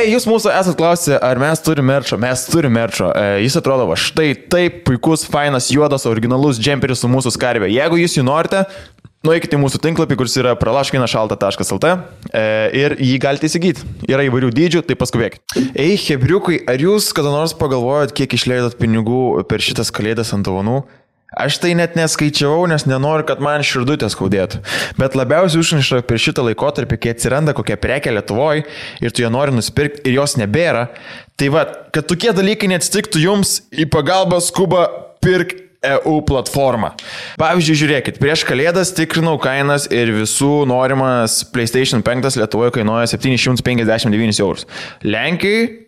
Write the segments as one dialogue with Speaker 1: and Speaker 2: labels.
Speaker 1: Jūs mūsų esat klausę, ar mes turime merčo? Mes turime merčo. Jis atrodo, va, štai taip, puikus, fainas, juodas, originalus džemperis su mūsų skarbė. Jeigu jūs jį norite, nueikite į mūsų tinklapį, kuris yra pralaškinašalta.lt ir jį galite įsigyti. Yra įvairių dydžių, tai paskubėkite. Hebriukai, ar jūs kada nors pagalvojot, kiek išleidot pinigų per šitas kalėdas ant dovanų? Aš tai net neskaičiavau, nes nenoriu, kad man širdutė skaudėtų. Bet labiausiai užniša per šitą laikotarpį, kai atsiranda kokia prekė Lietuvoje ir tu ją nori nusipirkti ir jos nebėra. Tai va, kad tokie dalykai neatsitiktų jums, į pagalbą skuba pirk EU platformą. Pavyzdžiui, žiūrėkit, prieš kalėdas tikrinau kainas ir visų norimas PlayStation 5 Lietuvoje kainuoja 759 eurus. Lenkijai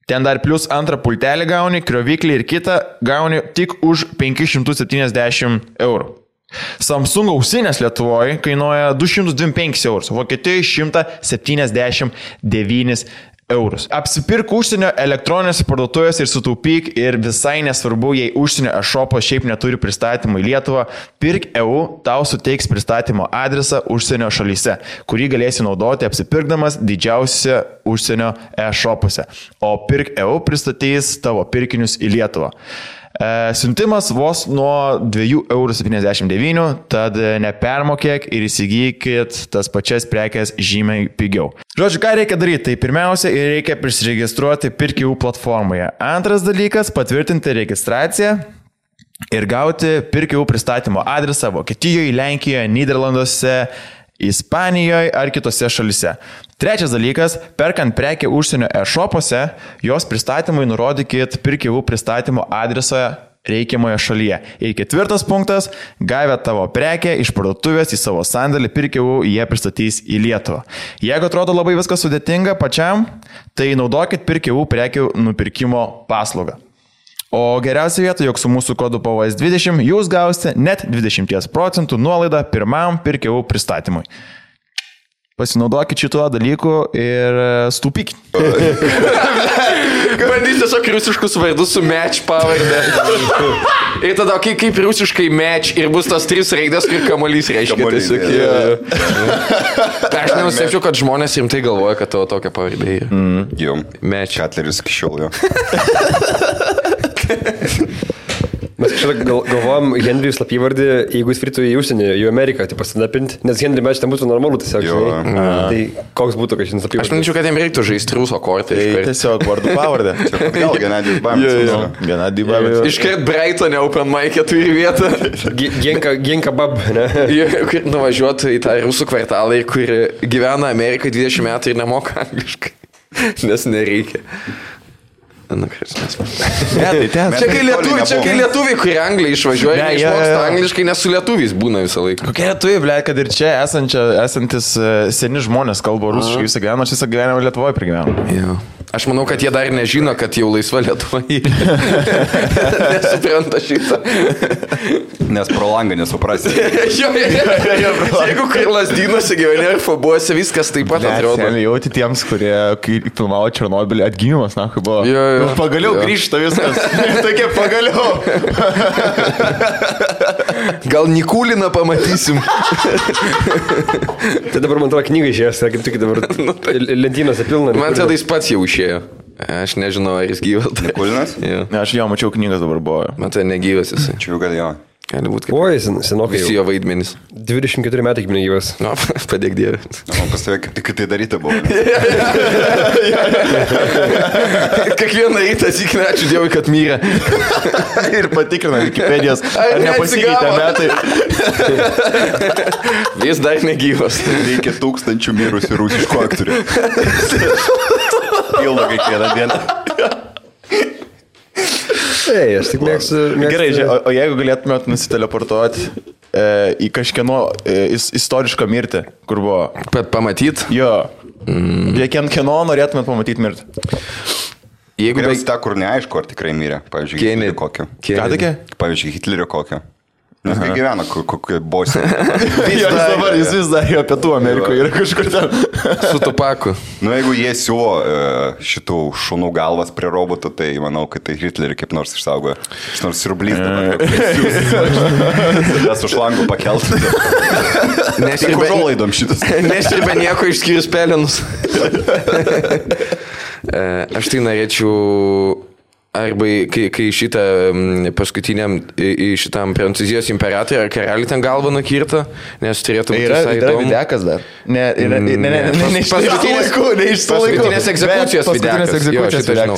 Speaker 1: ten dar plus antrą pultelį gauni, krioviklį ir kitą gauni tik už 570 eurų. Samsung ausinės Lietuvoje kainuoja 225 eurus, Vokietijoje 179 eurus. Apsipirk užsienio elektroninėse parduotuvėse ir sutaupyk ir visai nesvarbu, jei užsienio e-shopas šiaip neturi pristatymų į Lietuvą, Pirk EU tau suteiks pristatymo adresą užsienio šalyse, kurį galėsi naudoti apsipirkdamas didžiausiose užsienio e-shopuose. O Pirk EU pristatys tavo pirkinius į Lietuvą. Siuntimas vos nuo 2,79 €, tad nepermokėk ir įsigykit tas pačias prekes žymiai pigiau. Žodžiu, ką reikia daryti? Tai pirmiausia, reikia prisiregistruoti Pirk EU platformoje. Antras dalykas - patvirtinti registraciją ir gauti Pirk EU pristatymo adresą Vokietijoje, Lenkijoje, Nyderlanduose, Ispanijoje ar kitose šalise. Trečias dalykas - perkant prekę užsienio e-shopuose, jos pristatymui nurodykit Pirk EU pristatymo adresą reikiamoje šalyje. Ir ketvirtas punktas - gavę tavo prekę iš parduotuvės į savo sandėlį Pirk EU, jie pristatys į Lietuvą. Jeigu atrodo labai viskas sudėtinga pačiam, tai naudokit Pirk EU prekių nupirkimo paslaugą. O geriausia vieta, jog su mūsų kodu PVS20 jūs gausite net 20% nuolaidą pirmam Pirk EU pristatymui. Pasinaudokit šituo dalyku ir stūpykit.
Speaker 2: Bandys tiesiog rusiškus vardus su match pavardė. Ir tada, kaip rusiškai match ir bus tas 3 raidės, kur kamuolys reiškia. Aš nenustebčiau, kad žmonės rimtai galvoja, kad tavo tokia pavardė yra.
Speaker 3: Jo,
Speaker 2: Match.
Speaker 3: Katleris iki šiol jo.
Speaker 4: Mes kažkaip galvojam Henrijų slapyvardį, jeigu jis fritų į užsienį, į Ameriką, tai pasidapinti, nes Henry match ten būtų normalu tiesiog. Tai koks būtų, kad šiandien slapyvardį?
Speaker 2: Aš manyčiau, kad jiem reiktų žaisti ruso kortą.
Speaker 1: Tai tiesiog vardu pavardę.
Speaker 3: Gal Genadijus Bamis.
Speaker 1: Genadijus Bamis.
Speaker 2: Iškart Brightonė Open Mic'e turi vietą.
Speaker 4: Genka Bab, ne?
Speaker 2: Kur nuvažiuotų į tą rusų kvartalą, kur gyvena Amerikai 20 metų ir nemoka angliškai. Nes nereikia.
Speaker 1: Ne, tai ten.
Speaker 2: Čia kai lietuviai, kurie Angliai išvažiuoja, neišmoksta angliškai, nes su lietuviais būna visą laiką.
Speaker 1: Kokie lietuviai, ble, kad ir čia esantis seni žmonės kalba rusiškai visą gyvenimą, aš visą gyvenimą Lietuvoje pragyvenau.
Speaker 2: Aš manau, kad jie dar nežino, kad jau laisva Lietuva yra. Nesupranta šitą.
Speaker 3: Nes pro langą nesuprasi.
Speaker 2: Jeigu kai Lazdynuose gyveni ar Fabuose, viskas taip pat atrodo.
Speaker 1: Mes jauti tiems, kurie, kai filmavo Černobylį, atgimimas, na, kai buvo. Pagaliau grįžta viskas. Tokia pagaliau.
Speaker 2: Gal Nikuliną pamatysim.
Speaker 4: Tai dabar man atrodo knyga išėjęs, kaip tik dabar lentynose pilna.
Speaker 2: Man tada jis pats jau išėjo. Aš nežinau, ar jis gyvas.
Speaker 3: Nikulinas?
Speaker 1: Aš jo mačiau, knygas dabar buvo.
Speaker 2: Man tai negyvas jisai.
Speaker 3: Čia jau gal jo.
Speaker 2: Gali būti, kad
Speaker 4: Oi, senokai
Speaker 2: visi jo vaidmenys.
Speaker 4: 24 metai kaip negyvas.
Speaker 2: No, padėk Dievė.
Speaker 3: Man pas tave kaip tik tai daryti buvo.
Speaker 2: Kiekvieną rytą atsikrina, ačiū Dievui, kad mirė.
Speaker 1: Ir patikrina Wikipedijos, ar nepasikeitė metai.
Speaker 2: Vis dar negyvas.
Speaker 3: Reikia 1000 mirusių rusiškų aktorių. Pilna kiekvieną dieną.
Speaker 4: Ei, aš tik mėgstu...
Speaker 1: Gerai, o jeigu galėtumėt nusiteleportuoti į kažkieno istorišką mirtį, kur buvo...
Speaker 2: Bet pamatyt?
Speaker 1: Jo. Kieno norėtumėt pamatyti mirtį?
Speaker 3: Jeigu tą, kur neaišku, ar tikrai mirė. Pavyzdžiui, Hitlerio kokio.
Speaker 1: Ką tokia?
Speaker 3: Pavyzdžiui, Hitlerio kokio. Nes kai gyvena kokioje Bosnijoje.
Speaker 1: Jis vis dar jo Pietų Amerikoje yra kažkur ten.
Speaker 2: Su Tupaku.
Speaker 3: Nu, jeigu jie siūlo šitų šunų galvas prie robotų, tai manau, kad tai Hitlerį kaip nors išsaugoja. Iš nors siurblys dabar. Tas už langų pakeltų. Tik užuolaidom šitas.
Speaker 2: Nesirba nieko išskyrus pelenus. Aš tai norėčiau... Arba kai šitą paskutiniam šitam Prancūzijos imperatoriui ar karaliui ten galvą nukirto, nes turėtų būti visai įdomu.
Speaker 1: Yra videkas dar. Ne, iš to laikų.
Speaker 2: Paskutinės egzekucijos videkas. Jo, šitą žinau.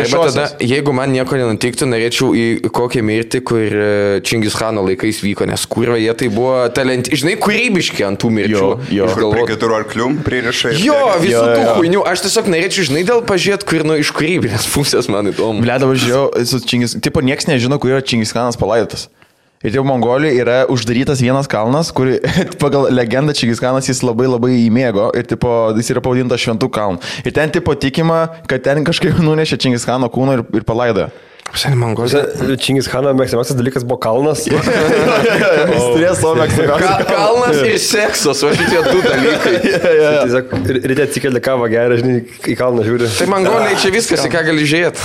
Speaker 2: Arba tada, jeigu man nieko nenutiktų, norėčiau į kokią mirtį, kur Čingis Chano laikais vyko, nes kurva jie tai buvo žinai, kūrybiški ant tų mirčių.
Speaker 3: Prie 4 arklių pririšai.
Speaker 2: Jo, visų tų huinių. Aš tiesiog norėčiau, žinai, dėl pažiūrėti, kur iš kūrybinės pusės man įdomu.
Speaker 1: Ble, dabar žiūrėjau, su Čingis, tipo, nieks nežino, kur yra Čingis Kanas palaidotas. Ir jau Mongolijoje yra uždarytas vienas kalnas, kur pagal legendą Čingis Kanas jis labai įmėgo ir tipo, jis yra pavadintas Šventų kalnų. Ir ten tipo tikima, kad ten kažkaip nunešė Čingis Kano kūną ir palaidojo.
Speaker 4: Čingis Chano mėgstamiausias dalykas buvo kalnas.
Speaker 1: Jis turėjo savo mėgstamiausią.
Speaker 2: Kalnas ir seksas, o šitie du dalykai.
Speaker 4: Tiesiog ryte atsikeli kavą gerą, žinai, į kalną žiūri.
Speaker 2: Tai Mongoliai čia viskas, į ką gali žiūrėti.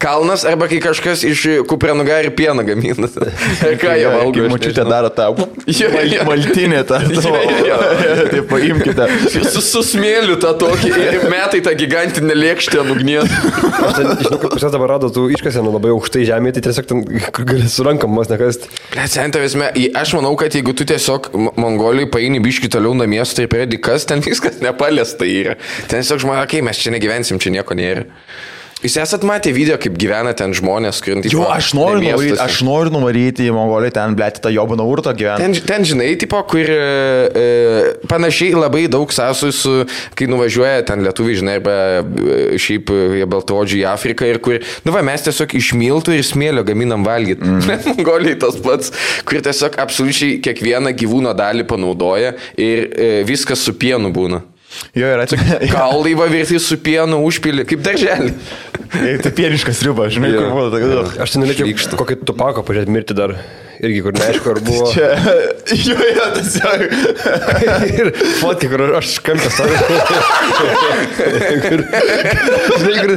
Speaker 2: Kalnas arba kai kažkas iš kupranugarį pieną gamina. Ir ką jie valgo.
Speaker 1: Kai močiutė daro tą maltinę tą. Tai paimkite.
Speaker 2: Su smėliu tą tokį ir metai tą gigantinę lėkštę ant ugnies.
Speaker 4: Aš žinau, kad pas jas dabar rado tų iškasenų labai aukštai žemėje, tai tiesiog ten gali surankamas nekasti.
Speaker 2: Aš manau, kad jeigu tu tiesiog Mongolijai paini biškį toliau namiestą ir pradedi kas, ten viskas nepaliesta yra. Ten tiesiog žmonės, okei, mes čia negyvensim, čia nieko nėra. Jūs esat matę video, kaip gyvena ten žmonės, kuriant į...
Speaker 1: Jo, aš noriu nuvaryti į Mongoliją, ten, blėti, tą Jobaną urtą gyvena.
Speaker 2: Ten, žinai, tipo, kur panašiai labai daug sąsų su, kai nuvažiuoja ten lietuviai, žinai, arba šiaip baltaodžiai į Afriką ir kur, mes tiesiog iš miltų ir smėlio gaminam valgyti. Mongolijai tas pats, kur tiesiog absoliučiai kiekvieną gyvūno dalį panaudoja ir viskas su pienu būna.
Speaker 1: Jo, yra čia.
Speaker 2: Kaulai va virti su pienu užpilį, kaip darželį.
Speaker 1: Tai pieniškas riba, žinai, kur buvo.
Speaker 4: Aš ten norėčiau kokį Tupako pažiūrėti mirti dar. Irgi, kur neaišku, ar buvo.
Speaker 1: Jo, tas jau.
Speaker 4: Ir fotki, kur aš kampę stoviu. Žinai, kur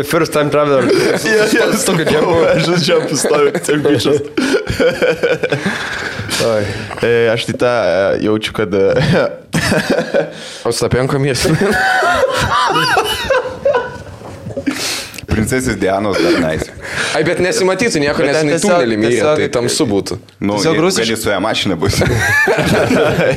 Speaker 4: first time traveler.
Speaker 1: Aš tokio džempo. Aš džempo stoviu, tiesiog bičias. Aš tai tą jaučiu, kad...
Speaker 2: Ostapenko miestas.
Speaker 3: Princesės Dianos dar neįsi.
Speaker 2: Ai, bet nesimatytų nieko, nes jinai tunelį myrė, tai tamsu būtų.
Speaker 3: Nu, gali su ją mašina bus.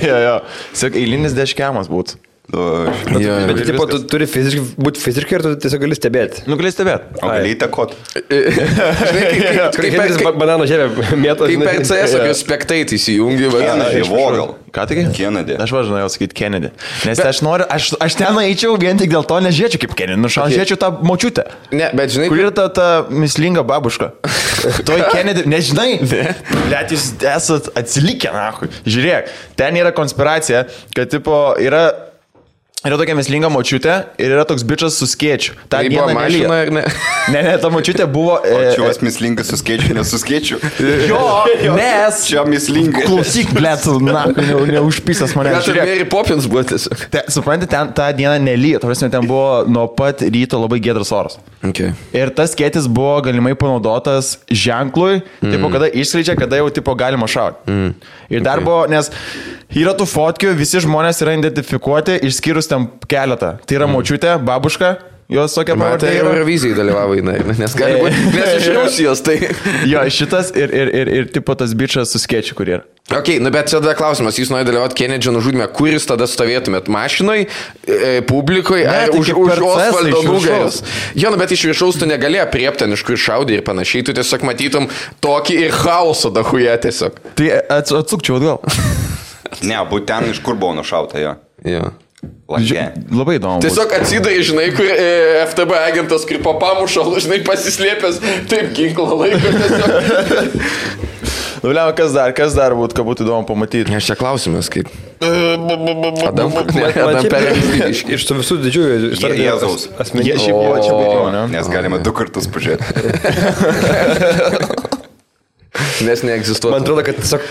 Speaker 1: Jo. Tiesiog eilinis deškiamas būtų.
Speaker 4: Bet tipo, tu turi būti fiziškai ir tu tiesiog gali stebėti.
Speaker 1: Nu, gali stebėti.
Speaker 3: O gali įtakot.
Speaker 4: Kaip banano žievė mėtos.
Speaker 2: Kaip per CS apie spektaitį įsijungi.
Speaker 3: Kennedy, Vogel.
Speaker 1: Ką tik?
Speaker 3: Kennedy.
Speaker 1: Aš važinojau sakyti Kennedy. Nes aš ten eičiau vien tik dėl to nežiūrėčiau kaip Kennedy. Žiūrėčiau tą močiutę.
Speaker 2: Ne, bet žinai.
Speaker 1: Kur yra ta mislinga babuška? Toj Kennedy, nežinai. Net jūs esat atsilikę, nahui. Žiūrėk, ten yra konspiracija, kad tipo yra tokia mislinga močiutė ir yra toks bičas su skėčiu. Ta
Speaker 2: tai buvo mašina ir ne?
Speaker 1: Ne, ta močiutė buvo...
Speaker 3: O čia vas mislingas su skėčiu, nesu skėčiu.
Speaker 1: Jo, nes...
Speaker 3: Čia mislingas.
Speaker 1: Klausyk, blėt, neužpysas mane.
Speaker 2: Gal ir Mary Poppins buvo tiesiog.
Speaker 1: Suprantate, ten tą dieną nelyja. Tavarsime, ten buvo nuo pat ryto labai giedras oras.
Speaker 2: Okay.
Speaker 1: Ir tas skėtis buvo galimai panaudotas ženklui, tipo, kada išskleidžia, kada jau tipo galima šauti. Ir dar buvo, nes yra tų fotkių, visi žmonės yra identifikuoti, išskyrus ten keletą. Tai yra močiutė, babuška, jos tokia pavardė.
Speaker 2: Tai Eurovizijai dalyvavo, nes gali būti, nes iš Rusijos, tai...
Speaker 1: Jo, šitas ir tipo tas bičas su skėčiu, kur yra.
Speaker 2: Ok, bet čia tada klausimas, jūs norite dalyvauti Kennedy nužudime, kur jūs tada stovėtumėt? Mašinoj, publikoje, ar už Osvaldo nugaros? Jo, bet iš viršaus tu negali apriepti, iš kur šaudė ir panašiai, tu tiesiog matytum tokį ir chaosą dahuje tiesiog.
Speaker 1: Tai atsukčiau atgal.
Speaker 3: Ne, būt ten, iš kur buvo nušauta, jo.
Speaker 2: Jo.
Speaker 1: Labai įdomu.
Speaker 2: Tiesiog atsidai, žinai, kur FTB agentas, kur po pamušalų, žinai, pasislėpęs, taip ginklą laiko tiesiog.
Speaker 1: Nuliam, kas dar būtų, ką būtų įdomu pamatyti?
Speaker 2: Aš čia klausimas, kaip... Adam
Speaker 4: iš tų visų didžiųjų
Speaker 3: Jėzaus
Speaker 1: asmenybės. Čia buvo, ne?
Speaker 3: Nes galima 2 kartus pažiūrėti.
Speaker 2: nes neegzistuoja.
Speaker 4: Man atrodo, kad tiesiog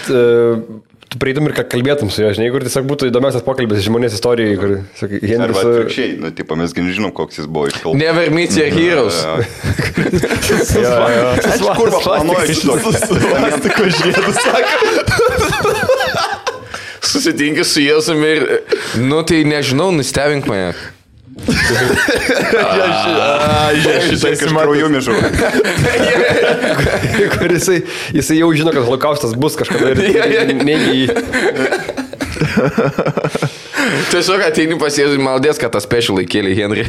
Speaker 4: tu prieitum ir ką kalbėtum su juo, žinai, kur tiesiog būtų įdomiausias pokalbis žmonės istorijai, kur, sakai,
Speaker 3: Arba
Speaker 4: Henris...
Speaker 3: atvirkščiai, nu, tipo, mes nežinom, koks jis buvo iš kalbų.
Speaker 2: Never meet your heroes.
Speaker 3: Aš kurva planuoju šito.
Speaker 1: Plastiko žiedus, sako.
Speaker 2: Susitinki su Jėzumi ir, nu tai nežinau, nustebink mane.
Speaker 3: Šitai kažkrauju mižu.
Speaker 4: kur jisai jau žino, kad holokaustas bus kažkada ir negi jį.
Speaker 2: Tiesiog ateini pas Jėzų ir maldės, kad tą special įkėlė Henry.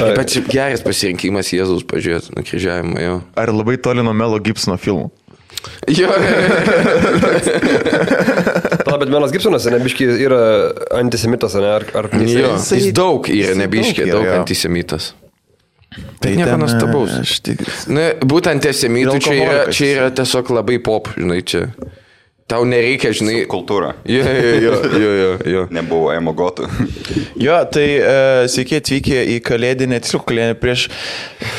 Speaker 2: Bet šiaip geras pasirinkimas Jėzus pažiūrėti nukryžiavimą, jo.
Speaker 1: Ar labai toli nuo Melo Gibsono filmų?
Speaker 2: Jo.
Speaker 4: Bet Melas Gibsonas, nebiški, yra antisemitas, ne? Ar
Speaker 2: Jo, jis daug yra, nebiškė, daug antisemitas. Tai nieko nuostabaus. Būtent antisemitų čia yra tiesiog labai pop, žinai, čia. Tau nereikia, žinai...
Speaker 3: Kultūra.
Speaker 2: Jo.
Speaker 3: Nebuvo emogotų.
Speaker 1: Jo, tai sveiki atvykę į kalėdinę, tiesiog kalėdinę prieš...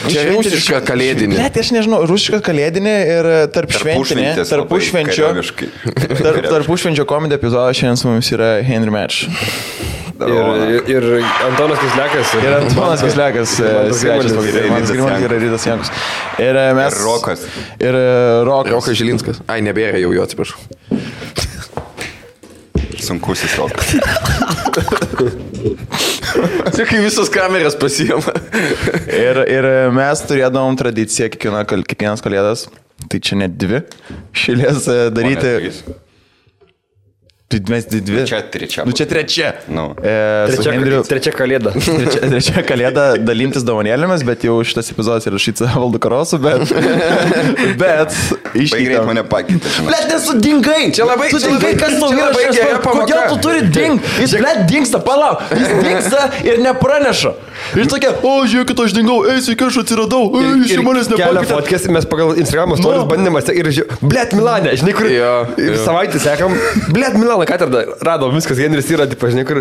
Speaker 2: Čia rusiška kalėdinė.
Speaker 1: Net aš nežinau, rusiška kalėdinė ir tarpušventinė. Tarpušvenčio komedija epizodas šiandien su mumis yra Henry Match.
Speaker 4: Ir Antonas Kislekas.
Speaker 1: Ir Antonas Kislekas, svečias pagrindinės. Manas Grimantas yra Rytas Jankus. Ir mes...
Speaker 3: Rokas.
Speaker 1: Ir Rokas.
Speaker 2: Rokas Žilinskas. Ai, nebėra jau jo, atsiprašau.
Speaker 3: Sunkusis Rokas.
Speaker 2: Čia kai visos kameras pasiima.
Speaker 1: Ir mes turėdavom tradiciją kiekvienas kalėdas, tai čia net 2 šilės daryti. Mes 2.
Speaker 3: Čia trečia.
Speaker 1: Nu čia trečia.
Speaker 4: Trečia kalėda.
Speaker 1: Trečia kalėda dalintis dovanėlėmis, bet jau šitas epizodas yra rašytas Valdu Karosu, bet
Speaker 3: išgreit mane pakeitė.
Speaker 1: Blet, nesudingai!
Speaker 2: Čia labai
Speaker 1: kas tau yra šias, kodėl tu turi ding? Jis, blet, dingsta, palauk, jis dingsta ir nepraneša. Ir tokia, žiūrėkit, aš dingau, sveiki, aš atsiradau, iš manęs nepakeitė.
Speaker 4: Kelia fotkės, mes pagal Instagramo stories bandėmas ir blet, Milane, žinai, kur savaitę sekam, blet, Milane, katedra, radom, viskas, Henris yra, tipo, žinai, kur...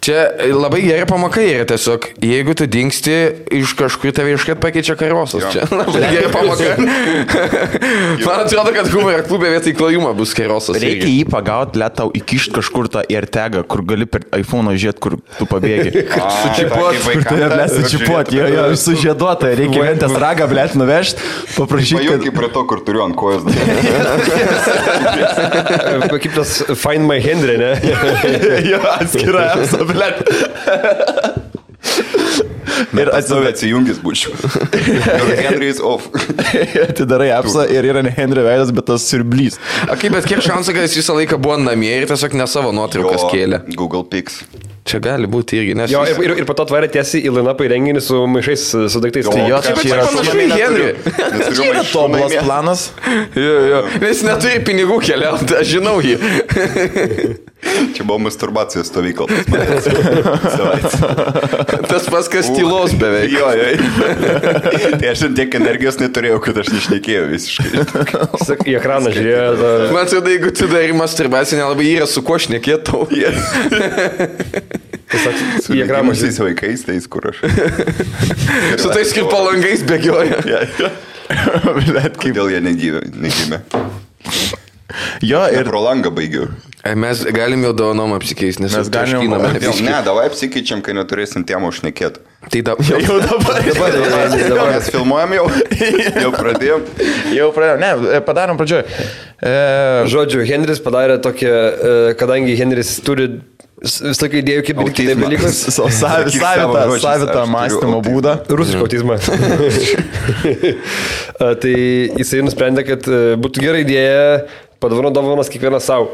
Speaker 2: Čia labai gera pamaka yra tiesiog, jeigu tu dingsti, iš kažkur tave iškart pakeičia karosas. Čia labai gera pamaka. Man atrodo, kad humoro klube vietoj klojimo bus karosas.
Speaker 1: Reikia jį pagauti, blet, tau įkišti kažkur tą AirTagą, kur gali per iPhone žiūrėti, kur tu pabėgi. Sučipuot, jo, sužieduota, reikia ventės ragą, blet, nuvežti, paprašyti.
Speaker 3: Pajungi prie to, kur turiu ant kojos.
Speaker 4: Kaip tas Find My Henry, ne?
Speaker 1: Jo, atskira apsa, blet.
Speaker 3: Ir atsijungis būčiau. Henry is off.
Speaker 1: Atidarai apsą ir yra ne Henry veidas, bet tas siurblys.
Speaker 2: Bet kiek šansų, kad jis visą laiką buvo namie ir tiesiog ne savo nuotraukas kėlė.
Speaker 3: Google Pics.
Speaker 2: Čia gali būti irgi, nes...
Speaker 4: Jo, ir po to tvarė tiesiai į line-upą į renginį su maišais, su daiktais.
Speaker 1: Tai jo,
Speaker 2: čia yra panašu į Henry.
Speaker 1: Čia yra tobulas planas.
Speaker 2: Jo. Nes neturi pinigų keliauti, aš žinau jį.
Speaker 3: Čia buvo masturbacijos stovykla.
Speaker 2: Tas paskas tylos beveik.
Speaker 3: Jo. Tai aš tiek energijos neturėjau, kad aš nešnekėjau visiškai.
Speaker 4: Į ekraną žiūrėjo.
Speaker 2: Man atrodo, jeigu tu darai masturbaciją, nelabai yra su kuo šnekėtau.
Speaker 3: Su įgramusiais vaikais, tais kur aš.
Speaker 2: Su tais kaip palangais bėgioja.
Speaker 3: Bet kaip dėl jie negimė.
Speaker 1: Jo, ir
Speaker 3: pro langą baigiau.
Speaker 2: Mes galim jau dovanom apsikeisti, nes
Speaker 1: mes galim.
Speaker 3: Ne, davai apsikeičiam, kai neturėsim temų šnekėti.
Speaker 2: Tai jau dabar.
Speaker 3: Mes filmuojam jau. Jau pradėjom.
Speaker 1: Ne, padarom pradžioj.
Speaker 4: Žodžiu, Henris padarė tokią, kadangi Henris turi vis tokia idėjų, kaip daryti taip dalykus.
Speaker 1: Savitą mąstymo būdą.
Speaker 4: Rusišką autizmą. Tai jisai nusprendė, kad būtų gera idėja padovanos kiekvienas savo.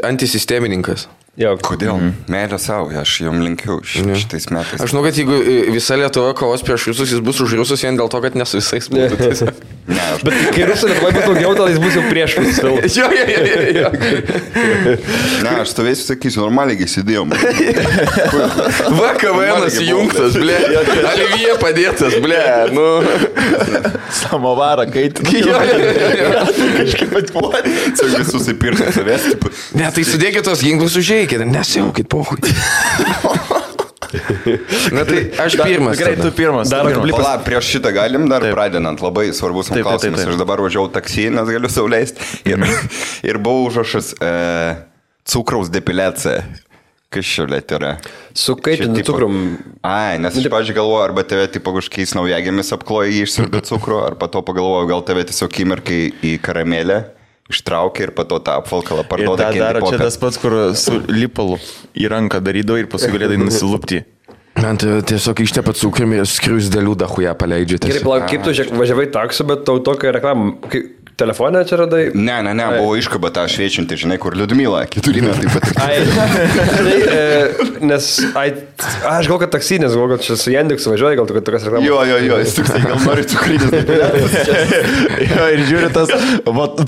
Speaker 2: Antisistemininkas.
Speaker 4: Jo.
Speaker 3: Kodėl? Meilė savo, aš jom linkiu šitais metais.
Speaker 2: Aš žinau, kad jeigu visa Lietuva kovos prieš rusus, jis bus už rusus vien dėl to, kad ne su visais būtų.
Speaker 4: Bet kai rusų Lietuva bus daugiau, tada jis bus jau prieš visus.
Speaker 2: Jo.
Speaker 3: Ne, aš stovėsiu, sakysiu, normaliai įsidėjom.
Speaker 2: Va, KVN'as įjungtas, ble. Alivija padėtas, ble.
Speaker 1: Samovarą kaitinį.
Speaker 3: Kažkaip atpuolė. Čia visus įpirkti savęs.
Speaker 2: Ne, tai sudėkit tos ginklus užėjai. Nesiaukit, pohui. Na tai aš pirmas.
Speaker 1: Gerai, tu pirmas.
Speaker 3: Pala, prieš šitą galim dar pradedant. Labai svarbus klausimas. Aš dabar važiavau taksi, nes galiu sauliaisti. Ir buvo užrašas cukraus depiliacija. Kas šiolėt yra?
Speaker 4: Su kaitinu cukrum.
Speaker 3: Ai, nes aš, pavyzdžiui, galvoju, arba tave tipo kažkokiais naujagėmis apkloja jį išsirbė cukrų, arba to pagalvoju, gal tave tiesiog įmerkai į karamelę, ištraukė ir pato tą apvalkalą parduoda.
Speaker 1: Ir tą daro čia tas pats, kur su lipalu į ranką darydavo ir paskui galėdai nusilupti.
Speaker 2: Man tiesiog ištepa cukrum ir skriusdėlių dahuja paleidžiate.
Speaker 4: Gerai, palauk, kaip tu važiavai taksu, bet tau tokia reklama... Telefoną čia radai?
Speaker 3: Ne, buvo iškaba tą šviečiantį, žinai, kur Liudmila, 4 metai patirti.
Speaker 4: Nes, aš gal kad taksi, nes gal kad čia su Jandeksu važiuoji, gal tu kad tokias reklamas.
Speaker 3: Jo, jis tiksai, gal nori cukrinis.
Speaker 1: Jo, ir žiūri tas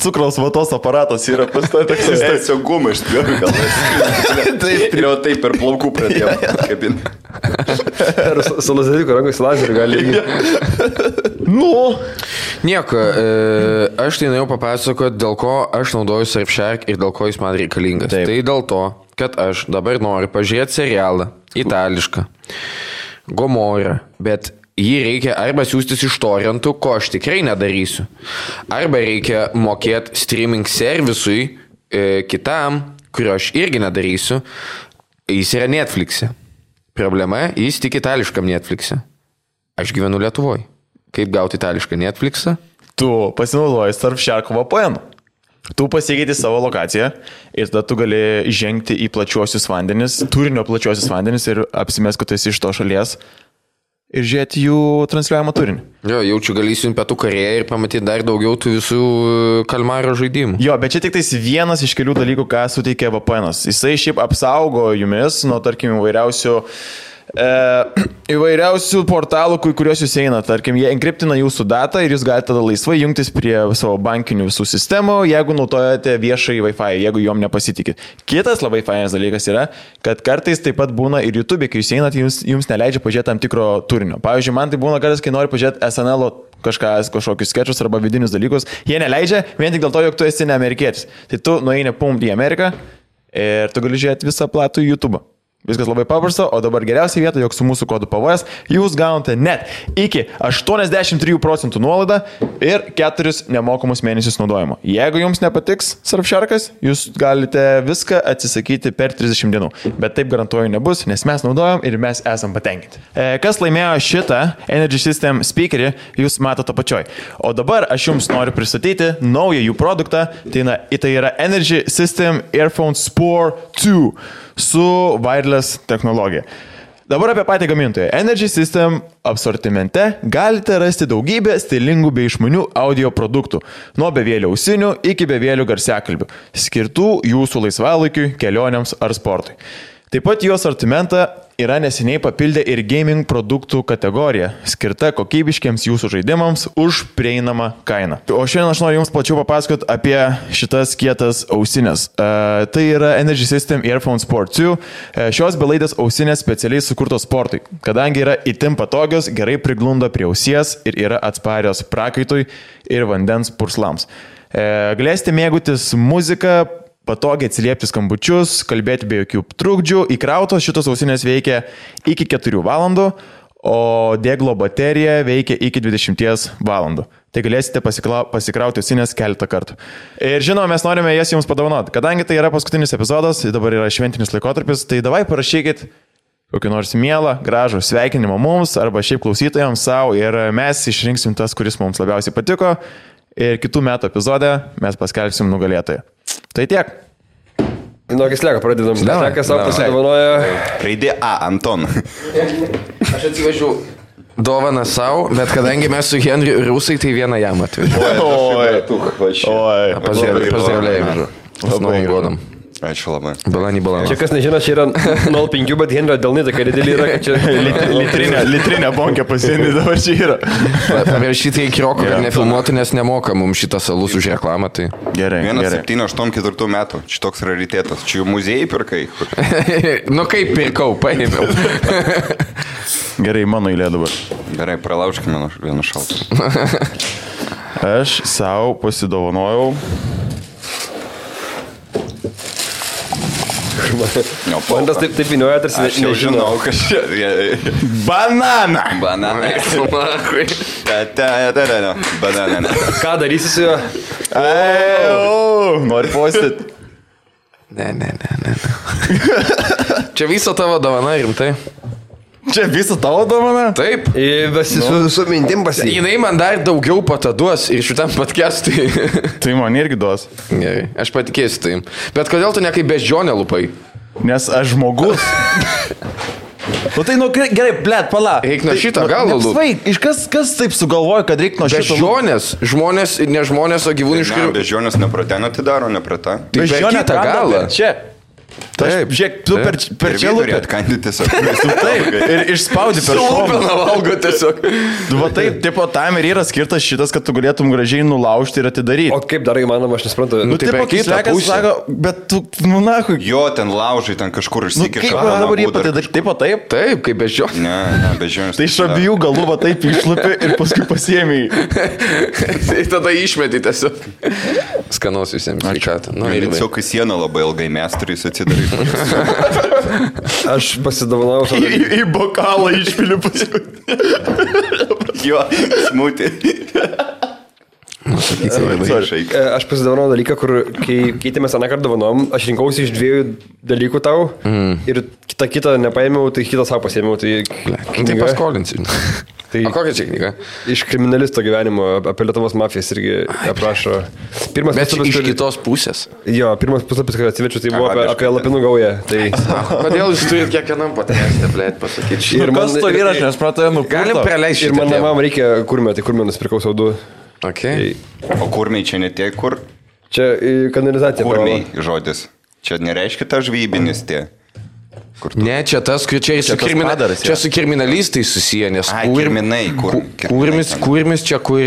Speaker 1: cukraus vatos aparatas yra pas to taksi.
Speaker 3: Jis tiesiog gumą išspjovė, gal. Taip per plaukų pradėjo kabinti.
Speaker 4: Ir su lazeriku rankos lazeriu gali.
Speaker 2: Nieko, aš tai norėjau papasakoti, dėl ko aš naudoju Surfshark ir dėl ko jis man reikalingas. Taip. Tai dėl to, kad aš dabar noriu pažiūrėti serialą, itališką, Gomorrą, bet jį reikia arba siūstis iš torrentų, ko aš tikrai nedarysiu, arba reikia mokėti streaming servisui kitam, kurio aš irgi nedarysiu, jis yra Netflix'e. Problema, jis tik itališkam Netflix'e. Aš gyvenu Lietuvoje. Kaip gauti itališką Netflix'ą?
Speaker 1: Tu pasinaudoji Surfshark VPN. Tu pasikeiti savo lokaciją ir tada tu gali žengti į plačiuosius vandenis, turinio plačiuosius vandenis ir apsimės, kad tu esi iš to šalies ir žiūrėti jų transliuojamą turinį.
Speaker 2: Jo, jaučiu galėsiu į Pietų Korėją ir pamatyti dar daugiau tų visų kalmaro žaidimų.
Speaker 1: Jo, bet čia tik tais vienas iš kelių dalykų, ką suteikia VPN'as. Jisai šiaip apsaugo jumis nuo, tarkim, įvairiausių portalų, kuriuos jūs eina. Tarkim, jie enkriptina jūsų datą ir jūs galite tada laisvai jungtis prie savo bankinių visų sistemų, jeigu naudojate viešai Wi-Fi, jeigu juom nepasitikit. Kitas labai fainas dalykas yra, kad kartais taip pat būna ir YouTube, kai jūs einat, jums neleidžia pažiūrėti tam tikro turinio. Pavyzdžiui, man tai būna kartais, kai noriu pažiūrėti SNL kažkokius skečus arba vidinius dalykus, jie neleidžia vien tik dėl to, jog tu esi ne amerikietis. Tai tu nueini į Ameriką ir tu gali žiūrėti visą platų YouTube. Viskas labai paprasta, o dabar geriausia vieta, jog su mūsų kodu PVS jūs gaunate net iki 83% nuolaidą ir 4 nemokamus mėnesius naudojimo. Jeigu jums nepatiks Surfsharkas, jūs galite viską atsisakyti per 30 dienų. Bet taip garantuoju nebus, nes mes naudojam ir mes esam patenkinti. Kas laimėjo šitą Energy System speakerį, jūs matote apačioj. O dabar aš jums noriu pristatyti naują jų produktą, tai yra Energy System Earphone Sport 2. Su wireless technologija. Dabar apie patį gamintoją. Energy System asortimente galite rasti daugybę stilingų bei išmanių audio produktų, nuo bevėlių ausinių iki bevėlių garsiakalbių, skirtų jūsų laisvalaikiui, kelionėms ar sportui. Taip pat jų asortimentą yra neseniai papildę ir gaming produktų kategoriją, skirta kokybiškiams jūsų žaidimams už prieinamą kainą. O šiandien aš noriu jums plačiau papasakoti apie šitas kietas ausinės. Tai yra Energy System Earphone Sport 2. Šios belaidės ausinės specialiai sukurtos sportui, kadangi yra itin patogios, gerai priglunda prie ausies ir yra atsparios prakaitui ir vandens purslams. Galėsite mėgautis muziką, patogiai atsiliepti skambučius, kalbėti be jokių trukdžių. Įkrautos šitos ausinės veikia iki 4 valandų, o deglo baterija veikia iki 20 valandų. Tai galėsite pasikrauti ausinės keletą kartų. Ir žinoma, mes norime jas jums padovanoti. Kadangi tai yra paskutinis epizodas, dabar yra šventinis laikotarpis, tai davai parašykit kokį nors mielą, gražų sveikinimą mums arba šiaip klausytojams savo ir mes išrinksim tas, kuris mums labiausiai patiko. Ir kitų metų epizode mes paskelbsim nugalėtoją. Tai tiek.
Speaker 4: Nuo Kisleko pradedam. Kislekas savo pasidovanoja.
Speaker 3: Raidė A, Anton.
Speaker 2: Aš atsivežiau dovaną savo, bet kadangi mes su Henriu rusai, tai vieną jam atvežiau.
Speaker 1: Oi.
Speaker 2: Pazdravlėjimą. Labai godam.
Speaker 3: Ačiū labai.
Speaker 2: Balanį.
Speaker 4: Čia kas nežino, čia yra 0,5, bet Henrio delnai tokia didelį yra, kad čia
Speaker 1: litrinė bonkė pasienį dabar čia yra.
Speaker 2: Paviršyti į Krioko, kad nefilmuotų, nes nemoka mums šitas alus už reklamą. Tai...
Speaker 1: Gerai.
Speaker 3: 1,784 metų. Čia toks raritetas. Čia jų muziejai pirkai.
Speaker 2: Nu kaip pirkau, paėmiau.
Speaker 1: Gerai, mano eilė dabar.
Speaker 3: Gerai, pralaužkime vieną šaltą.
Speaker 1: Aš savo pasidovanojau
Speaker 4: Man tas taip įnioja, tarsi
Speaker 3: Aš jau žinau, kas čia.
Speaker 1: Banana.
Speaker 3: Bananai. Bananai.
Speaker 4: Ką darysi su juo?
Speaker 1: Nori postyt.
Speaker 2: Ne. Čia viso tavo dovana, rimtai?
Speaker 1: Čia visą tavo dovana?
Speaker 2: Taip.
Speaker 4: Su mintim pasiekti.
Speaker 2: Jinai man dar daugiau pataduos ir šitam podcast'ui.
Speaker 1: Tai man irgi duos.
Speaker 2: Gerai, aš patikėsiu tai. Bet kodėl tu ne kaip beždžionė lupai?
Speaker 1: Nes aš žmogus. Tai nu gerai, blėt, pala.
Speaker 2: Reik nuo šito galo lūp.
Speaker 1: Kas taip sugalvoja, kad reikia nuo šito
Speaker 2: Beždžionės, žmonės, ne žmonės, o gyvūniškai.
Speaker 3: Beždžionės nepratena atidaro, neprata.
Speaker 2: Tai per kitą galą.
Speaker 1: Čia. Taip, žiūrėk, tu per čia lūpė.
Speaker 3: Atkandi tiesiog.
Speaker 1: Taip, ir išspaudi per šoną.
Speaker 2: Lūpina valgo tiesiog.
Speaker 1: Va taip, tipo, tam ir yra skirtas šitas, kad tu galėtum gražiai nulaužti ir atidaryti.
Speaker 4: O kaip dar įmanoma, aš nesuprantu.
Speaker 1: Nu,
Speaker 2: tai
Speaker 1: tipo,
Speaker 2: per kitą
Speaker 1: kislekas
Speaker 2: pusę.
Speaker 1: sako, bet tu, nu, nahui.
Speaker 3: Jo, ten laužai, ten kažkur
Speaker 1: Nu,
Speaker 3: išsikiša.
Speaker 1: kaip dabar jį patidaryti? Taip, o taip?
Speaker 2: Taip, kaip beždžionė.
Speaker 3: Ne, beždžionės.
Speaker 1: Tai iš abiejų galų va taip išlipė ir paskui pasiėmė.
Speaker 2: Tai tada išmeti tiesiog. Skanos visiems sveikatą. Nu, ir
Speaker 3: Tiesiog į sieną labai ilgai mes turės atsidaryti.
Speaker 4: Aš pasidovanau savo.
Speaker 1: Į bokalą išpiliu paskui.
Speaker 3: Jo, smūti.
Speaker 4: Aš pasidovanau dalyką, kur kai keitėmės aną kartą dovanom, aš rinkausi iš 2 dalykų tau ir kitą nepaėmiau, tai kitą savo pasiėmiau.
Speaker 2: Tai paskolinsi.
Speaker 4: Tai
Speaker 2: O kokia čia knyga?
Speaker 4: iš kriminalisto gyvenimo apie Lietuvos mafijas irgi aprašo. Pirmas
Speaker 2: Bet iš
Speaker 4: puslapis,
Speaker 2: kitos pusės.
Speaker 4: jo, pirmas puslapis, kai atsivečiu, tai buvo apie Lapinų gaują. Tai
Speaker 2: Kodėl jūs turite kiekvienam podcast'e, blėt, pasakyti?
Speaker 4: Ir man-
Speaker 1: Kas to yra, aš nesupratau, nu.
Speaker 2: Galim praleisti
Speaker 4: ir
Speaker 2: šitą
Speaker 4: man
Speaker 2: temą.
Speaker 4: namam reikia kurmio, tai kurmio nusipirkau savo 2.
Speaker 2: Okay.
Speaker 3: O kurmiai čia ne tie, kur?
Speaker 4: Čia kanalizacija.
Speaker 3: Kurmiai žodis. Čia nereiškia ta žvybinis tie.
Speaker 2: Ne, čia tas, kur čia,
Speaker 1: Čia tas padaras,
Speaker 2: čia su kriminalistais susiję, nes
Speaker 3: Kirminai,
Speaker 2: kurmis čia, kur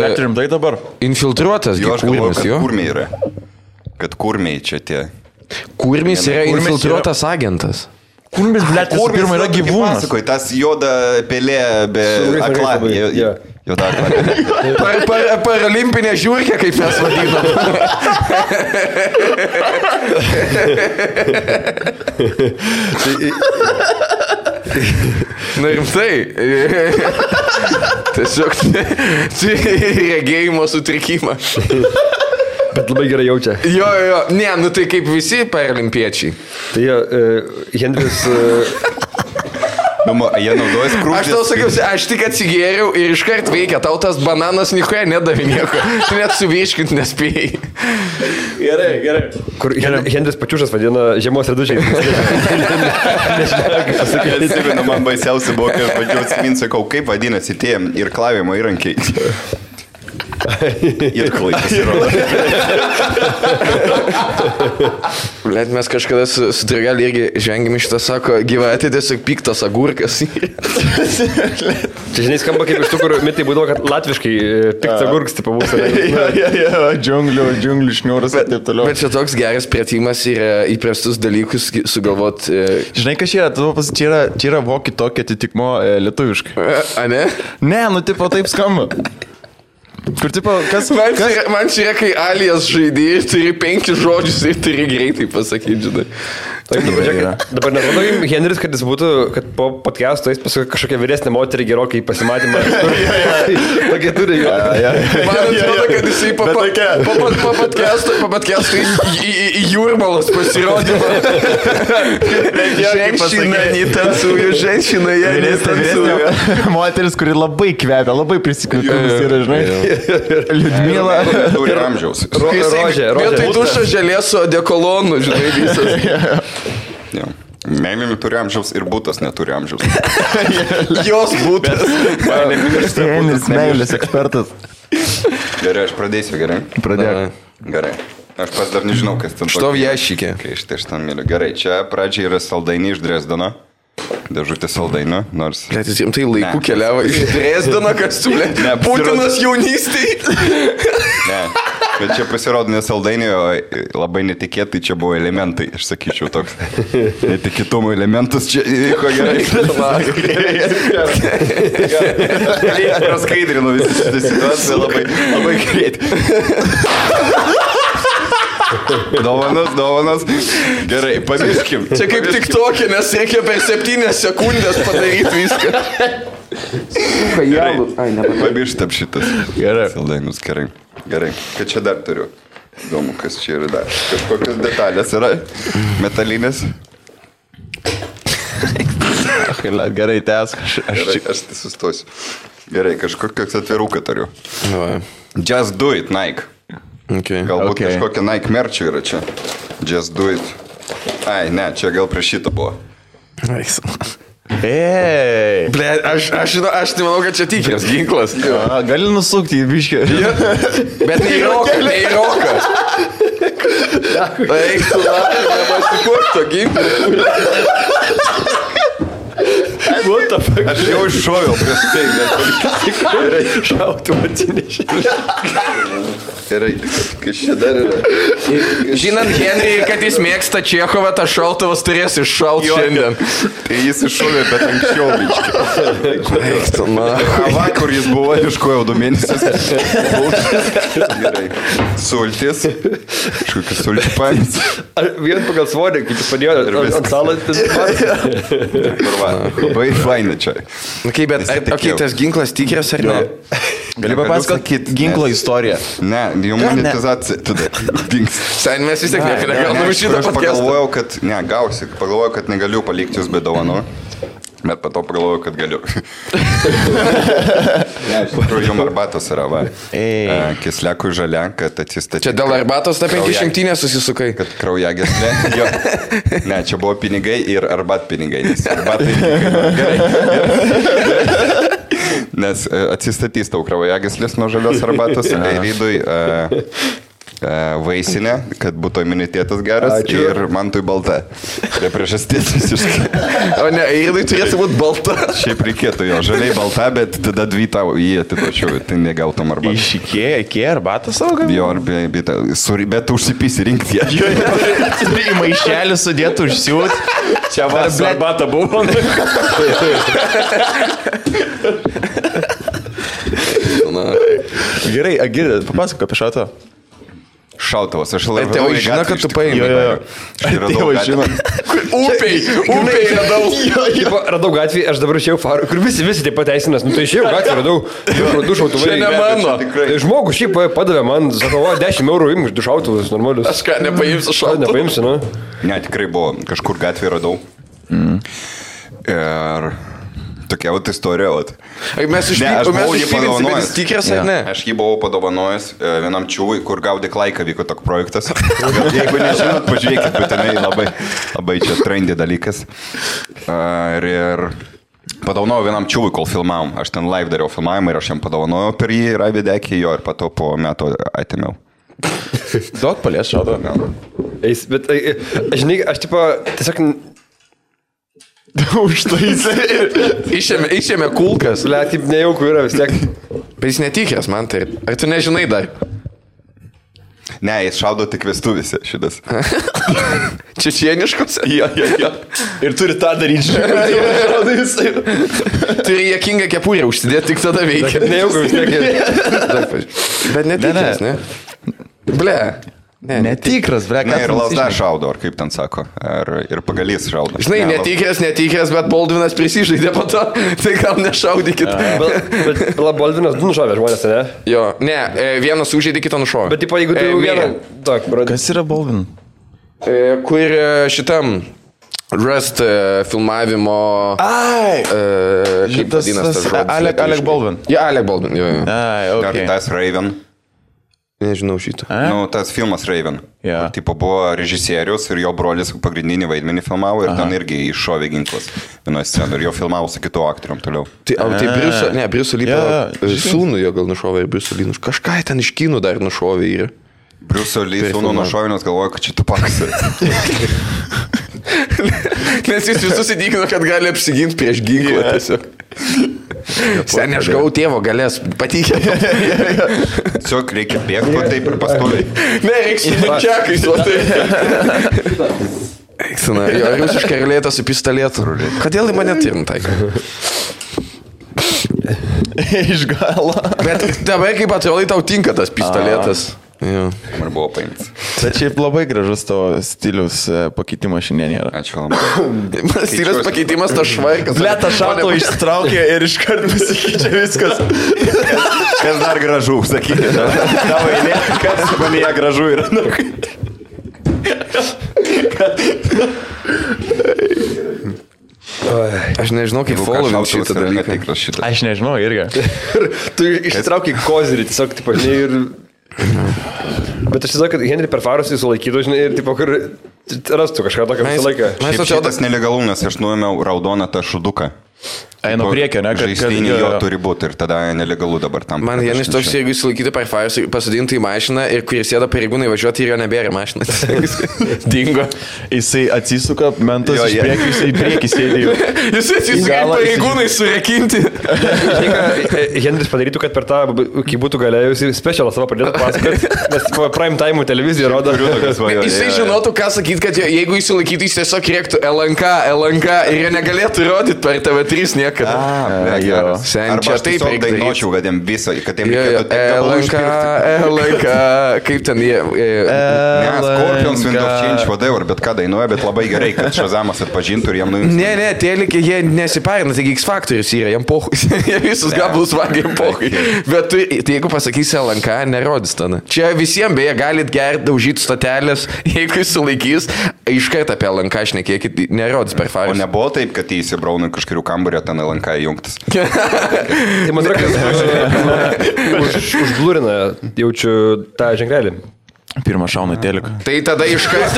Speaker 1: Net rimtai dabar.
Speaker 2: infiltruotas,
Speaker 3: Jo, aš galvoju,
Speaker 2: kurmis,
Speaker 3: kad
Speaker 2: jo.
Speaker 3: kurmiai yra. Kad kurmiai čia tie.
Speaker 2: Kurmis yra
Speaker 1: Kurmis
Speaker 2: infiltruotas agentas.
Speaker 1: Kurmis, blėt, visų pirma yra gyvūnas.
Speaker 3: Pasakoj, tas juoda pelė be
Speaker 4: Su
Speaker 3: akla.
Speaker 4: labai, jo.
Speaker 3: Juoda akla.
Speaker 2: Paralimpinė žiūrkė, kaip mes vadinam. Na rimtai. Tiesiog regėjimo sutrikimą.
Speaker 4: Bet labai gerai jaučia.
Speaker 2: Jo, ne, nu tai kaip visi paralimpiečiai.
Speaker 4: Tai Henris...
Speaker 3: Jie naudojas krūtis.
Speaker 2: Aš tau sakiau, aš tik atsigėriau ir iškart veikia, tau tas bananas nieko nedavė nieko. Tu net suvirškint nespėjai.
Speaker 1: Gerai.
Speaker 4: Kur Henris Pačiušas vadina žiemos redučiai.
Speaker 3: Atsimenu, man baisiausia buvo, kai aš bandžiau atsiminti, sakau, kaip vadinasi tie ir klavimo įrankiai. Ir klai pasirodo.
Speaker 2: Blet, mes kažkada su Dragelį irgi žengėm iš tą, sako, gyvatė tiesiog piktas agurkas.
Speaker 4: Čia žinai skamba kaip iš tų, kur mitai būdavo, kad latviškai piktas agurkas tipo mūsų.
Speaker 1: Džiunglių šniūras ir taip toliau.
Speaker 2: Bet čia toks geras pratimas yra įprastus dalykus sugalvot.
Speaker 1: Žinai, kas čia yra? Čia yra voki tokia atitikmo lietuviškai.
Speaker 2: A ne?
Speaker 1: Ne, nu tipo taip skamba. Kur tipo, kas...
Speaker 2: Man čia yra, kai alias žaidėjai turi 5 žodžius ir turi greitai pasakyti, žinai.
Speaker 4: Dabar nerodo Henris, kad jis būtų, kad po podcast'o jis paskui kažkokią vyresnę moterį gerokai pasimatymą. Tokie turi jo.
Speaker 2: Man atrodo, kad jisai po podcast'o į jūrmalos pasirodymą. Ženšina, netansuoju, ženšina, jie netansuoju.
Speaker 1: Moteris, kuri labai kvepia, labai prisikvėpimas yra, žinai. Liudmila.
Speaker 3: Turi amžiaus.
Speaker 4: Rožė.
Speaker 2: Vietoj dušo želės su odekolonu, žinai, visas.
Speaker 3: Meilėmi turi amžiaus ir būtas neturi amžiaus.
Speaker 2: Jos būtas.
Speaker 1: Henris meilės ekspertas.
Speaker 3: Gerai, aš pradėsiu, gerai?
Speaker 1: Pradėk.
Speaker 3: Gerai. Aš pas dar nežinau, kas ten.
Speaker 2: Što viešikė?
Speaker 3: Kai iš ten myliu. Gerai, čia pradžiai yra saldainiai iš Dresdeno. Dėžutė saldainių, nors...
Speaker 2: Net jis rimtai laiku keliavo iš Dresdeno, kas siūlė. Putinas jaunystėj.
Speaker 3: Ne, bet čia pasirodo ne saldainiai, o labai netikėtai čia buvo elementai, aš sakyčiau, toks netikėtumo elementas čia įvyko gerai. Praskaidrinu visą šitą situaciją labai greitai. Dovanas. Gerai, pamirškim.
Speaker 2: Čia kaip tik tokia, nes reikia per 7 sekundės padaryti viską.
Speaker 3: Pamirštam šitas.
Speaker 1: Gerai.
Speaker 3: Saldainius, gerai. Ką čia dar turiu? Įdomu, kas čia yra dar. Kažkokios detalės yra. Metalinės.
Speaker 1: Gerai, tęsk.
Speaker 3: Aš tai sustosiu. Gerai, kažkokios atviruką turiu. Just do it, Nike.
Speaker 2: Okay.
Speaker 3: Galbūt kažkokia Nike merčio yra čia. Just do it. Ai, ne, čia gal prie šito buvo.
Speaker 1: Ei.
Speaker 2: Ble, aš nemanau, kad čia tikras ginklas.
Speaker 1: Gali nusukti į biškį.
Speaker 2: Bet ne į roką. Eik, tu lapė, nepasikuok to ginklą.
Speaker 4: What the fuck?
Speaker 3: Aš jau iššoviau prieš tai, bet
Speaker 4: Gerai, šautų atsinešė.
Speaker 3: gerai, kas čia dar yra.
Speaker 2: Žinant Henry, kad jis mėgsta Čechovą, tas šautuvas turės iššauti šiandien.
Speaker 3: Tai jis iššovė, bet anksčiau biškį. Vakar jis buvo, iškojau 2 mėnesius. Gerai. Sultis. Kažkokius sulčių paėmės.
Speaker 4: Vien pagal svorį, kaip jis padėjo ant salas.
Speaker 3: Labai faina čia.
Speaker 2: Okay, bet tas ginklas tikras ar ne?
Speaker 1: Gali papasakoti ginklo istoriją.
Speaker 3: Ne, jau monetizacija tada dings.
Speaker 2: Sen mes vis tiek negalime šitą
Speaker 3: Aš pagalvojau, kad, pagalvojau, kad negaliu palikti jūs be dovanų. Bet po to pagalvojau, kad galiu. Ne, iš tikrųjų, jums arbatos yra, va. Kisliakų žalia, kad atsistatyti.
Speaker 2: Čia dėl arbatos ta 500 susisukai.
Speaker 3: Kad kraujagyslė. Jo. Ne, čia buvo pinigai ir arbatpinigai. Nes arbatai gerai. Nes atsistatys tau kraujagyslės nuo žalios arbatos. Eirydui vaisinė, kad būtų imunitetas geras. Ačiū. Ir man tui balta. Tai priežastis visiškai.
Speaker 2: O ne, Eirydui turėtų būti balta.
Speaker 3: Šiaip reikėtų jo. Žaliai balta, bet tada 2 tau jį atitočiau. Tai negautum arbatą.
Speaker 1: Iš Ikea arbatą savo gavai?
Speaker 3: Jo, bet užsipysi rinkti ją.
Speaker 1: Į maišelį sudėtų užsiūt. Čia vas arbata buvo. Gerai, Agirė, papasako apie šautą.
Speaker 3: Šautavas, aš labai...
Speaker 2: Tėvai žino, kad tu paėmė.
Speaker 1: Tėvai žino.
Speaker 2: Upiai radau.
Speaker 4: Radau gatvį, aš dabar išėjau farų, kur visi taip pateisinas. Nu tai išėjau gatvį, radau 2 šautuvai.
Speaker 2: Čia ne mano.
Speaker 4: Žmogus šiaip padavė man, sako, 10 eurų imk 2 šautuvus, normalius.
Speaker 2: Aš ką, nepaimsiu šautuvų?
Speaker 4: Nepaimsiu, nu.
Speaker 3: Ne, tikrai buvo, kažkur gatvį radau. Ir... Tokia vat istorija, vat.
Speaker 2: Mes išpildėsime tikras ar ne?
Speaker 3: Aš jį buvau padovanojęs vienam čiūvui, kur gaudė klaiką vyko toks projektas. Jeigu nežinot, pažiūrėkit, būtinai labai čia trendy dalykas. Ir padovanojau vienam čiūvui, kol filmavom. Aš ten live dariau filmavimą ir aš jam padovanojau per jį Ravidekį jo ir pato po metų atėmiau.
Speaker 1: Duok palies šautą.
Speaker 4: Bet, žinai, aš tiesiog...
Speaker 2: Išėmė kulkas.
Speaker 4: Ble, taip nejaukų yra vis tiek.
Speaker 2: Bet jis netikras, man tai. Ar tu nežinai dar?
Speaker 3: Ne, jis šaudo tik vestuvėse šitas.
Speaker 2: Čečieniškos?
Speaker 1: Jo. Ir turi tą daryti.
Speaker 2: Turi jėkingą kepurę užsidėti, tik tada veikia.
Speaker 4: Nejaukų vis tiek.
Speaker 2: Bet netikras, ne? Ble.
Speaker 1: Netikras, ble.
Speaker 3: Ne, ir lasda šaudo, ar kaip ten sako. Ir pagalys šaudo.
Speaker 2: Žinai, netikras, bet Baldvinas prisižaidė po to, tai gal nešaudykit.
Speaker 4: Bet Baldvinas 2 nušovė žmonės, ne?
Speaker 2: Jo, ne, vienas užžaidė, kitą nušovė.
Speaker 4: Bet tipo, jeigu tu vieną...
Speaker 1: Kas yra Baldvin?
Speaker 2: Kur šitam Rust filmavimo... Kaip vadinas tas žodis?
Speaker 1: Alec Baldwin.
Speaker 2: Ja, Alec Baldwin, jo.
Speaker 3: Ar tas Raven?
Speaker 2: Nežinau šitą.
Speaker 3: Nu, tas filmas Raven.
Speaker 1: Yeah.
Speaker 3: Tipo buvo režisierius ir jo brolis pagrindinį vaidmenį filmavo ir ten irgi iššovė ginklas vienoje scenoje ir jo filmavo su kitu aktorium toliau.
Speaker 2: Tai Briuso Lee sūnų jo gal nušovė ir Briuso Lee nušovė. Kažką ten iš kinų dar nušovė ir...
Speaker 3: Briuso Lee sūnų nušovė, nes galvoja, kad čia Tupakas.
Speaker 2: Nes jis visus įtikino, kad gali apsiginti prieš ginklą tiesiog. Seniai, aš gavau tėvo galės, patikė.
Speaker 3: Tiesiog reikia bėgti, taip ir pastoviai.
Speaker 2: Ne, reikia su mančiakais, o tai. Eiksina, jo, rusiškai relėta su pistoletu. Kodėl į mane tirintai?
Speaker 1: Iš galo.
Speaker 2: Bet dabar kaip atrodai tau tinka tas pistoletas. Jo.
Speaker 3: Ir buvo paimtas.
Speaker 1: Bet šiaip labai gražus to stilius pakeitimas šiandien yra.
Speaker 3: Ačiū labai.
Speaker 2: Stilius pakeitimas, tas švarkas.
Speaker 1: Lėta šato ištraukė ir iškart pasikeičia viskas.
Speaker 3: Kas dar gražu, sakykite. Tavo eilė, kas manyje gražu yra.
Speaker 2: Aš nežinau, kaip following šitą dalyką.
Speaker 1: Aš nežinau irgi.
Speaker 4: Tu išsitraukai kozirį, tiesiog, tipo, žinai, ir... Bet aš žinau, kad Henry per farus jį sulaikytų, žinai, ir, tipo, kur rastų kažką tokio visą laiką.
Speaker 3: Šiaip šitas nelegalu, nes aš nuėmiau raudoną tą šuduką.
Speaker 1: Einu priekio, ne?
Speaker 3: Žaistinį jo turi būti ir tada nelegalu dabar tam.
Speaker 2: Man Janis toks, jeigu jis laikyti per Fires, pasadinti į mašiną ir kurie sėda pareigūnai važiuoti ir jo nebėra mašiną. Dingo.
Speaker 1: Jisai atsisuka, mentas iš priekio, jisai į priekį sėdėjo.
Speaker 2: Jis atsisuka ir pareigūnai surekinti.
Speaker 4: Žinai, ką Henris padarytų, kad per tą, kai būtų galėjusi specialą savo pradėtų pasakoti, nes prime time televizija rodo.
Speaker 2: Jisai žinotų, ką sakyti, kad jeigu jis sulaikytų, jis tiesiog rėktų LNK ir jie negalėtų rodyti per TV3 niekada. Sen čia taip
Speaker 3: dainuočiau, kad jiem viso, kad jiem
Speaker 2: LNK, kaip ten jie...
Speaker 3: Ne, Scorpions, Wind of Change, whatever, bet ką dainuoja, bet labai gerai, kad Shazamas atpažintų ir jam nuims.
Speaker 2: Ne, telikai jie nesiparina, taigi X Factorius yra, jam pohui, jie visus gabalus vagia, jam pohui. Bet jeigu pasakysi LNK, nerodys tada. Čia visiems beje galit gerti, daužyti stotelės, jeigu jis sulaikys, iškart apie LNK šnekėkit, nerodys per Fires.
Speaker 3: O nebuvo taip, kad jį įsibraunų kažkurių kambarį, ten LNK įjungtas.
Speaker 4: Tai man atrodo, kad užblūrina, jaučiu tą ženklelį.
Speaker 1: Pirmą šauna teliką.
Speaker 2: Tai tada iškart.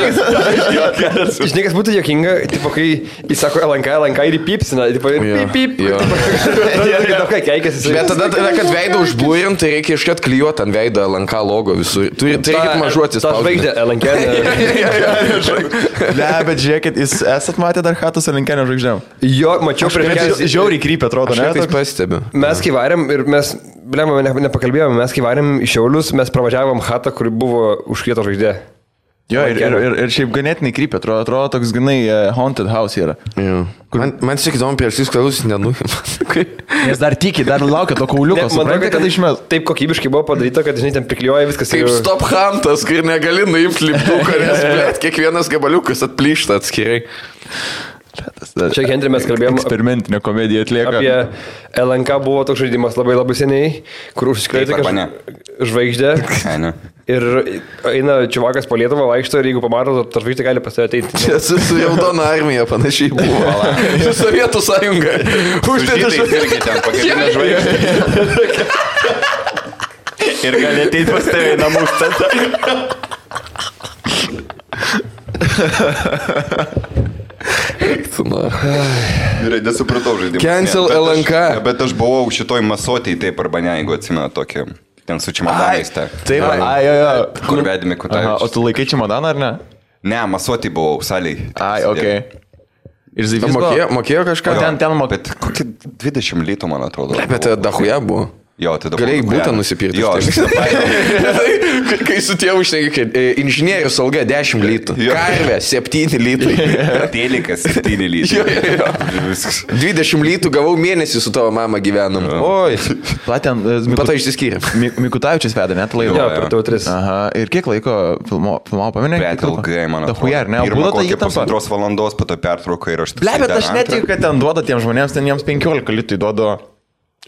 Speaker 4: Žinai, kas būtų jokinga, tipo, kai jis sako LNK ir įpipsina, tipo, pip.
Speaker 2: Bet tada, kad veidą užblūrint, tai reikia iškart klijuoti ant veido LNK logo visur. Tu reikia mažuotis.
Speaker 4: Ta žvaigždė LNK.
Speaker 1: Ne, bet žiūrėkit, jūs esat matę dar Hatus LNK žvaigždėm?
Speaker 4: Jo, mačiau prieš
Speaker 1: žiauriai krypia, atrodo, ne?
Speaker 2: Aš tai pastebiu.
Speaker 4: Mes kai varėm ir mes, blema, nepakalbėjome, mes kai varėm į Šiaulius, mes pravažiavom Hatą, kuri buvo užkrieto žvaigždė.
Speaker 1: Jo, ir šiaip ganėtinai krypia, atrodo toks ganai haunted house yra.
Speaker 2: Man tik įdomu, prieš jūs klausus nenuim.
Speaker 1: Nes dar tiki, dar laukia to kauliuko, suprantate, kad išmes.
Speaker 4: Taip kokybiškai buvo padaryta, kad, žinai, ten priklijuoja viskas.
Speaker 2: Kaip stop huntas, kur negali nuimti lipduką, nes, blėt, kiekvienas gabaliukas atplyšta atskirai.
Speaker 4: Čia Henry mes kalbėjom
Speaker 1: eksperimentinę komediją atlieka.
Speaker 4: Apie LNK buvo toks žaidimas labai seniai, kur užsikrėtė žvaigždė. Ir eina čiuvakas po Lietuvą, vaikšto ir jeigu pamato, ta žvaigždė gali pas tave ateiti.
Speaker 2: Čia su Raudona armija panašiai buvo. Su Sovietų sąjunga.
Speaker 3: Uždėta irgi ten pagrindinė žvaigždė. Ir gali ateiti pas tave į namus tada. Gerai, nesupratau žaidimą.
Speaker 2: Cancel LNK.
Speaker 3: Bet aš buvau šitoj masotėj, taip arba ne, jeigu atsimenu tokį, ten su čimodanais.
Speaker 1: Taip, jo.
Speaker 3: Kur vedėme Kutavičius.
Speaker 1: O tu laikai čimodaną ar ne?
Speaker 3: Ne, masotėj buvau, saliai.
Speaker 1: Okay. Ir Zivys
Speaker 2: mokėjo kažką?
Speaker 1: Ten mokėjo.
Speaker 3: Bet kokie 20 litų, man atrodo.
Speaker 2: Bet dahuja buvo.
Speaker 3: Jo, tai dabar...
Speaker 2: Galėjai būtą nusipirkti.
Speaker 3: Jo, aš
Speaker 2: kai su tėvu šneki, kad inžinierius alga 10 litų. Karvė 7 litai.
Speaker 3: Telikas 7 litai.
Speaker 2: 20 litų gavau mėnesį su tavo mama gyvenom. Oi.
Speaker 1: Platen,
Speaker 2: Pato išsiskyrė.
Speaker 1: Mikutavičius vedė, net laiko.
Speaker 4: Jo, per TV3.
Speaker 1: Aha. Ir kiek laiko filmavo, paminė?
Speaker 3: Bet ilgai, man atrodo.
Speaker 1: Dahuja, ar ne?
Speaker 3: Pirmą kokią pusantros valandos, po to pertrauką ir aš...
Speaker 1: Bet aš netikiu, kad ten duoda tiems žmonėms, ten jiems 15 litų duoda.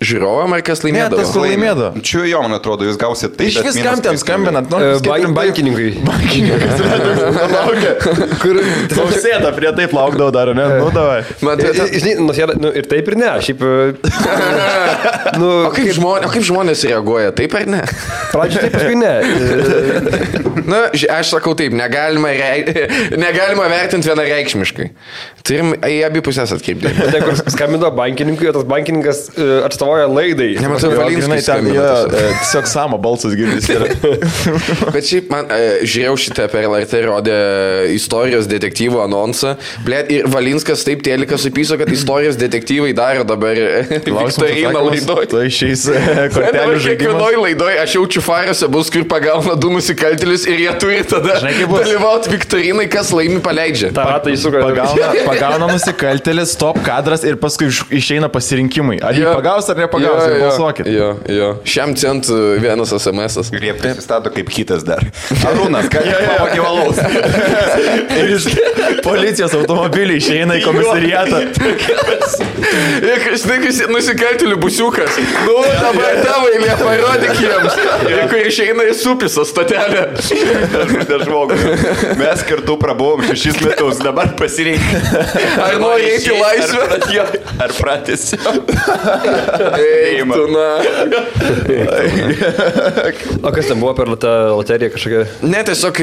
Speaker 2: Žiūrovam ar kas laimėdavo?
Speaker 1: Ne, tas laimėdavo.
Speaker 3: Čia jo, man atrodo, jūs gausite tai.
Speaker 1: Iš viskam ten skambinat,
Speaker 4: bankininkai.
Speaker 1: Kur sėda prie taip laukdavo dar, ne? Nu, davai.
Speaker 4: Žinai, ir taip ir ne. Šiaip...
Speaker 2: O kaip žmonės reaguoja, taip ar ne?
Speaker 4: Pradžioje taip, paskui ne.
Speaker 2: Na, aš sakau taip, negalima vertinti vienareikšmiškai. Turim į abi pusės atkreipti.
Speaker 4: Tai kur skambino bankininkui, o tas bankininkas atstovauja laidai.
Speaker 2: Nematau, Valinskis skambino.
Speaker 1: Tiesiog Samo balsas girdisi.
Speaker 2: Bet šiaip man žiūrėjau šitą per LRT rodė istorijos detektyvų anonsą. Blet, ir Valinskas taip telikas supyso, kad istorijos detektyvai daro dabar Viktoriną laidoj.
Speaker 1: Tai šiais kortelių žaidimas.
Speaker 2: Kiekvienoj laidoj aš jaučiu farose bus, kur pagauna 2 nusikaltėlius ir jie turi tada dalyvauti Viktorinai, kas laimi paleidžia.
Speaker 4: Ta ratą įsuka.
Speaker 1: Pagauna nusikaltėlis, stop kadras ir paskui išeina pasirinkimai. Ar jį pagaus ar nepagausit, balsuokit.
Speaker 2: Jo. Šiam centų vienas SMS-as.
Speaker 3: Ir jie prisistato kaip kitas dar. Arūnas, ką jie pavogė valaus.
Speaker 1: Ir iš policijos automobilį išeina į komisariatą.
Speaker 2: Žinai, nusikaltėlių busiukas. Nu, dabar tavo eilė, parodyk jiems. Ir kur išeina į Supiso stotelę.
Speaker 3: Mes kartu prabuvom 6 metus, dabar pasirinkti.
Speaker 2: Ar nori eiti į laisvę?
Speaker 3: Ar pratęsi?
Speaker 2: Eiktų, na.
Speaker 4: O kas ten buvo per tą loteriją kažkokia?
Speaker 2: Ne, tiesiog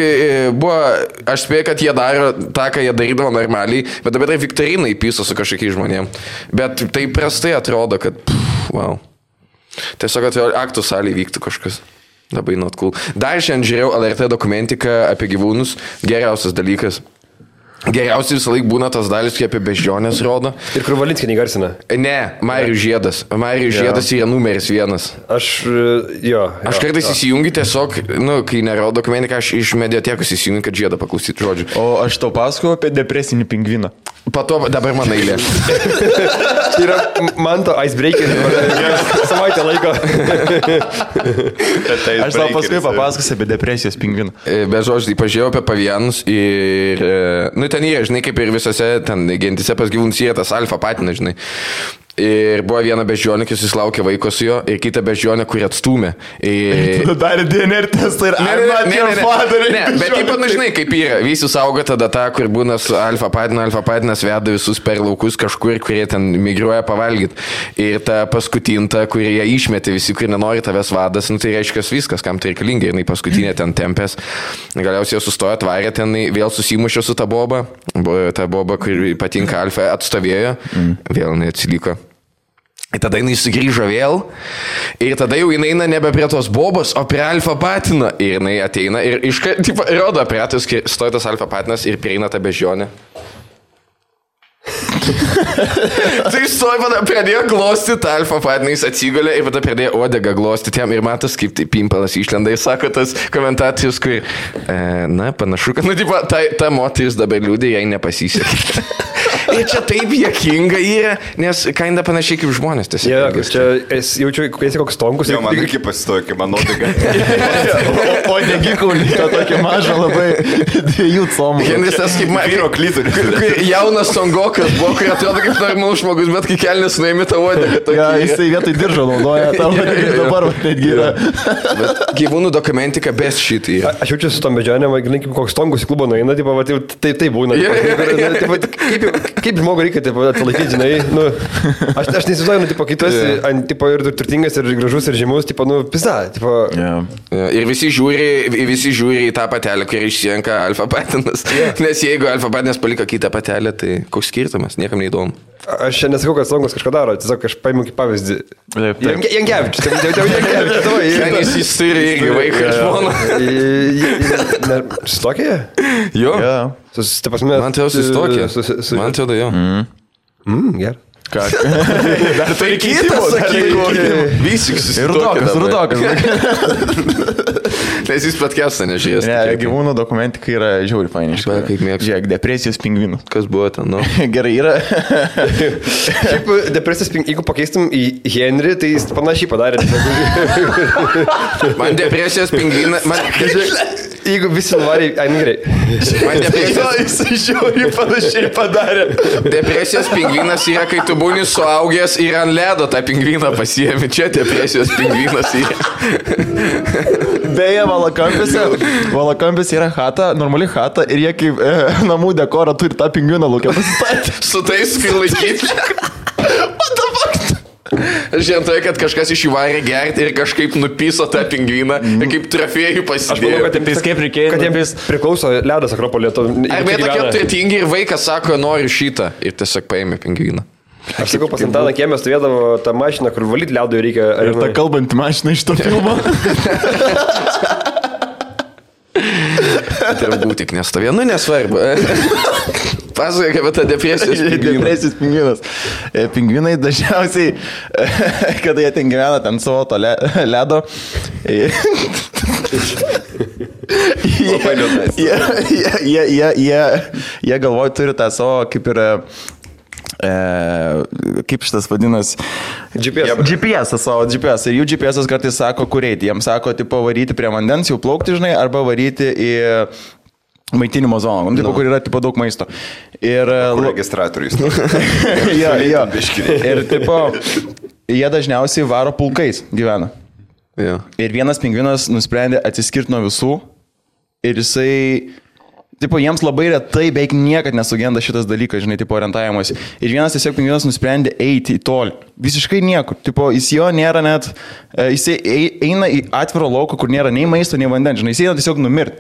Speaker 2: buvo, aš spėjau, kad jie daro tą, ką jie darydavo normaliai, bet dabar tai Viktorinai pyso su kažkokiais žmonėmis. Bet tai prastai atrodo, kad, wow. Tiesiog atėjo aktų salėje vyktų kažkas. Labai not cool. Dar šiandien žiūrėjau LRT dokumentiką apie gyvūnus. Geriausias dalykas. Geriausiai visą laiką būna tas dalis, kai apie beždžionės rodo.
Speaker 4: Ir kur Valinskį negarsina?
Speaker 2: Ne, Marijus Žiedas. Marijus Žiedas yra numeris 1.
Speaker 4: Aš
Speaker 2: kartais įsijungiu tiesiog, kai nerodo dokumentiką, aš iš mediatekos įsijungiu, kad Žiedą paklausyti žodžių.
Speaker 1: O aš tau pasakoju apie depresinį pingviną.
Speaker 2: Pato dabar man eilė.
Speaker 4: Tai yra Manto icebreaker. Savaitę laiko.
Speaker 1: Aš tau paskui papasakosiu apie depresijos pingviną.
Speaker 2: Be žodžių, tai pažiūrėjau apie pavienus ir... ten yra, žinai, kaip ir visose ten gentise pas gyvūnus yra tas alfa patinas, žinai. Ir buvo viena beždžionė, kai susilaukė vaiko su jo, ir kita beždžionė, kuri atstūmė.
Speaker 1: Tu darė DNR testą ir
Speaker 2: Ne, bet taip pat, žinai, kaip yra. Visi saugo tada tą, kur būna su alfa patinas veda visus per laukus kažkur, kurie ten migruoja pavalgyti. Ir ta paskutinta, kurie jie išmetė, visi, kurie nenori tavęs vadas, tai reiškia viskas, kam tai reikalinga. Ir paskutinė ten tempės. Galiausiai sustojo, atvarė ten, vėl susimušė su ta boba. Ta boba, kuri patinka alfa, atstovėjo. Vėl neatsiliko. Ir tada jinai sugrįžo vėl ir tada jau jinai eina nebe prie tos bobos, o prie alfa patino. Ir jinai ateina ir rodo operatorius, kai stoja tas alfa patinas ir prieina tą beždžionę. Tai stoja, pradėjo glostyti tą alfa patiną, jis atsigulė ir tada pradėjo odegą glostyti jam ir matos, kaip tai pimpalas išlenda. Jis sako tas komentatorius, kur, panašu, kad, ta moteris dabar liūdė, jai nepasisekė. Ir čia taip juokinga yra, nes kainda panašiai kaip žmonės.
Speaker 4: Čia jaučiu, kai esi koks tonkus.
Speaker 3: Jo, man irgi pasistojo, kaip man odega.
Speaker 1: O negi kaulito tokį mažą labai 2 comų.
Speaker 2: Henris tas kaip
Speaker 3: vyro klitorius.
Speaker 2: Jaunas tongokas buvo, kai atrodo kaip normalus žmogus, bet kai kelnes nuėmė tą odegą.
Speaker 1: Ja, jisai vietoj diržo naudoja tą odegą, dabar netgi yra.
Speaker 2: Gyvūnų dokumentika best shit yra.
Speaker 4: Aš jaučiu su tom beždžionėm, kaip koks tongus į klubą nueina, tai būna. Kaip žmogui reikia atsilaikyti, žinai, aš nesizduoju, kai tu esi ir turtingas, ir gražus, ir žymus, pisa.
Speaker 2: Ir visi žiūri į tą patelę, kuri išsirenka alfa patinas, nes jeigu alfa patinas paliko kitą patelę, tai koks skirtumas, niekam neįdomu.
Speaker 4: Aš čia nesakau, kad Songas kažką daro, tiesiog aš paimu kaip pavyzdį. Jankevičius,
Speaker 2: Jankevičius. Jis turi irgi vaiką, žmoną.
Speaker 4: Susitokė?
Speaker 2: Jo.
Speaker 4: Man
Speaker 2: atrodo susitokė. Man atrodo jo.
Speaker 4: Gerai.
Speaker 1: Ką?
Speaker 2: Dar tai kitas, sakyk. Visiks susitokė.
Speaker 1: Rudokas.
Speaker 2: Nes jis podcastą nežiūrės.
Speaker 1: Ne, gyvūnų dokumentika yra žiauri fainai.
Speaker 2: Kaip mėgstu.
Speaker 1: Žiūrėk, depresijos pingvinų.
Speaker 2: Kas buvo ten,
Speaker 1: Gerai, yra.
Speaker 4: Šiaip depresijos pingvinų, jeigu pakeistum į Henry, tai jis panašiai padarė.
Speaker 2: Man depresijos pingviną...
Speaker 4: Jeigu visi nuvarė, gerai.
Speaker 2: Man depresijos...
Speaker 1: Jis žiauri panašiai padarė.
Speaker 2: Depresijos pingvinas yra, kai tu būni suaugęs ir ant ledo tą pingviną pasiėmi. Čia depresijos pingvinas yra.
Speaker 1: Beje, Valakampis yra chata, normali chata ir jie kaip namų dekorą turi tą pingviną laukia pasistatyti.
Speaker 2: Su tais prilaikyti. What the fuck? Aš žinau, kad kažkas iš jų varė gerti ir kažkaip nupiso tą pingviną ir kaip trofėjų pasidėjo.
Speaker 4: Aš manau, kad jiems kaip reikėjo. Kad jiems priklauso ledas Akropolė.
Speaker 2: Arba tokie turtingi ir vaikas sako, noriu šitą ir tiesiog paėmė pingviną.
Speaker 4: Aš sakau, pas Antaną kiemę stovėdavo tą mašiną, kur valyti liaudui reikia.
Speaker 1: Ir tą kalbantį mašiną iš to filmo.
Speaker 2: Turbūt tik nestovė, nesvarbu. Pasakoja, kaip tą depresijos pingviną.
Speaker 1: Depresijos pingvinas. Pingvinai dažniausiai, kada jie ten gyvena ten savo to ledo, jie galvoja, turi tą savo kaip ir... kaip šitas vadinas, GPS savo GPS. Ir jų GPS kartais sako, kur eiti. Jiems sako, tipo, varyti prie vandens, jau plaukti, žinai, arba varyti į maitinimo zoną, tipo, kur yra tipo, daug maisto. Ir
Speaker 3: registratorius.
Speaker 1: jo. Ir tipo, jie dažniausiai varo pulkais gyvena.
Speaker 2: Ja.
Speaker 1: Ir vienas pingvinas nusprendė atsiskirti nuo visų ir jisai, tipo, jiems labai retai beveik niekad nesugenda šitas dalykas, žinai, tipo, orientavimas. Ir vienas tiesiog pingvinas nusprendė eiti į tolį. Visiškai niekur. Tipo, jis jo nėra net, jisai eina į atviro lauką, kur nėra nei maisto, nei vandens, žinai, jis eina tiesiog numirti.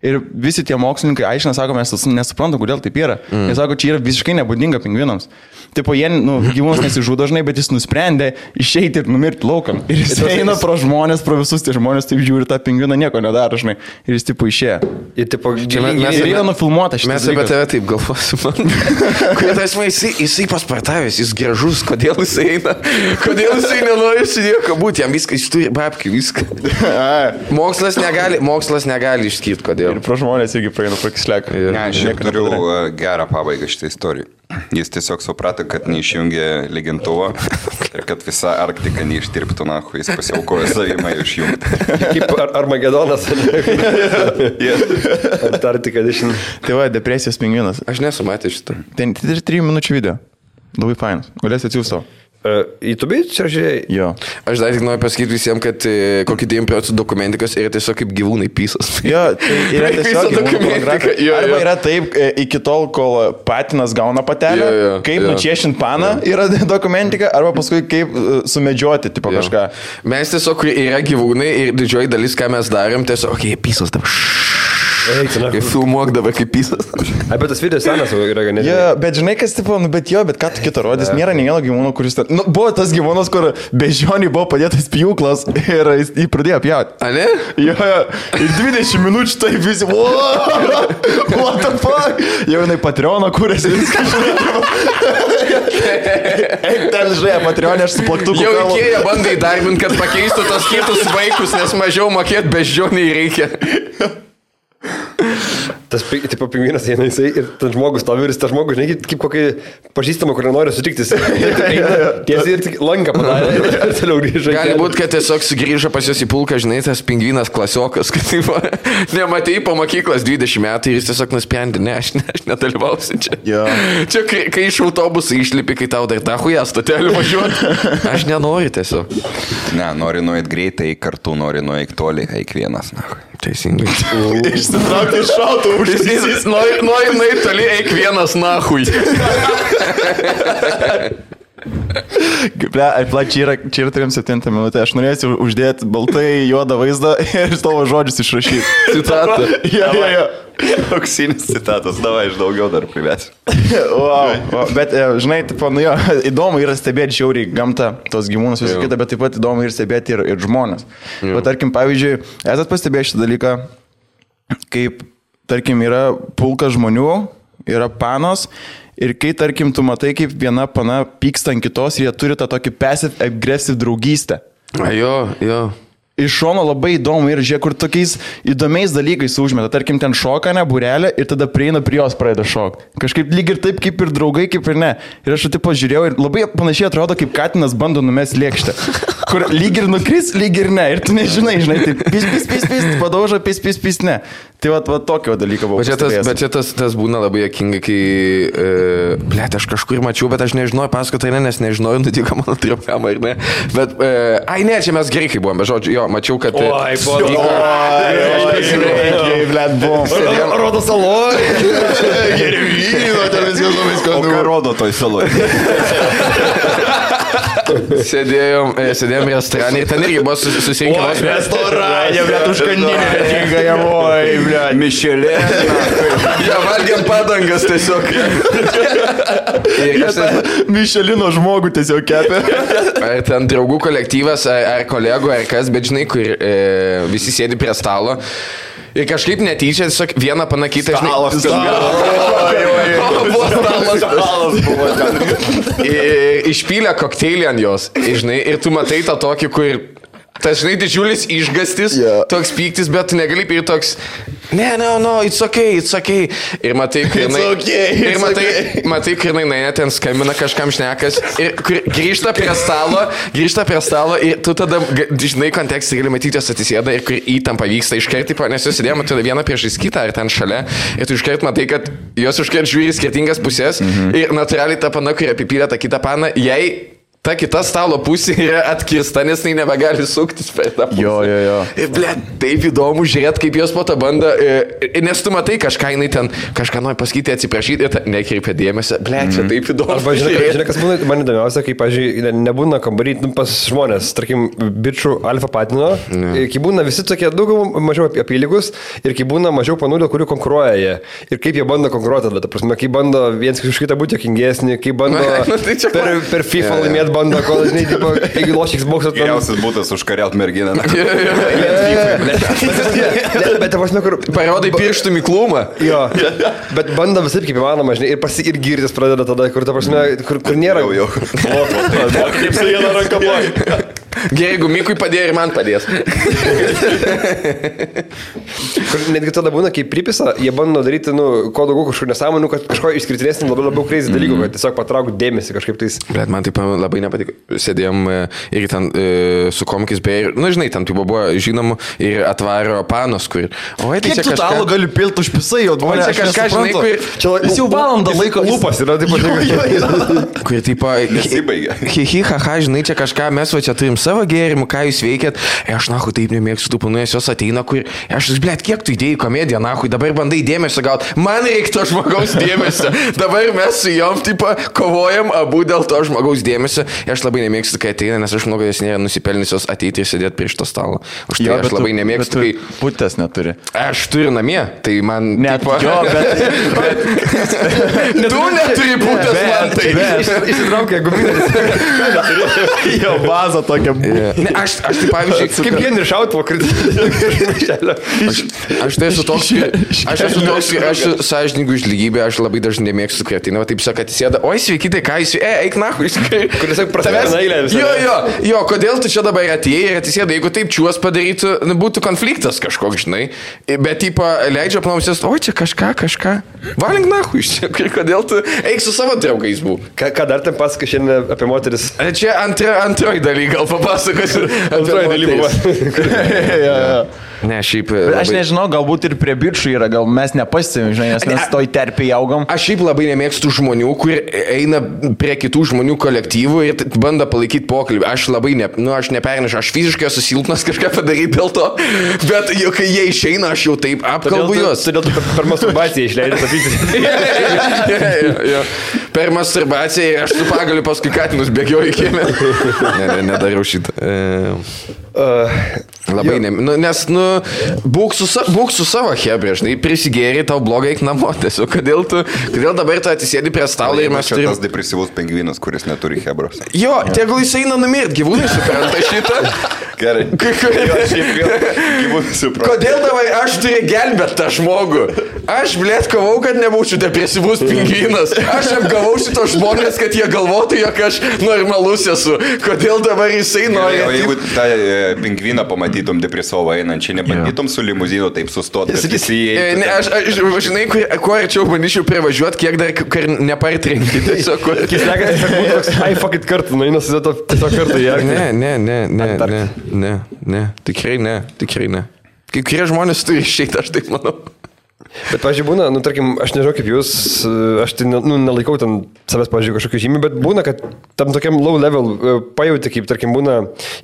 Speaker 1: Ir visi tie mokslininkai aiškina, sako, mes nesuprantam, kodėl taip yra. Jie sako, čia yra visiškai nebūdinga pingvinams. Tipo, jie, gyvūnas nesižudo dažnai, bet jis nusprendė išeiti ir numirti laukam. Ir jis eina pro žmonės, pro visus tie žmonės, taip žiūri tą pingviną, nieko nedaro, žinai. Ir jis, tipo, išėjo.
Speaker 4: Ir, tipo,
Speaker 1: mes yra nufilmuota šitas.
Speaker 2: Mes apie tave taip galvosim. Kodėl jisai paspartavęs, jis gražus, kodėl jisai eina, kodėl jisai nenori su nieko būti, jam viską, jis turi babkių, viską. Mokslas negali išskirti, kodėl.
Speaker 1: Ir pro žmonės irgi praeina prakisleką.
Speaker 3: Ne, aš jau turiu gerą pabaigą šitą istoriją. Jis tiesiog suprato, kad neišjungė lygintuvo ir kad visa Arktika neištirptų, nahu, jis pasiaukojo savimą išjungti.
Speaker 4: Kaip Armagedonas. Antarktika edition.
Speaker 1: Tai va, depresijos pingvinas.
Speaker 2: Aš nesu matęs šitą.
Speaker 1: Tai 3 minučių video. Labai fainas. Galėsi atsiųsti savo.
Speaker 4: YouTube čia žiūrėjai?
Speaker 1: Jo.
Speaker 2: Aš dar tik noriu pasakyti visiems, kad kokį 9% dokumentikos yra tiesiog kaip gyvūnai pysas.
Speaker 1: Jo, tai yra tiesiog dokumentika. Arba yra taip, iki tol, kol patinas gauna patelę, kaip nučiešint paną yra dokumentika, arba paskui kaip sumedžioti, tipo kažką.
Speaker 2: Mes tiesiog yra gyvūnai ir didžioji dalis, ką mes darėm, tiesiog, pysas dabar. Kaip filmuok dabar kaip pysas.
Speaker 4: Bet tas video senas yra ganėtinai.
Speaker 1: Jo, bet žinai, kas tipo, bet ką tu kitą rodys, nėra nei vieno gyvūno, kuris... buvo tas gyvūnas, kur bežionį buvo padėtas pjūklas ir jį pradėjo pjauti.
Speaker 2: A ne?
Speaker 1: Jo, ir 20 minučių tai visi... What the fuck? Jau jinai Patreoną kūrėsi viską. Eik ten, žinai, Patreonė, aš su plaktuku.
Speaker 2: Jau Ikėja bandai darbinti, kad pakeistų tos kitus vaikus, nes mažiau mokėti bežionį reikia.
Speaker 4: Tas, tipo, pingvinas eina jisai ir tas žmogus stovi ir tas žmogus, žinai, kaip kokį pažįstamą, kur nenori sutikti. Tiesiai ir tik lanką padarė ir toliau grįžo.
Speaker 2: Gali būti, kad tiesiog sugrįžo pas jos į pulką, žinai, tas pingvinas klasiokas, kad taip, nematei po mokyklos 20 metų ir jis tiesiog nusprendė, ne, aš nedalyvausiu čia. Čia, kai iš autobusų išlipi, kai tau dar tą hują stotelį važiuoti, aš nenoriu tiesiog.
Speaker 3: Ne, nori nuėti greitai, kartu nori nuėti toli, eik vienas, na.
Speaker 2: Teisingai.
Speaker 1: Išsitraukti iš šautų užsisys.
Speaker 2: Nori nuėti toli, eik vienas nahui.
Speaker 1: Čia yra 37 minutė. Aš norėsiu uždėti baltai juodą vaizdą ir tavo žodžius išrašyti.
Speaker 2: Citatą.
Speaker 1: Jo.
Speaker 3: Auksinis citatas, davai, aš daugiau dar privesiu.
Speaker 1: Wow. Bet, žinai, tipo, įdomu yra stebėti žiauriai gamtą, tos gyvūnus visą kitą, bet taip pat įdomu ir stebėti ir žmonės. Bet, tarkim, pavyzdžiui, esat pastebėję šitą dalyką, kaip, tarkim, yra pulkas žmonių, yra panos, ir kai, tarkim, tu matai, kaip viena pana pyksta ant kitos ir jie turi tą tokį passive-aggressive draugystę.
Speaker 2: Jo.
Speaker 1: Iš šono labai įdomu ir žiūrėk, kur tokiais įdomiais dalykais užmeta. Tarkim, ten šoka, ne, būrelė ir tada prieina prie jos pradeda šokti. Kažkaip lyg ir taip, kaip ir draugai, kaip ir ne. Ir aš taip pažiūrėjau ir labai panašiai atrodo, kaip katinas bando numesti lėkštę. Kur lyg ir nukris, lyg ir ne. Ir tu nežinai, taip pis, padauža, pis, ne. Tai va tokio dalyko buvo.
Speaker 2: Bet čia tas būna labai juokinga, kai, aš kažkur mačiau, bet aš nežinojau, pasakoti, nes nežinojau, nutiko mano tripkamą ir ne. Bet, ne, čia mes gerai, kai buvom, bet žodžiu, jo, mačiau, kad...
Speaker 4: Oi, rodo saloj.
Speaker 1: Gervyno, ten viskas labai skanu.
Speaker 3: O ką rodo toj saloj?
Speaker 2: Sėdėjom restorane ir ten irgi buvo susirinkę.
Speaker 1: Restorane, bet užkandinė, tinka javoj, blėt.
Speaker 3: Mišelė.
Speaker 2: Ja, valgiam padangas tiesiog.
Speaker 1: Mišelino žmogų tiesiog kepė.
Speaker 2: Ten draugų kolektyvas, ar kolegų, ar kas, bet žinai, kur visi sėdi prie stalo. Ir kažkaip netyčia, tiesiog vieną panakytą, žinai. Stalas buvo ten. Išpylė kokteilį ant jos, žinai, ir tu matai tą tokį, kur... Tas, žinai, didžiulis išgastis, toks pyktis, bet tu negali ir toks No, it's okay. Ir matai, kai jinai ten skambina kažkam šnekas ir grįžta prie stalo ir tu tada, žinai, kontekstą gali matyti, jos atsisėda ir kur įtampa vyksta iškart, nes jos sėdėjo, matai, vieną priešais kitą ar ten šalia ir tu iškart matai, kad jos iškart žiūri skirtingas pusės ir natūraliai ta pana, kuri apipylė tą kitą paną, jai ta kita stalo pusė yra atkirsta, nes jinai nebegali suktis per tą pusę.
Speaker 1: Jo.
Speaker 2: Ir, taip įdomu žiūrėti, kaip jos po to bando, nes tu matai kažką, jinai ten kažką nori pasakyti, atsiprašyti ir nekreipia dėmesio. Čia taip įdomu.
Speaker 4: Arba žinai, kas būna, man įdomiausia, kai, pavyzdžiui, nebūna kambarį pas žmonės, tarkim, bičių alfa patino, kai būna visi tokie daug mažiau apylygus ir kai būna mažiau panų, dėl kurių konkuruoja jie. Ir kaip jie bando konkuruoti, ta prasme, kai bando viens už kitą būti jokingesnį, kai bando per FIFA laimėti bando, kol, žinai, tipo, jeigu lošiks boksą...
Speaker 3: Geriausias būtas užkariaut merginą.
Speaker 4: Bet, prasme, kur...
Speaker 2: Parodai pirštų miklumą.
Speaker 4: Jo, bet bando visai kaip įmanoma, žinai, ir girtis pradeda tada, kur, ta prasme, kur nėra...
Speaker 3: Jau.
Speaker 1: Kaip su viena ranka blogai.
Speaker 2: Gerai, jeigu Mikui padėjo ir man padės.
Speaker 4: Netgi tada būna, kai pripisa, jie bando daryti, kuo daugiau kažkokių nesąmonų, kad kažko išskirtinesnį labiau crazy dalykų, kad tiesiog patraukti dėmesį kažkaip tais.
Speaker 2: Bet man taip labai nepatiko. Sėdėjom ir ten su komikais beje, žinai, ten tipo buvo žinomų ir atvaro panos, kur...
Speaker 1: Oi, tai čia kažką... gali pilti už pisai, o
Speaker 2: oi, čia kažką, žinai, kur...
Speaker 1: Jis jau valandą laiko
Speaker 4: lūpas yra, taip pat.
Speaker 2: Kur tipo...
Speaker 3: Nesibaigia.
Speaker 2: Haha, žinai, čia kažką, mes va čia turim savo gėrimų, ką jūs veikėt. Aš, nahui, taip nemėgstu tų panų, jos ateina, kur... Aš, blėt, kiek tu įdėjai komediją, nahui, dabar bandai dėmesio gauti. Man reikia to žmogaus dėmesio. Dabar mes su jom, tipo, kovojam abu dėl to žmogaus dėmesio. Aš labai nemėgstu, kai ateina, nes aš manau, kad jos nėra nusipelniusios ateiti ir sėdėti prie šito stalo. Už tai aš labai nemėgstu, kai...
Speaker 1: Putės neturi.
Speaker 2: Aš turiu namie, tai man...
Speaker 1: Net tipo... Jo, bet...
Speaker 2: Tu neturi putės, man tai.
Speaker 4: Išsitraukia guminės.
Speaker 1: Jo, bazą tokia.
Speaker 2: Ne, aš tai pavyzdžiui,
Speaker 4: kaip Henry šautuvo kritinį.
Speaker 2: Aš tai esu toks, aš esu sąžininkų už lygybę, aš labai dažnai nemėgstu kretinį, taip sako, atsisėda, oi sveiki, tai ką jūs, eik nahui,
Speaker 4: kuris prasideda eilę visą.
Speaker 2: Jo, kodėl tu čia dabar atėjai ir atsisėda, jeigu taip čiuos padarytų, būtų konfliktas kažkoks, žinai, bet tipo leidžia apnausės, oi čia kažką, valink nahui, kodėl tu eik su savo draugais bū.
Speaker 4: Ką dar ten pasakai šiandien apie moteris?
Speaker 2: Čia antroji daly, gal papasakosiu.
Speaker 4: Antroji daly buvo.
Speaker 2: Ne, šiaip...
Speaker 1: Aš nežinau, galbūt ir prie bičių yra, gal mes nepastebim, žinai, nes mes toj terpiai augam.
Speaker 2: Aš šiaip labai nemėgstu žmonių, kur eina prie kitų žmonių kolektyvų ir bando palaikyti pokalbį. Aš labai, aš nepernešu, aš fiziškai esu silpnas kažką padaryti dėl to, bet jau, kai jie išeina, aš jau taip apkalbu juos.
Speaker 4: Todėl tu per masturbaciją išleidai tapyti.
Speaker 2: Per masturbaciją ir aš su pagaliu paskui katinus bėgioju į kiemę. Nedariau šitą. Labai nes, būk su savo hebrė, žinai, prisigėri, tau blogai eik namo, tiesiog, kodėl dabar tu atsisėdi prie stalo ir mes
Speaker 3: turime... Tas depresyvus pingvinas, kuris neturi hebros.
Speaker 2: Jo, tegul jis eina numirti, gyvūnai supranta šitą.
Speaker 3: Gerai. Gyvūnai supranta.
Speaker 2: Kodėl dabar aš turiu gelbėti tą žmogų? Aš, blėt, kovau, kad nebūčiau depresyvus pingvinas. Aš apgavau šito žmonės, kad jie galvotų, jog aš normalus esu. Kodėl dabar jisai nori...
Speaker 3: O jeigu tą pingviną pamatytum depresyvą einančią, nebandytum su limuzinu taip sustoti?
Speaker 2: Ne, aš žinai, kuo arčiau bandyčiau privažiuoti, kiek dar nepartrenkti. Tiesiog,
Speaker 4: ai, fuck it kartu, nueinas tiesiog kartu.
Speaker 2: Ne, tikrai ne. Kai kurie žmonės turi išeiti, aš taip manau.
Speaker 4: Bet, pažiūrėjau, būna, tarkim, aš nežinau kaip jūs, aš tai nelaikau ten savęs, pažiūrėjau, kažkokių žymių, bet būna, kad tam tokiam low level pajauti, kaip, tarkim, būna,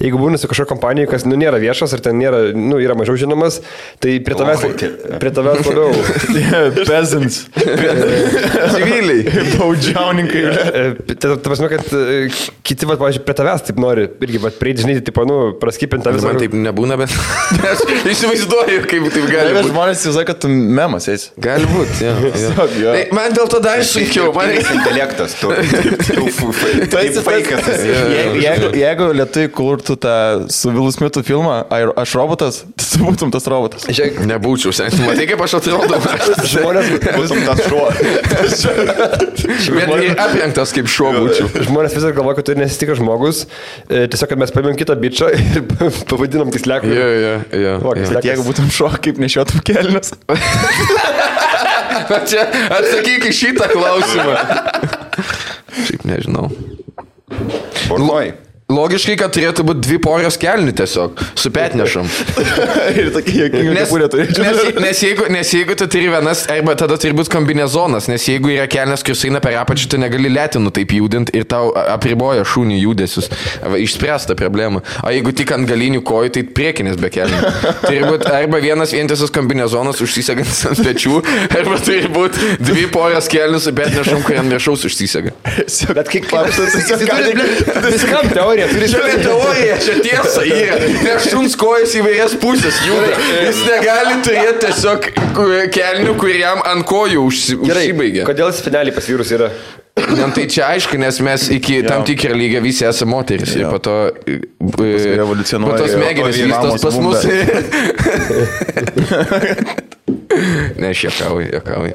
Speaker 4: jeigu būna su kažkokia kompanija, kas, nėra viešas, ar ten nėra, yra mažiau žinomas, tai prie tavęs labiau.
Speaker 1: Peasants.
Speaker 2: Civiliai.
Speaker 1: Baudžiauninkai.
Speaker 2: Tai
Speaker 4: prasme, kad kiti, pažiūrėjau, prie tavęs taip nori, irgi, prieiti, žinai, tipo, praskipinti tą visą.
Speaker 2: Man taip nebūna, bet aš įsivaizduoju, kaip taip gali būti.
Speaker 1: Žmonės įsivaizduoja, kad tu mem Semas eis.
Speaker 2: Gali būti, jo.
Speaker 1: Jo.
Speaker 2: Tai man dėl to dar sunkiau. Man
Speaker 3: Intelektas, tu esi faikas.
Speaker 1: Jeigu lietuviai kurtų tą su Will Smithu filmą, aš robotas, tu būtum tas robotas.
Speaker 2: nebūčiau, seniai. Matai, kaip aš atrodau.
Speaker 4: Žmonės,
Speaker 3: Būtum tas šuo.
Speaker 2: Bet ir aprengtas kaip šuo būčiau.
Speaker 4: žmonės vis dar galvoja, kad tu nesi tikras žmogus. Tiesiog, kad mes paėmėm kitą bičą ir pavadinom kisleku.
Speaker 2: Jo.
Speaker 1: Bet jeigu būtum šuo, kaip nešiotum kelnes.
Speaker 2: Čia atsakyk į šitą klausimą. Šiaip nežinau.
Speaker 3: Bornoj.
Speaker 2: Logiškai, kad turėtų būti 2 porios kelnių tiesiog, su petnešam.
Speaker 1: Ir tokia jokinga kepurė turėčiau.
Speaker 2: Nes jeigu tu turi vienas, arba tada turi būti kombinezonas, nes jeigu yra kelnes, kuris eina per apačią, tu negali lėtinų taip judinti ir tau apriboja šūnių judesius. Išspręsta problema. O jeigu tik ant galinių kojų, tai priekinės be kelnių. Turi būti arba vienas vientisas kombinezonas užsisegantis ant pečių, arba turi būti 2 porios kelnių su petnešam, kurie ant viršaus užsisega.
Speaker 4: Bet kaip viskam teorija.
Speaker 2: Čia teorija, čia tiesa yra. Nes šuns kojas įvairias pusės juda. Jis negali turėti tiesiog kelnių, kuriam ant kojų užsibaigia.
Speaker 4: Kodėl spinelį pas vyrus yra?
Speaker 2: Tai čia aišku, nes mes iki tam tikrą lygą visi esame moteris. Ir po to
Speaker 1: evoliucionuoja.
Speaker 2: Po to smegenys vystos pas mus. Ne, aš juokauju.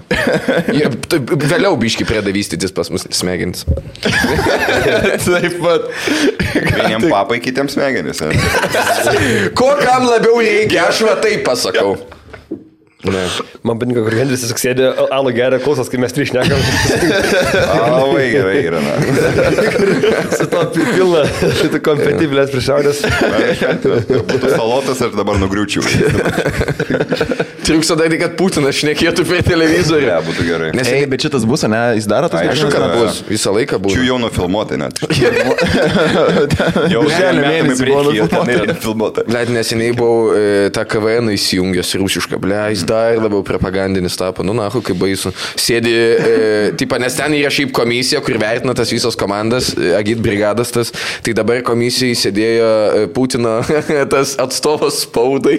Speaker 2: Vėliau biški pradeda vystytis pas mus smegenys.
Speaker 1: Taip pat.
Speaker 3: Vieniem papai, kitiems smegenys.
Speaker 2: Ko kam labiau reikia, aš va taip pasakau. Ne.
Speaker 4: Man patinka, kur Hendris tiesiog sėdė, alų geria, klausos, kai mes trišnekam.
Speaker 3: Labai gerai yra.
Speaker 4: Su to pilna, šitų kompetibilės priešaudės.
Speaker 3: Būtų salotas ir dabar nugriūčiau.
Speaker 2: Triuksa dar, kad Putinas šnekėtų per televizorių.
Speaker 3: Ne, būtų gerai.
Speaker 2: Nes
Speaker 1: Ei, bet šitas bus, ne? Jis daro tas
Speaker 2: aišku, kad bus. Visą laiką bus.
Speaker 3: Čia jau nufilmuotai net.
Speaker 1: Jau
Speaker 3: Birželio
Speaker 1: mėnesį buvo
Speaker 3: nufilmuota.
Speaker 2: Blet, neseniai buvau tą KVN įsijungęs rusišką, blei, dar labiau propagandinis tapo, nahu, kaip baisu. Sėdi, nes ten yra šiaip komisija, kur vertina tas visas komandas, agit brigadas tas, tai dabar komisijai sėdėjo Putino tas atstovas spaudai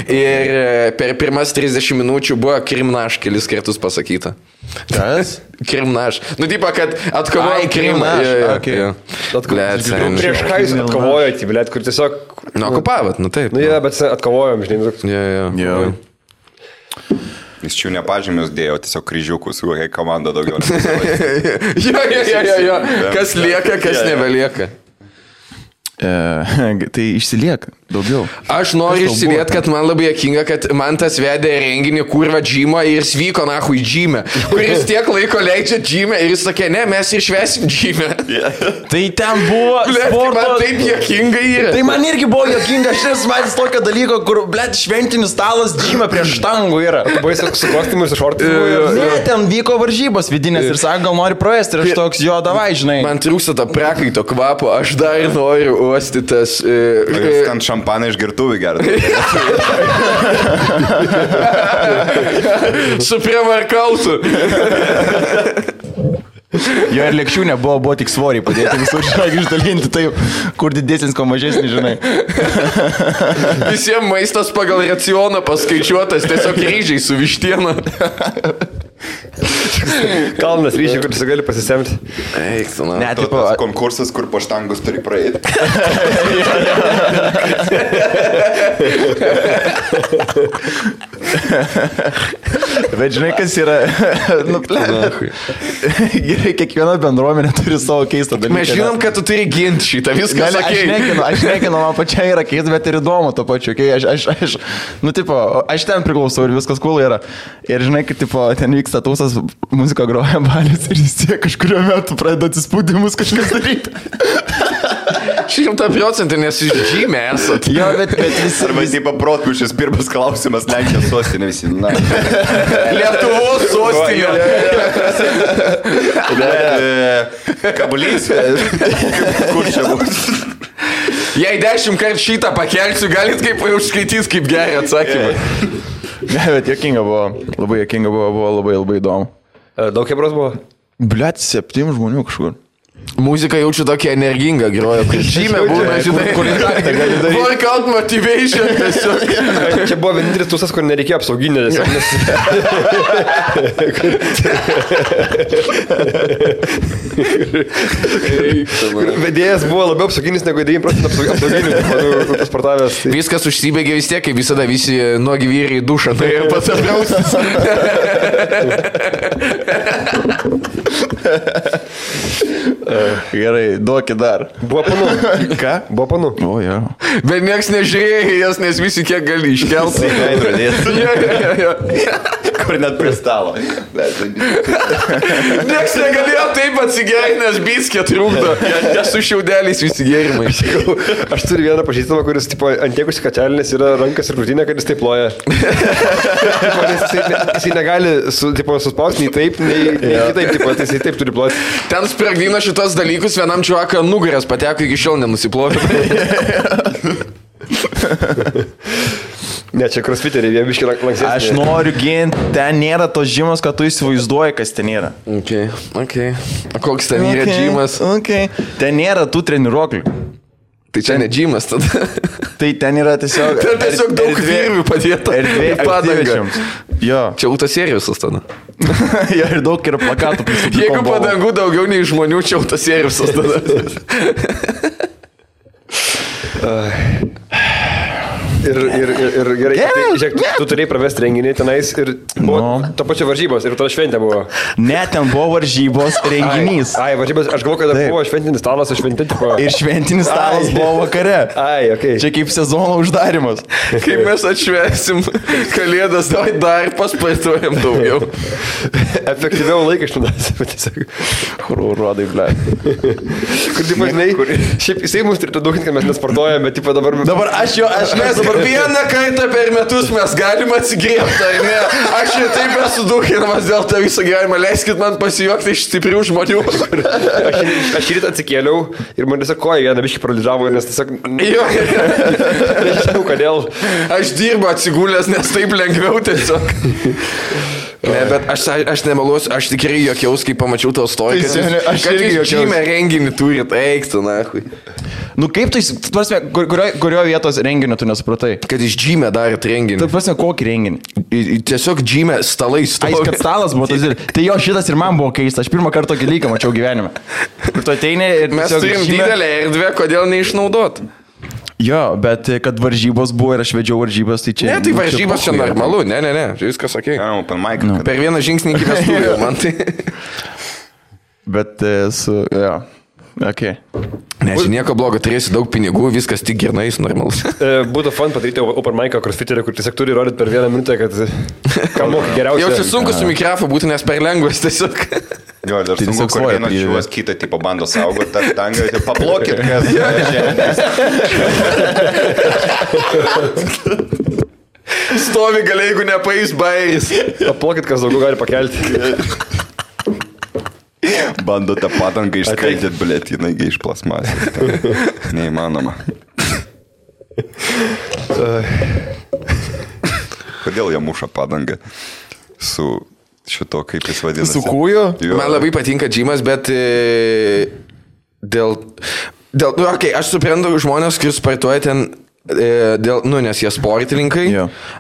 Speaker 2: ir per pirmas 30 minučių buvo Krimnaš kelis kartus pasakyta.
Speaker 1: Kas?
Speaker 2: Krimnaš. Kad atkovojo Krimą.
Speaker 4: Prieš ką jūs atkovojot, blėt, kur tiesiog...
Speaker 2: Okupavot, taip.
Speaker 4: Bet atkovojom, žinai.
Speaker 2: Jo.
Speaker 3: Jis čia nepažymius dėjo, tiesiog kryžiukus, kokia komanda daugiau.
Speaker 2: Jo. Kas lieka, kas nebelieka.
Speaker 1: Tai išsilieka daugiau.
Speaker 2: Aš noriu išsilieti, kad man labai juokinga, kad man tas vedė renginį kurva džymą ir jis vyko nahu į džymę, kuris tiek laiko leidžia džymę ir jis sakė, ne, mes ir švesim džymę.
Speaker 1: Tai ten buvo sporto...
Speaker 2: Man taip juokinga yra.
Speaker 1: Tai man irgi buvo juokinga, aš nesu matęs tokio dalyko, kur, blėt, šventinis stalas džymą prieš štangų yra.
Speaker 4: Buvai su kostiumu ir su šortimu.
Speaker 1: Ne, ten vyko varžybos vidinės ir sako, gal nori praėsti ir aš toks, jo, davai, žinai.
Speaker 2: Man trūksta to prakaito kvapo, aš dar noriu uosti tas...
Speaker 3: Ten šampaną iš girtuvių gerti.
Speaker 2: Su prievarkautu.
Speaker 1: Jo ir lėkščių nebuvo tik svoriai padėti visur, žinai, išdalinti taip, kur didesnis, ko mažesnis, žinai.
Speaker 2: Visiems maistas pagal racioną paskaičiuotas, tiesiog ryžiai su vištiena.
Speaker 4: Kalnas ryžiai, kur tu gali pasisemti.
Speaker 2: Eik, tu, na.
Speaker 1: Ne,
Speaker 3: Tas
Speaker 1: tipo...
Speaker 3: konkursas, kur po štangus turi praeiti.
Speaker 1: Bet žinai, kas yra... Gerai, kiekviena bendruomenė turi savo keistą dalyką.
Speaker 2: Mes žinom, kad tu turi ginti šitą, viskas sakei.
Speaker 1: Aš nekinu, man pačiai yra keista, bet ir įdomu to pačiu. Aš ten priklausau ir viskas cool yra. Ir žinai, kad ten vyksta tausas, muzika groja balis ir jis tiek kažkurio metu pradeda atsispūdimus kažkas daryti.
Speaker 2: 100%, nes iš žymė esat.
Speaker 1: Jo, bet visi...
Speaker 3: Arba taip paprotpiušis pirmas klausimas, Lenkijos sostinė visi.
Speaker 2: Lietuvos sostinė.
Speaker 3: Kabulys. Kur čia bus?
Speaker 2: Jei 10 kartų šitą pakelsiu, galit kaip užskaitys, kaip gerai atsakymai.
Speaker 1: Ne, bet juokinga buvo. Labai juokinga buvo labai įdomu.
Speaker 4: Daug hebros buvo?
Speaker 1: Blet, 7 žmonių kažkur.
Speaker 2: Muzika jaučiu tokia energinga, groja, kur žymė būna, žinai, workout motivation tiesiog.
Speaker 4: Čia buvo vienintelis tūsas, kur nereikėjo apsauginio. Vedėjas buvo labiau apsauginis negu 9% apsauginių, pasportavęs.
Speaker 2: Viskas užsibėgė vis tiek, kaip visada visi nuogi vyrai į dušą, tai ir pats apdraustis.
Speaker 1: Gerai, duokit dar.
Speaker 4: Buvo panu.
Speaker 1: Ką?
Speaker 4: Buvo panu.
Speaker 1: O, jo.
Speaker 2: Bet nieks nežiūrėjo jas, nes visi kiek gali iškelti.
Speaker 1: Kur net prie stalo.
Speaker 2: Nieks negalėjo taip atsigerinti, nes biskė trūkdo. Jie su šiaudeliais visi gėrimai.
Speaker 4: Aš turiu vieną pažįstamą, kuris tipo, ant tiek užsikačialinės yra rankas ir krūtinė, kad jis taip loja. Jisai negali suspausti nei taip, nei kitaip, tipo, tai jisai taip turi ploti.
Speaker 2: Ten spragdino šitos dalykus, vienam čiuaką nugaras pateko, iki šiol nenusiplovė.
Speaker 4: Ne, čia crossfiteriai, jie biški lanksesni.
Speaker 1: Aš noriu ginti, ten nėra tos žymos, kad tu įsivaizduoji, kas ten yra.
Speaker 2: Okay. O koks ten yra džymas?
Speaker 1: Ten nėra tų treniruoklių.
Speaker 2: Tai čia ne džymas tada.
Speaker 1: Tai ten yra tiesiog...
Speaker 2: Ten tiesiog daug virvių padėta.
Speaker 1: Erdvė aktyvičiams. Jo.
Speaker 2: Čia autoserijusas tada.
Speaker 1: Jo, ir daug yra plakatų.
Speaker 2: Jeigu padangų daugiau nei žmonių, čia autoserijusas tada.
Speaker 4: Ir gerai, žiūrėk, tu turėjai pravesti renginį tenais ir buvo to pačio varžybos ir tada šventė buvo.
Speaker 1: Ne, ten buvo varžybos renginys.
Speaker 4: Ai, varžybos, aš galvoju, kad buvo šventinis stalas, šventė tipo.
Speaker 1: Ir šventinis stalas buvo vakare.
Speaker 4: Ai, okei.
Speaker 1: Čia kaip sezono uždarimas.
Speaker 2: Kaip mes atšvęsim kalėdas, dar paspartuojam daugiau.
Speaker 4: Efektyviau laiką išnaudosim, bet tiesiog.
Speaker 1: Rodai, ble.
Speaker 4: Kur, tipo, žinai, šiaip jisai mums turėtų daug, kad mes nesportuojam, bet, tipo, dabar
Speaker 1: aš
Speaker 2: mes vieną kartą per metus mes galime atsigriebti, ar ne? Aš ir taip esu dukinamas dėl to viso gyvenimo. Leiskit man pasijuokti iš stiprių žmonių.
Speaker 4: Aš rytą atsikėliau ir man tiesiog koja vieną biškį paralyžavo, nes tiesiog... Nežinau, kodėl.
Speaker 2: Aš dirbu atsigulęs, nes taip lengviau tiesiog. Ne, bet aš nemeluosiu, aš tikrai jokiaus, kai pamačiau tavo storį, kad jūs žymę renginį turit, eiktų, nahui.
Speaker 1: Nu kaip tu, kurio vietos renginio tu nesupratai?
Speaker 2: Kad iš džymę darėt renginį.
Speaker 1: Tai prasme, kokį renginį?
Speaker 2: Tiesiog džymę stalai stovi.
Speaker 1: Ai, kad stalas buvo, tai jo šitas ir man buvo keista, aš pirmą kartą tokį lyką mačiau gyvenime. Ir tu ateini ir...
Speaker 2: Mes turim didelę erdvę, kodėl neišnaudot?
Speaker 1: Jo, bet kad varžybos buvo ir aš vedžiau varžybas, tai čia...
Speaker 2: Ne, tai varžybos čia normalu, ne, viskas ok. Per vieną žingsnį iki vestuvių, man tai...
Speaker 1: Bet su... Jo. Okay.
Speaker 2: Ne, čia nieko blogo, turėsi daug pinigų, viskas tik gernais, normalus.
Speaker 4: Būtų fun padaryti open mic'ą crossfiterį, kur tiesiog turi rodyti per vieną minutę, kad ką moka geriausiai.
Speaker 2: Jau čia sunku su mikrofu būtų, nes per lengvas tiesiog.
Speaker 3: Jo, dar sunku, kur vienas žiūvas kitą tipo bando saugoti tą tangą, tai paplokit, kas
Speaker 2: stovi gali, jeigu nepais bairis.
Speaker 4: Paplokit, kas daugiau gali pakelti.
Speaker 3: Bando tą padangą išskaidėt, blėt, jinai iš plasmasės. Neįmanoma. Kodėl jie muša padangą su šito, kaip jis vadinasi?
Speaker 1: Su kūju?
Speaker 2: Man labai patinka džymas, bet dėl okay, aš suprantu žmonės, kurie sportuoja ten nes jie sportininkai,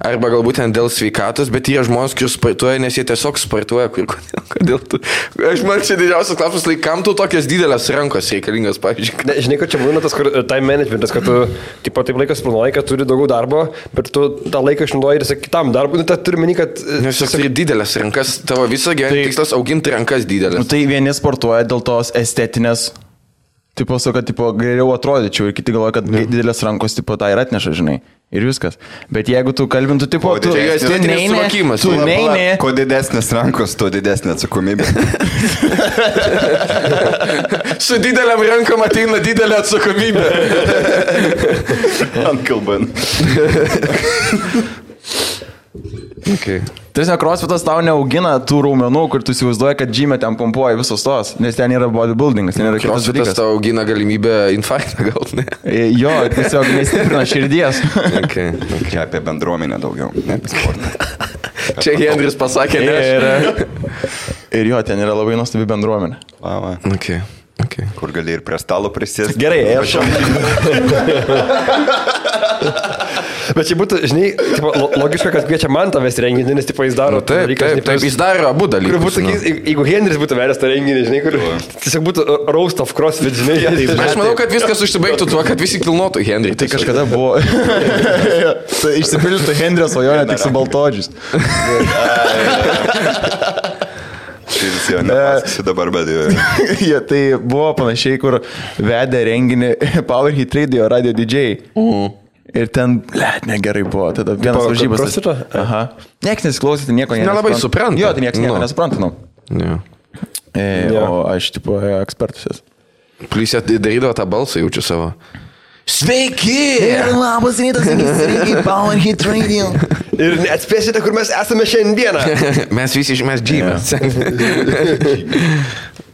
Speaker 2: arba galbūt ten dėl sveikatos, bet jie žmonės, kurie sportuoja, nes jie tiesiog sportuoja. Kodėl tu? Aš man čia didžiausias klausimas, kam tu tokias didelės rankos reikalingas, pavyzdžiui?
Speaker 4: Ne, žinai, kad čia būna tas time managementas, kad tu taip laikas planuoji, kad turi daugiau darbo, bet tu tą laiką išnaudoji ir kitam darbui. Nu, turi meni, kad...
Speaker 2: Nes turi didelės rankas, tavo visą gyvenimą tikslas auginti rankas didelės.
Speaker 1: Nu, tai vieni sportuoja dėl tos estetinės. Tipo, kad geriau atrodyčiau ir kiti galvoja, kad didelės rankos tipo tą ir atneša, žinai. Ir viskas. Bet jeigu tu kalbintų, tipo, tu neini.
Speaker 3: Kuo didesnės rankos, tuo didesnė atsakomybė.
Speaker 2: Su dideliam rankom ateina didelė atsakomybė.
Speaker 3: Ankalban.
Speaker 2: Okay.
Speaker 1: Tiesiog crossfitas tau neaugina tų raumenų, kur tu įsivaizduoji, kad džymė ten pompuoja visos tos, nes ten yra bodybuildingas, ten yra kitas dalykas.
Speaker 2: Crossfitas tau augina galimybę infarktą gauti, ne?
Speaker 1: Jo, tiesiog nestiprina širdies.
Speaker 2: Okay.
Speaker 3: Čia apie bendruomenę daugiau, ne apie sportą.
Speaker 2: Čia Hendris pasakė, ne?
Speaker 1: Ir jo, ten yra labai nuostabi bendruomenė.
Speaker 2: Okay. Okay.
Speaker 3: Kur gali ir prie stalo prisėsti.
Speaker 1: Gerai, aš.
Speaker 4: Bet čia būtų, žinai, tipo, logiška, kad kviečia man tavęs renginį, nes tipo, jis daro
Speaker 2: Taip, jis daro abu dalykus.
Speaker 4: Būtų, jeigu Henris būtų veręs tą renginį, žinai, kur tiesiog būtų roast of crossfit, žinai.
Speaker 2: Aš manau, kad viskas užsibaigtų tuo, kad visi kilnotų Henrį.
Speaker 1: Tai kažkada buvo. Tai išsipildytų Henrio svajonė tik su baltodžiais.
Speaker 3: Šis jau nepasakosiu dabar, bet jau.
Speaker 1: Ja, tai buvo panašiai, kur vedė renginį Power Hit Radio DJ. Ir ten, negerai buvo, tada vienas varžybas. Aha. Niekas nesiklausė, tai nieko nesupranta.
Speaker 2: Nelabai supranta.
Speaker 1: Jo, tai niekas nieko nesupranta, nu.
Speaker 2: Yeah.
Speaker 1: O aš, tipo, ekspertus esu.
Speaker 2: Plius jie darydavo tą balsą, jaučiu savo. Sveiki!
Speaker 1: Labas rytas, sveiki, Power Hit Radio.
Speaker 4: Ir neatspėsite, kur mes esame šiandieną.
Speaker 2: Mes visi išmės džymę.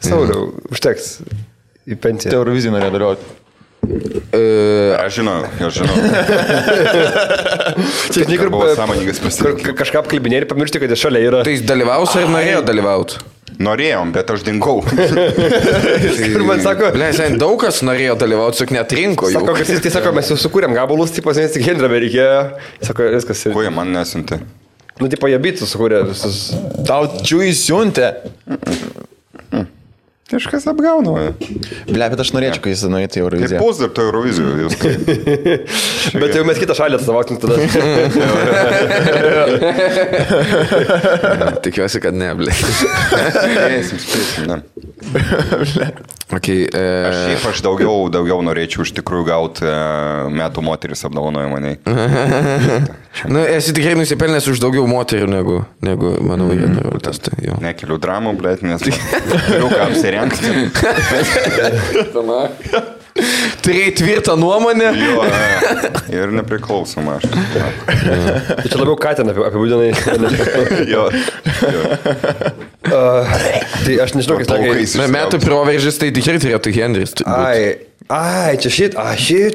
Speaker 4: Sauliau, užteks į pensiją.
Speaker 1: Eurovizijų norėjo dalyvauti.
Speaker 3: Aš žinau.
Speaker 4: Čia žinai, kur
Speaker 3: buvo sąmoningas pasirinkimas.
Speaker 4: Kažką apkalbinė ir pamiršti, kad jis šalia yra.
Speaker 2: Tai jis dalyvaus ar norėjo dalyvauti?
Speaker 3: Norėjom, bet aš dingau.
Speaker 4: Ir man sako...
Speaker 2: Ble, daug kas norėjo dalyvauti, tik netrinko jų.
Speaker 4: Sako, kad jis sako, mes jau sukūrėm gabalus, tipo, nes tik Henrio reikėjo. Sako, viskas.
Speaker 3: Kuo jie man nesiuntė?
Speaker 4: Nu, tipo, jie bitų sukūrė visus.
Speaker 1: Tau čiui siuntė.
Speaker 3: Kažkas apgauna.
Speaker 1: Ble, bet aš norėčiau, kai jis nueitų į Euroviziją.
Speaker 3: Kaip pus dar to Eurovizijų.
Speaker 4: Bet jau mes kitą šalį atstovaukim tada.
Speaker 2: Tikiuosi, kad ne, ble.
Speaker 3: Spėsim, ne.
Speaker 2: Okay,
Speaker 3: Aš daugiau norėčiau iš tikrųjų gauti metų moteris apdovanojimą.
Speaker 2: Nu, esi tikrai nusipelnęs už daugiau moterių negu mano vaikas.
Speaker 3: Nekeliu dramų, blėt, nes turiu ką apsirengti.
Speaker 2: Turėjai tvirtą nuomonę.
Speaker 3: Jo, ir nepriklausoma aš.
Speaker 4: Tai čia labiau Katiną apibūdinai.
Speaker 3: Jo.
Speaker 4: Tai aš nežinau, kas
Speaker 3: Plaukais.
Speaker 2: Metų proveržis tai tikrai turėtų Henris.
Speaker 4: Ai, čia šit,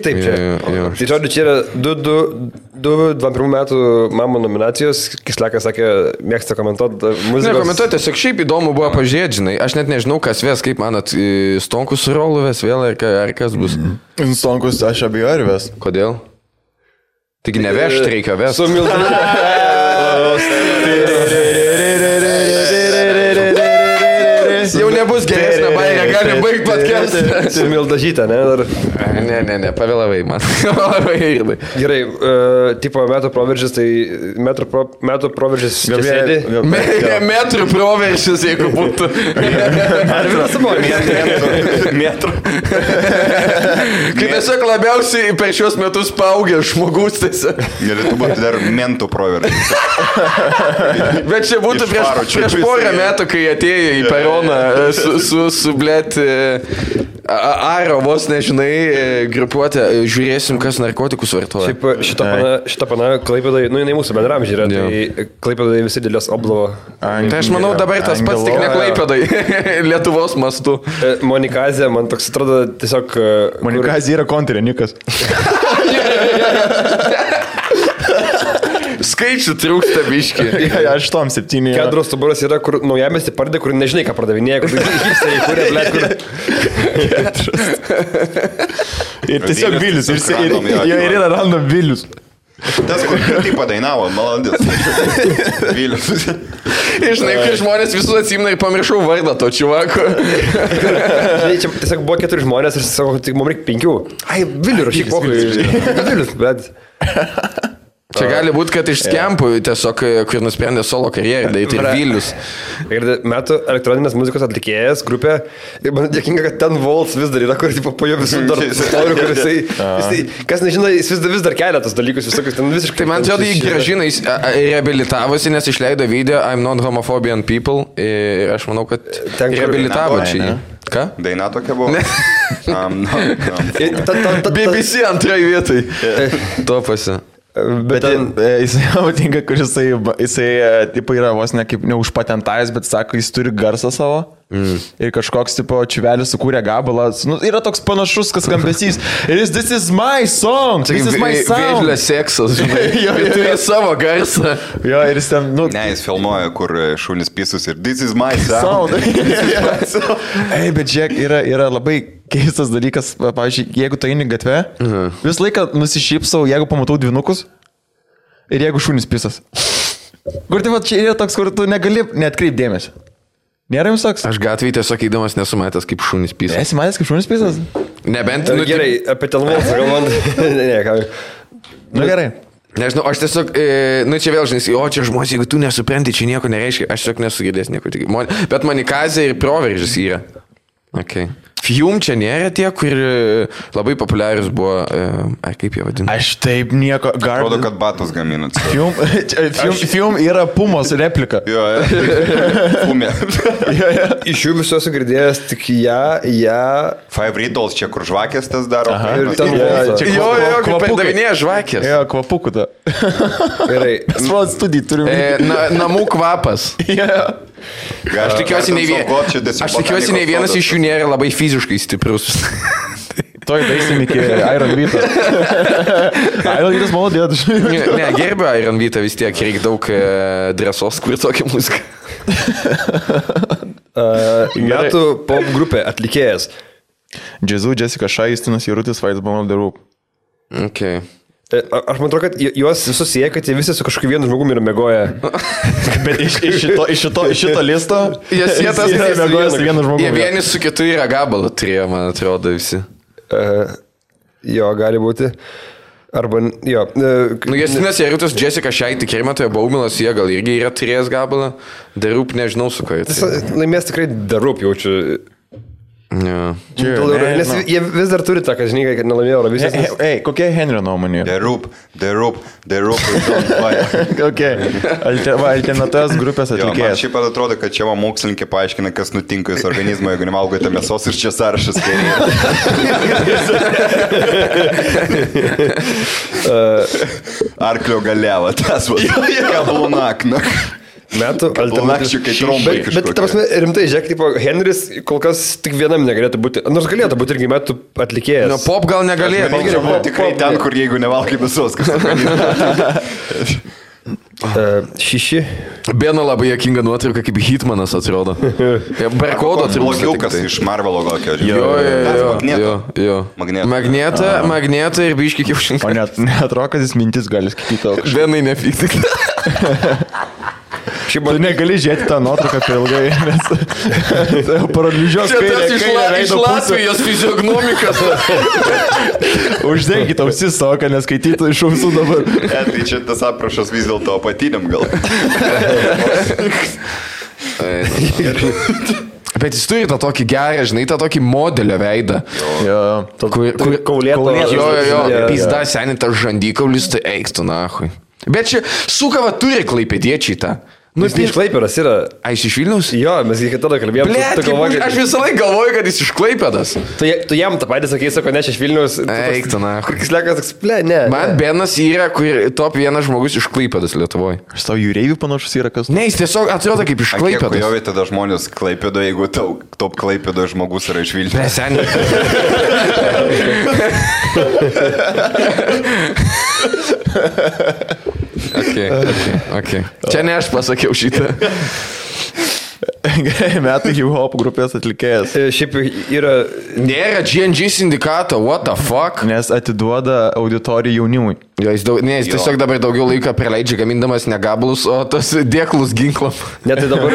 Speaker 4: taip čia. Tai žodžiu, čia yra 21 metų mamo nominacijos. Kislekas sakė, mėgsta komentuoti muzikos.
Speaker 2: Ne, komentuoti, tiesiog šiaip įdomu buvo pažiūrėti, žinai. Aš net nežinau, kas ves, kaip manat, Stonkus su Rolu ves vėl, ar kas bus.
Speaker 1: Stonkus, aš abejoju, ar ves.
Speaker 2: Kodėl? Taigi nevežti reikia vesti.
Speaker 4: Su
Speaker 2: Jau nebus geresnė baigė, gali baigti podcastą.
Speaker 4: Su Mildažytė, ne?
Speaker 2: Ne, pavėlavai man.
Speaker 4: Gerai, tipo metų proveržis, tai metų proveržis čia sėdi.
Speaker 2: Metrų proveržis, jeigu būtų.
Speaker 4: Ar vienas buvo?
Speaker 3: Metrų.
Speaker 2: Kai tiesiog labiausiai per šios metus paaugė žmogus tiesiog.
Speaker 3: Galėtų būti dar mentų proveržis.
Speaker 2: Bet čia būtų prieš porą metų, kai atėjo į peroną su blėt Aro vos nežinai grupuotę, žiūrėsim, kas narkotikus vartoja.
Speaker 4: Šiaip šitą pana Klaipėdai, nu jinai mūsų bendramžį yra, tai Klaipėdai visi dėlės oblovo.
Speaker 2: Tai aš manau dabar tas pats tik ne Klaipėdai, Lietuvos mastu.
Speaker 4: Monikazė, man toks atrodo tiesiog...
Speaker 1: Monikazė yra kontrinikas.
Speaker 2: Skaičių trūksta biški.
Speaker 1: 8-7.
Speaker 4: Kedros stuburas yra, kur naujamesti pardė, kur nežinai, ką pardavinėja, kur hipsteriai, kurie, blėt, kur...
Speaker 1: Ir tiesiog Vilius. Ir yra random Vilius.
Speaker 3: Tas, kur tai padainavo, malandis. Vilius.
Speaker 2: Ir žinai, kai žmonės visus atsimna ir pamiršau vardą to čuvako.
Speaker 4: Žinai, čia tiesiog buvo 4 žmonės ir sako, tik mums reikia 5. Ai, Vilius, rašyk pokalbį. Vilius, bet...
Speaker 2: Čia gali būti, kad iš skempų tiesiog, kur nusprendė solo karjerą, daryti ir Vilius.
Speaker 4: Ir metų elektroninės muzikos atlikėjas grupė, ir man dėkinga, kad ten Volts vis dar yra, kur po jo visų dar istorių, kur jisai, kas nežino, jis vis dar kelia tos dalykus visokius, ten visiškai...
Speaker 2: Tai man atrodo, jį gražina, jis reabilitavosi, nes išleido video I'm not homophobian people ir aš manau, kad reabilitavo čia jį. Ką?
Speaker 3: Daina tokia buvo?
Speaker 2: BBC antrai vietai. Topasi.
Speaker 1: Bet jisai patinka, kur jisai tipo yra vos ne kaip neužpatentavęs, bet sako, jis turi garsą savo. Ir kažkoks tipo čiuvelis sukūrė gabalą. Nu, yra toks panašus, kas skambesys. Ir jis, this is my song. This is my sound.
Speaker 2: Vėžlė seksas, žinai. Ir turi savo garsą.
Speaker 1: Jo, ir jis ten, nu...
Speaker 3: Ne, jis filmuoja, kur šunys pisus ir this is my sound.
Speaker 1: Ei, bet žiūrėk, yra labai keistas dalykas. Pavyzdžiui, jeigu tu eini gatve, visą laiką nusišypsau, jeigu pamatau dvinukus ir jeigu šunys pisas. Kur tai va, čia yra toks, kur tu negali neatkreip dėmesio. Nėra jums toks?
Speaker 2: Aš gatvėje tiesiog eidamas nesu matęs kaip šunys pisas.
Speaker 1: Esi matęs kaip šunys pisas?
Speaker 2: Nebent...
Speaker 4: Nu, gerai, apie telmoną galvant. Ne, ką.
Speaker 1: Nu gerai.
Speaker 2: Nežinau, aš tiesiog, nu čia vėl žinai, o čia žmonės, jeigu tu nesupranti, čia nieko nereiškia, aš tiesiog nesugirdės nieko. Bet manikazė ir proveržis yra. Okay. Fium čia nėra tie, kur labai populiarius buvo, ar kaip jie vadina?
Speaker 1: Aš taip nieko...
Speaker 3: Atrodo, kad batus gaminat.
Speaker 1: Fium yra Pumos replika.
Speaker 3: Jo, Pumė.
Speaker 4: Iš jų visų esu girdėjęs tik ją.
Speaker 3: Five Riddles, čia kur žvakės tas daro.
Speaker 4: Ir ten
Speaker 2: Jo, kaip perdavinėja žvakės.
Speaker 1: Jo, kvapukų ta.
Speaker 4: gerai.
Speaker 1: Sprat studijų turim.
Speaker 2: Namų kvapas. Aš tikiuosi, nei vienas iš jų nėra labai fiziškai stiprus.
Speaker 1: Toj daisim iki Iron Vita. Iron Vitas malodėt.
Speaker 2: Ne, gerbiu Iron Vita, vis tiek reikia daug drąsos, kur tokia muzika.
Speaker 4: Metų pop grupė atlikėjas.
Speaker 1: Jazzu, Jessica Shai, Justinas Jarutis, Vaidas Bomb the Roop.
Speaker 2: Okay.
Speaker 4: Aš man atrodo, kad juos visus sieja, kad jie visi su kažkokiu vienu žmogumi yra mėgoję.
Speaker 1: Bet iš šito listo
Speaker 2: Jie tas
Speaker 1: mėgoja su vienu žmogumi.
Speaker 2: Jie vienis su kitu yra gabalą turėjo, man atrodo, visi.
Speaker 4: Jo, gali būti. Arba, jo.
Speaker 2: Nu, Justinas Jarutis, Jessica Shai, tikrai matoje Baumilas, jie gal irgi yra turėjęs gabalą. The Roop nežinau su ko.
Speaker 4: Laimės tikrai The Roop jaučiu.
Speaker 2: Ja.
Speaker 4: Nes jie vis dar turi tą, kad žinai, kad nelaimėjo Eurovizijos.
Speaker 1: Ei, kokia Henrio nuomonė?
Speaker 3: The Roop.
Speaker 1: Okay. Alternatyvios grupės
Speaker 3: Man
Speaker 1: atlikėjas.
Speaker 3: šiaip atrodo, kad čia mokslininkė paaiškina, kas nutinka jūsų organizmo, jeigu nevalgote mėsos ir čia sąrašas kairė. Arklio galiava, tas va. Kablunakna.
Speaker 4: Metų
Speaker 3: Kablunakščių, kai trombai kažkokie.
Speaker 4: Bet, ta prasme, rimtai, žiūrėk, tipo, Henris kol kas tik vienam negalėtų būti. Nors galėtų būti irgi metų atlikėjas.
Speaker 2: Nu, pop gal negalėtų.
Speaker 3: Tikrai ten, kur jeigu nevalgai mėsos, kas
Speaker 4: Šiši.
Speaker 2: Bena labai jokinga nuotrauka, kaip Hitmanas atrodo. Barkodo trūksta.
Speaker 3: Blogiukas iš Marvelo kokio.
Speaker 2: Jo. Magnetą ir biškį kiaušinį.
Speaker 1: O net atrodo, kad jis mintis gali skaityti.
Speaker 2: Benai nepykti.
Speaker 1: Tu negali žiūrėti tą nuotrauką per ilgai, nes paralyžios
Speaker 2: kairę iš Latvijos fiziognomikas.
Speaker 1: Uždenkit ausis savo, kad neskaitytų iš ausų dabar.
Speaker 3: Tai čia tas aprašas vis dėlto apatiniam gal.
Speaker 2: Bet jis turi tą tokį gerą, žinai, tą tokį modelio veidą.
Speaker 4: Kaulėto.
Speaker 2: Jo, pizda seniai tas žandikaulis, tai eik tu nahui. Bet čia sukava turi klaipėdiečiai tą.
Speaker 4: Nu, jis iš Klaipėdos yra.
Speaker 2: A, jis iš Vilniaus?
Speaker 4: Jo, mes iki tada kalbėjom.
Speaker 2: Aš visą laiką galvoju, kad jis iš Klaipėdos.
Speaker 4: Tu jam tą patį sakai, sako, ne, aš iš Vilniaus.
Speaker 2: Eik tu nahui.
Speaker 4: Kur kislekas, ne.
Speaker 2: Man Benas yra, kur top vienas žmogus iš Klaipėdos Lietuvoje.
Speaker 1: Aš tau jūreivių panašus yra kas.
Speaker 2: Ne, jis tiesiog atrodo kaip iš Klaipėdos.
Speaker 3: Kiek jovė tada žmonės Klaipėdo, jeigu top Klaipėdo žmogus yra iš Vilniaus.
Speaker 2: Seniai. Okay. Čia ne aš pasakiau šitą.
Speaker 1: Metų hip-hop grupės atlikėjas.
Speaker 4: Šiaip yra...
Speaker 2: Nėra GNG sindikato, what the fuck?
Speaker 1: Nes atiduoda auditoriją jaunimui.
Speaker 2: Jo, jis tiesiog dabar daugiau laiko praleidžia gamindamas ne gabalus, o tos dėklus ginklam.
Speaker 4: Ne, tai dabar...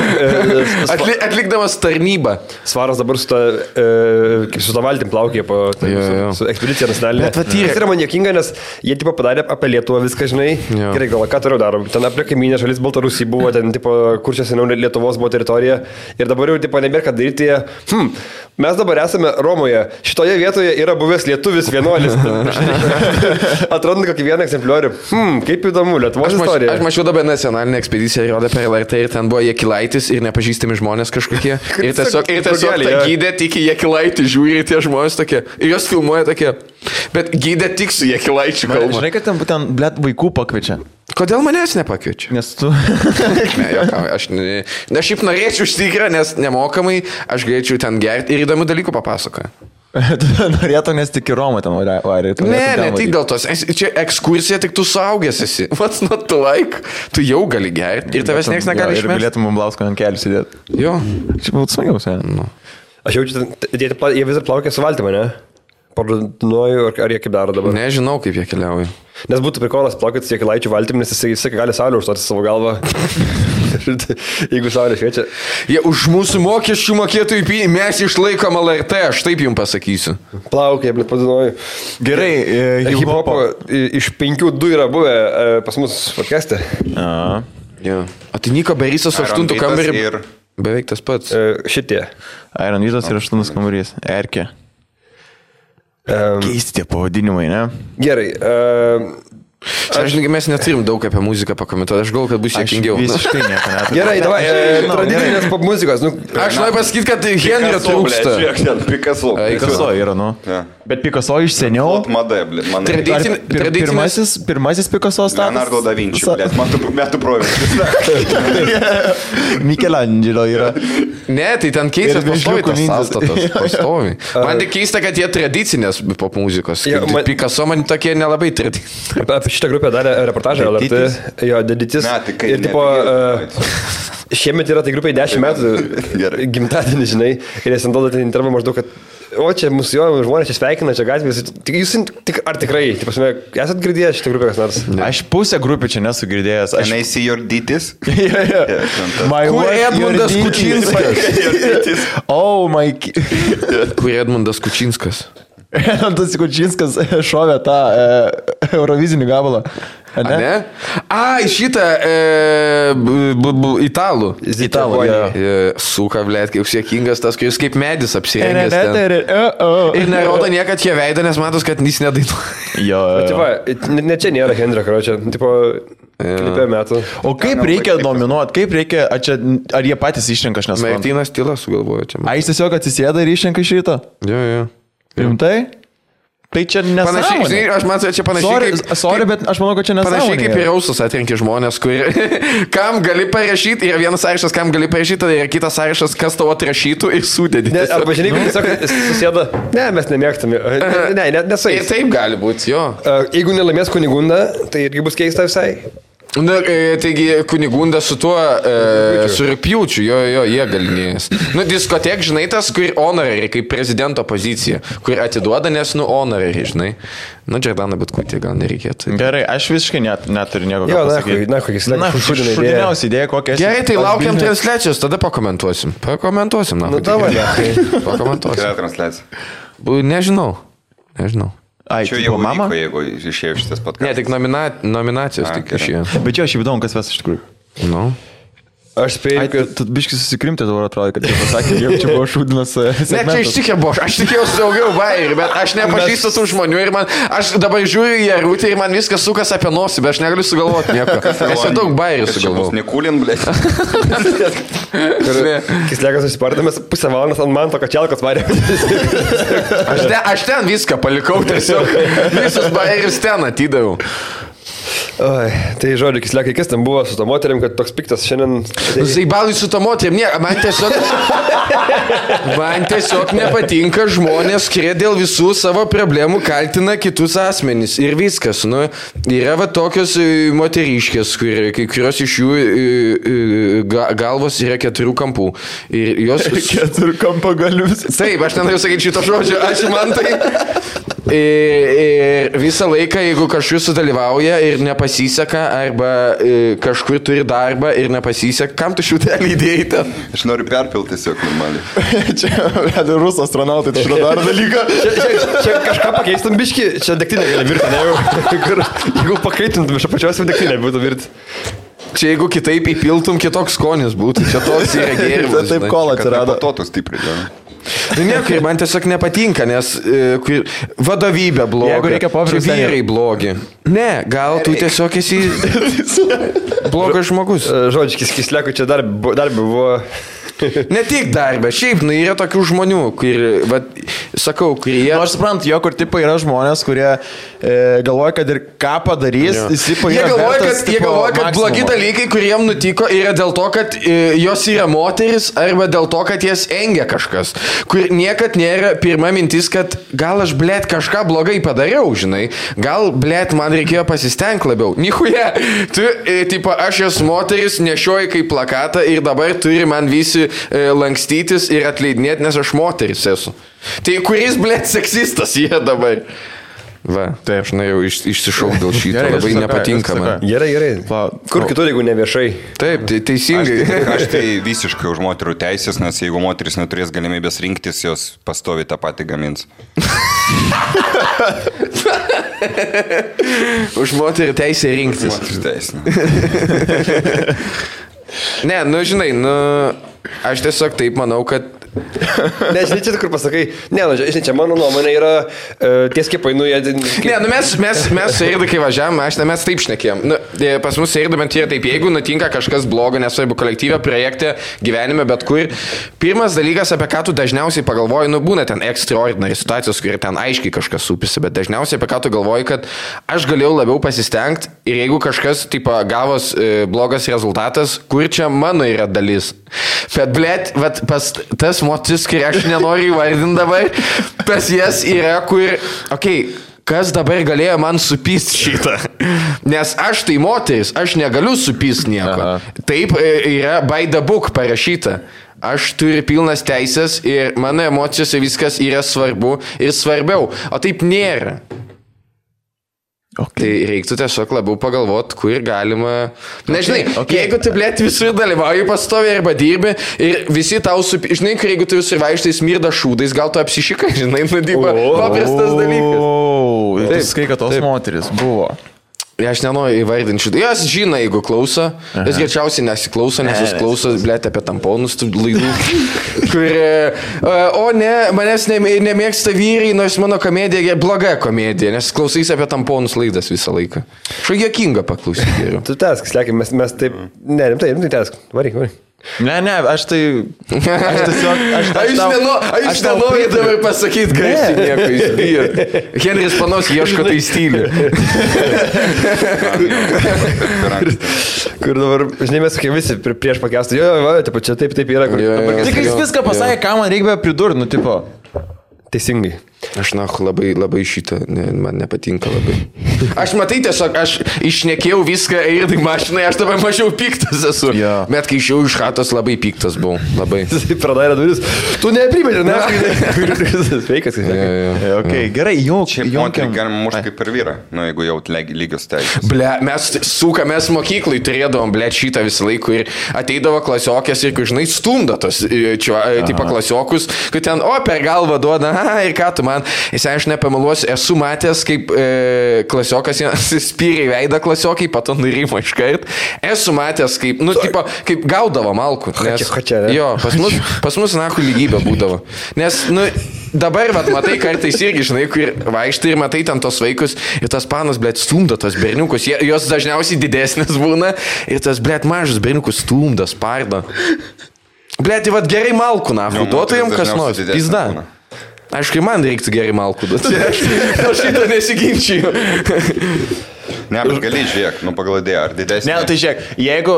Speaker 2: Atlikdamas tarnybą.
Speaker 4: Svaras dabar su ta valtim plaukė po su ekspedicija nacionalinė. Tai yra man jokinga, nes jie tipo padarė apie Lietuvą viską, žinai. Gerai, gal ką toliau darom. Ten apie kaimynę šalis Baltarusija buvo, ten tipo, kur čia seniau Lietuvos buvo teritorija. Ir dabar jau tipo nebėra ką daryti. Mes dabar esame Romoje. Šitoje vietoje yra buvęs lietuvis vienuolis. Atranda kokį vieną egzempliorių. Kaip įdomu, Lietuvos istorija.
Speaker 2: Aš mačiau dabar nacionalinę ekspediciją, rodė per LRT ir ten buvo Jakilaitis ir nepažįstami žmonės kažkokie. Ir tiesiog tą gydė, tik Jakilaitį žiūri tie žmonės tokie. Ir jos filmuoja tokie. Bet gydė tik su Jekilaičiu kalba.
Speaker 1: Žinai, kad ten būtent, blėt, vaikų pakviečia.
Speaker 2: Kodėl manęs nepakviečia?
Speaker 1: Nes tu...
Speaker 2: Ne, jokau, aš šiaip norėčiau užtikrą, nes nemokamai aš galėčiau ten gerti ir įdomių dalykų papasakoju.
Speaker 1: Tu norėtum, nes tik į Romą ten varė.
Speaker 2: Ne, tik dėl tos. Čia ekskursija, tik tu suaugęs esi. What's not to like? Tu jau gali gerti ir tavęs niekas negali išmesti.
Speaker 1: Ir galėtum Blausko ant kelių sėdėti.
Speaker 2: Jo.
Speaker 1: Čia būtų smagiausia.
Speaker 2: Nu.
Speaker 4: Aš jaučiu, jie vis dar plaukia su valtimi, ne? Parduoju, ar jie kaip daro dabar?
Speaker 2: Nežinau, kaip jie keliauja.
Speaker 4: Nes būtų prikolas plaukti su Jekilaičiu valtim, nes jisai gali saulę užstoti savo galvą. Jeigu saulė šviečia.
Speaker 2: Jie už mūsų mokesčių mokėtojų pinigų mes išlaikom LRT, aš taip jums pasakysiu.
Speaker 4: Plaukia, blėt, padainuoju.
Speaker 1: Gerai,
Speaker 4: hip-hopo iš 5-2 yra buvę pas mus podcast'e.
Speaker 2: Ja. O tai Niko Berysas 8 kambarį.
Speaker 3: Ir...
Speaker 2: Beveik tas pats.
Speaker 4: Šitie.
Speaker 1: Iron Vytas ir 8 kambarys. Erkė. Keisti tie pavadinimai, ne?
Speaker 4: Gerai.
Speaker 2: Aš žinai, mes neturim daug apie muziką pakomentuoti, aš galvoju, kad bus sėkmingiau.
Speaker 1: Visiškai nieko neturiu.
Speaker 4: Gerai, davai, tradicinės pop muzikos.
Speaker 2: Aš noriu pasakyti, kad Henrio trūksta.
Speaker 1: Picasso yra, nu. Bet Picasso iš seniau.
Speaker 3: Mada, blėt, man.
Speaker 1: Pirmasis Picasso statas.
Speaker 3: Leonardo da Vinci, blėt, metų proveržis.
Speaker 1: Michelangelo yra.
Speaker 2: Ne, tai ten keistas pastovi tas sąstatas. Pastovi. Man tik keista, kad jie tradicinės pop muzikos. Picasso man tokie nelabai tradicinės.
Speaker 4: Apie šitą grupę darė reportažą LRT. Jo, Deditis. Ir tipo, šiemet yra tai grupiai 10 metų gimtadienį, žinai. Ir jis ant duoda intervą maždaug, kad o čia mūsų žmonės čia sveikina, čia gatvės. Jūs ar tikrai, esat girdėjęs šitą grupę kas nors?
Speaker 1: Aš pusę grupių čia nesu girdėjęs.
Speaker 3: Can I see your ditties?
Speaker 2: Kur Edmundas Kučinskas?
Speaker 1: Oh my...
Speaker 2: Kur Edmundas Kučinskas?
Speaker 1: Edmundas Kučinskas šovė tą Eurovizinį gabalą.
Speaker 2: Ne? Šitą italų.
Speaker 1: Italų,
Speaker 2: Suka, blėt, kaip sėkingas tas, kuris kaip medis apsirengęs ten. Ir nerodo niekad jie veidą, nes matos, kad jis nedainuoja.
Speaker 1: Jo.
Speaker 4: Ne čia nėra Henrio, karočią. Tipo, klipė metų.
Speaker 1: O kaip reikia nominuoti? Kaip reikia, ar jie patys išrenka, aš nesuprantu.
Speaker 2: Martynas Tyla sugalvojo čia.
Speaker 1: Jis tiesiog atsisėda ir išrenka šitą?
Speaker 2: Jo.
Speaker 1: Rimtai? Tai čia nesąmonė.
Speaker 2: Aš manau, čia panašiai.
Speaker 1: Sorry, bet aš manau, kad čia nesąmonė.
Speaker 2: Panašiai kaip ir Rausas atrenki žmonės, kam gali parašyti, yra vienas sąrašas, kam gali parašyti, tada yra kitas sąrašas, kas tavo atrašytų ir sudėdė.
Speaker 4: Arba žinai, kaip tiesiog susėda, ne, mes nemėgstame. Ne, nesais.
Speaker 2: Ir taip gali būti, jo.
Speaker 4: Jeigu nelaimės Kunigunda, tai irgi bus keista visai.
Speaker 2: Na, taigi Kunigunda su tuo, su Rugpjūčiu, jo, jie galinėjęs. Diskotek, žinai, tas, kur honorary, kaip prezidento pozicija, kur atiduoda, nes, honorary, žinai. Džordana Butkutė gal nereikėtų.
Speaker 1: Gerai, aš visiškai neturiu nieko ką pasakyti. Šudiniausia idėja kokia.
Speaker 2: Gerai, tai laukiam transliacijos, tada pakomentuosim. Pakomentuosim.
Speaker 3: Kokia transliacija?
Speaker 2: Nežinau.
Speaker 3: Čia jau mama, jeigu išėjo šitas podkastas.
Speaker 2: Ne, tik nominacijos tik išėjo.
Speaker 1: Bet jo, aš įdomu, kas ves iš tikrųjų.
Speaker 2: Nu.
Speaker 4: Aš spėjau, kad...
Speaker 1: Tu biškai susikrimti dabar atrodo, kad jie pasakė, jau čia buvo šūdinas segmentas.
Speaker 2: Ne, čia ištikė buvo, aš tikėjausi daugiau bairių, bet aš nepažįstu tų žmonių ir aš dabar žiūriu į Jarutį ir man viskas sukas apie nosį, bet aš negaliu sugalvoti nieko. Aš jau daug bairių sugalvoju.
Speaker 3: Nekulin, blėt.
Speaker 4: Kislekas susipardamas pusę valandas ant man to kačialkas varė.
Speaker 2: Aš ten viską palikau tiesiog. Visus bairius ten atidaviau.
Speaker 4: Oi, tai žodžiu, Kislekai, kas ten buvo su to moterim, kad toks piktas šiandien...
Speaker 2: Zaibalai su to moterim, ne, man tiesiog nepatinka žmonės, kurie dėl visų savo problemų kaltina kitus asmenys ir viskas. Yra va tokios moteriškės, kai kurios iš jų galvos yra 4 kampų. Ir jos...
Speaker 1: 4 kampo galius.
Speaker 2: Taip, aš nenoriu sakyti šito žodžio, ačiū man tai. Ir visą laiką, jeigu kažkur sudalyvauja ir nepasiseka, arba kažkur turi darbą ir nepasiseka, kam tu šiutelį įdėjai ten?
Speaker 3: Aš noriu perpilti tiesiog normaliai.
Speaker 1: Čia rusų astronautai, tai šitą dar dalyką.
Speaker 4: Čia kažką pakeistum biškį, čia degtinė gali virti, ne? Jeigu pakaitintum iš apačios, degtinė būtų virti.
Speaker 2: Čia jeigu kitaip įpiltum, kitoks skonis būtų. Čia toks yra gėrimas.
Speaker 1: Taip kol atsirado.
Speaker 3: Patotų stipriai.
Speaker 2: Nieko, man tiesiog nepatinka, nes vadovybė bloga, čia vyrai blogi. Ne, gal tu tiesiog esi blogas žmogus.
Speaker 4: Žodžiu, Kislekui čia dar buvo
Speaker 2: Ne tik darbė, šiaip, yra tokių žmonių, kurie...
Speaker 1: Aš suprantu, jo, kur tipai yra žmonės, kurie galvoja, kad ir ką padarys, jie
Speaker 2: galvoja, kad blogi dalykai, kuriem nutiko, yra dėl to, kad jos yra moteris, arba dėl to, kad jas engia kažkas. Kur niekad nėra pirma mintis, kad gal aš, blėt, kažką blogai padariau, žinai. Gal, blėt, man reikėjo pasistengti labiau. Nichuja, aš esu moteris, nešioju kaip plakatą ir dabar turi man visi lankstytis ir atleidinėti, nes aš moteris esu. Tai kuris, blėt, seksistas jie dabar? Va, taip, aš jau išsišauk dėl šito, labai nepatinka man.
Speaker 4: Gerai. Kur kitur, jeigu ne viešai?
Speaker 2: Taip, teisingai.
Speaker 3: Aš tai visiškai už moterų teisės, nes jeigu moteris neturės galimybės rinktis, jos pastovi tą patį gamins.
Speaker 2: Už moterų teisę rinktis.
Speaker 3: Moterų teisę.
Speaker 2: Ne, žinai, aš tiesiog taip manau, kad...
Speaker 4: Nežinai, čia kur pasakai, žinai, čia mano nuomonė yra tie skiepai,
Speaker 2: mes su Eirdu, kai važiavam, mes taip šnekėjom. Pas mus Eirdu bent yra taip, jeigu nutinka kažkas blogo, nesvarbu kolektyvė, projekte, gyvenime, bet kur. Pirmas dalykas, apie ką tu dažniausiai pagalvoji, būna ten extraordinary situacijos, kur ten aiškiai kažkas supisi, bet dažniausiai apie ką tu galvoji, kad aš galėjau labiau pasistengti ir jeigu kažkas, gavos blogas rezultatas, kur čia mano yra dalis. Bet, blėt, pas tas motis, kai aš nenoriu įvardinti dabar, pas jas yra, kur, kas dabar galėjo man supyst šitą? Nes aš tai moteris, aš negaliu supyst nieko. Aha. Taip yra by the book parašyta. Aš turiu pilnas teisės ir mano emocijose viskas yra svarbu ir svarbiau. O taip nėra. Tai reiktų tiesiog labiau pagalvoti, kur galima... Nežinai, jeigu tu, blėt, visur dalyvauji pastovi arba dirbi ir visi tau žinai, kur jeigu tu visur vaikštai smirda šūdais, gal tu apsišikai, žinai, paprastas dalykas.
Speaker 1: Tai skai, kad tos moteris buvo.
Speaker 2: Aš nenoriu įvardinti šitą. Jos žino, jeigu klauso. Jos greičiausiai nesiklauso, nes jūs klauso, blėt, apie tamponus tų laidų. O ne, manęs nemėgsta vyrai, nors mano komedija bloga komedija, nes klausys apie tamponus laidas visą laiką. Šo juokinga paklausyti geriau.
Speaker 4: Tu tesk, slėkim, mes taip... Ne, rimtai tesk. Varyk.
Speaker 1: Ne, aš tai...
Speaker 2: Aš nenoriu dabar pasakyti garsiai nieko, jis bijo. Henris panos ieško tai stilių.
Speaker 4: Kur dabar, žinai, mes sakė visi prieš pakestą, čia taip yra.
Speaker 1: Tik jis viską pasakė, ką man reikia pridurti, tipo.
Speaker 4: Teisingai.
Speaker 2: Aš labai šitą, man nepatinka labai. Aš matai tiesiog, aš išnekėjau viską ir tai mašinai, aš dabar mažiau piktas esu. Ja. Bet kai išėjau iš chatos, labai piktas buvau. Labai.
Speaker 4: Jis pradarė duris. Tu neprimėdė, ne? Sveikas.
Speaker 1: Gerai,
Speaker 3: Šiaip moterį galima mušti kaip per vyrą, jeigu jau lygios teisės.
Speaker 2: Ble, mes mokyklai turėdavom, ble, šitą visą laiką ir ateidavo klasiokės ir, žinai, stumdo tos, tipo klasiokus, kad ten, per galvą duoda, ir ką tu man, aš nepameluosiu, esu matęs, kaip klasiokas spyrė veidą klasiokai, pato nurimo iškart. Esu matęs, kaip, kaip gaudavo malkų. Nes, jo, pas mus nahu lygybė būdavo. Nes, dabar, matai, kartais irgi, žinai, kur vaikštai ir matai ten tos vaikus ir tas panas, blėt, stumdo tos berniukus. Jos dažniausiai didesnės būna ir tas, blėt, mažas berniukus stumdo, spardo. Blėt, gerai malkų, nahu, duotų jam kas nors. Pizda. Aišku, man reiktų gerai malkų duoti. Aš šitą nesiginčiju.
Speaker 3: Ne, bet gali žiūrėk, pagal idėją, ar didesnė.
Speaker 1: Ne, tai žiūrėk,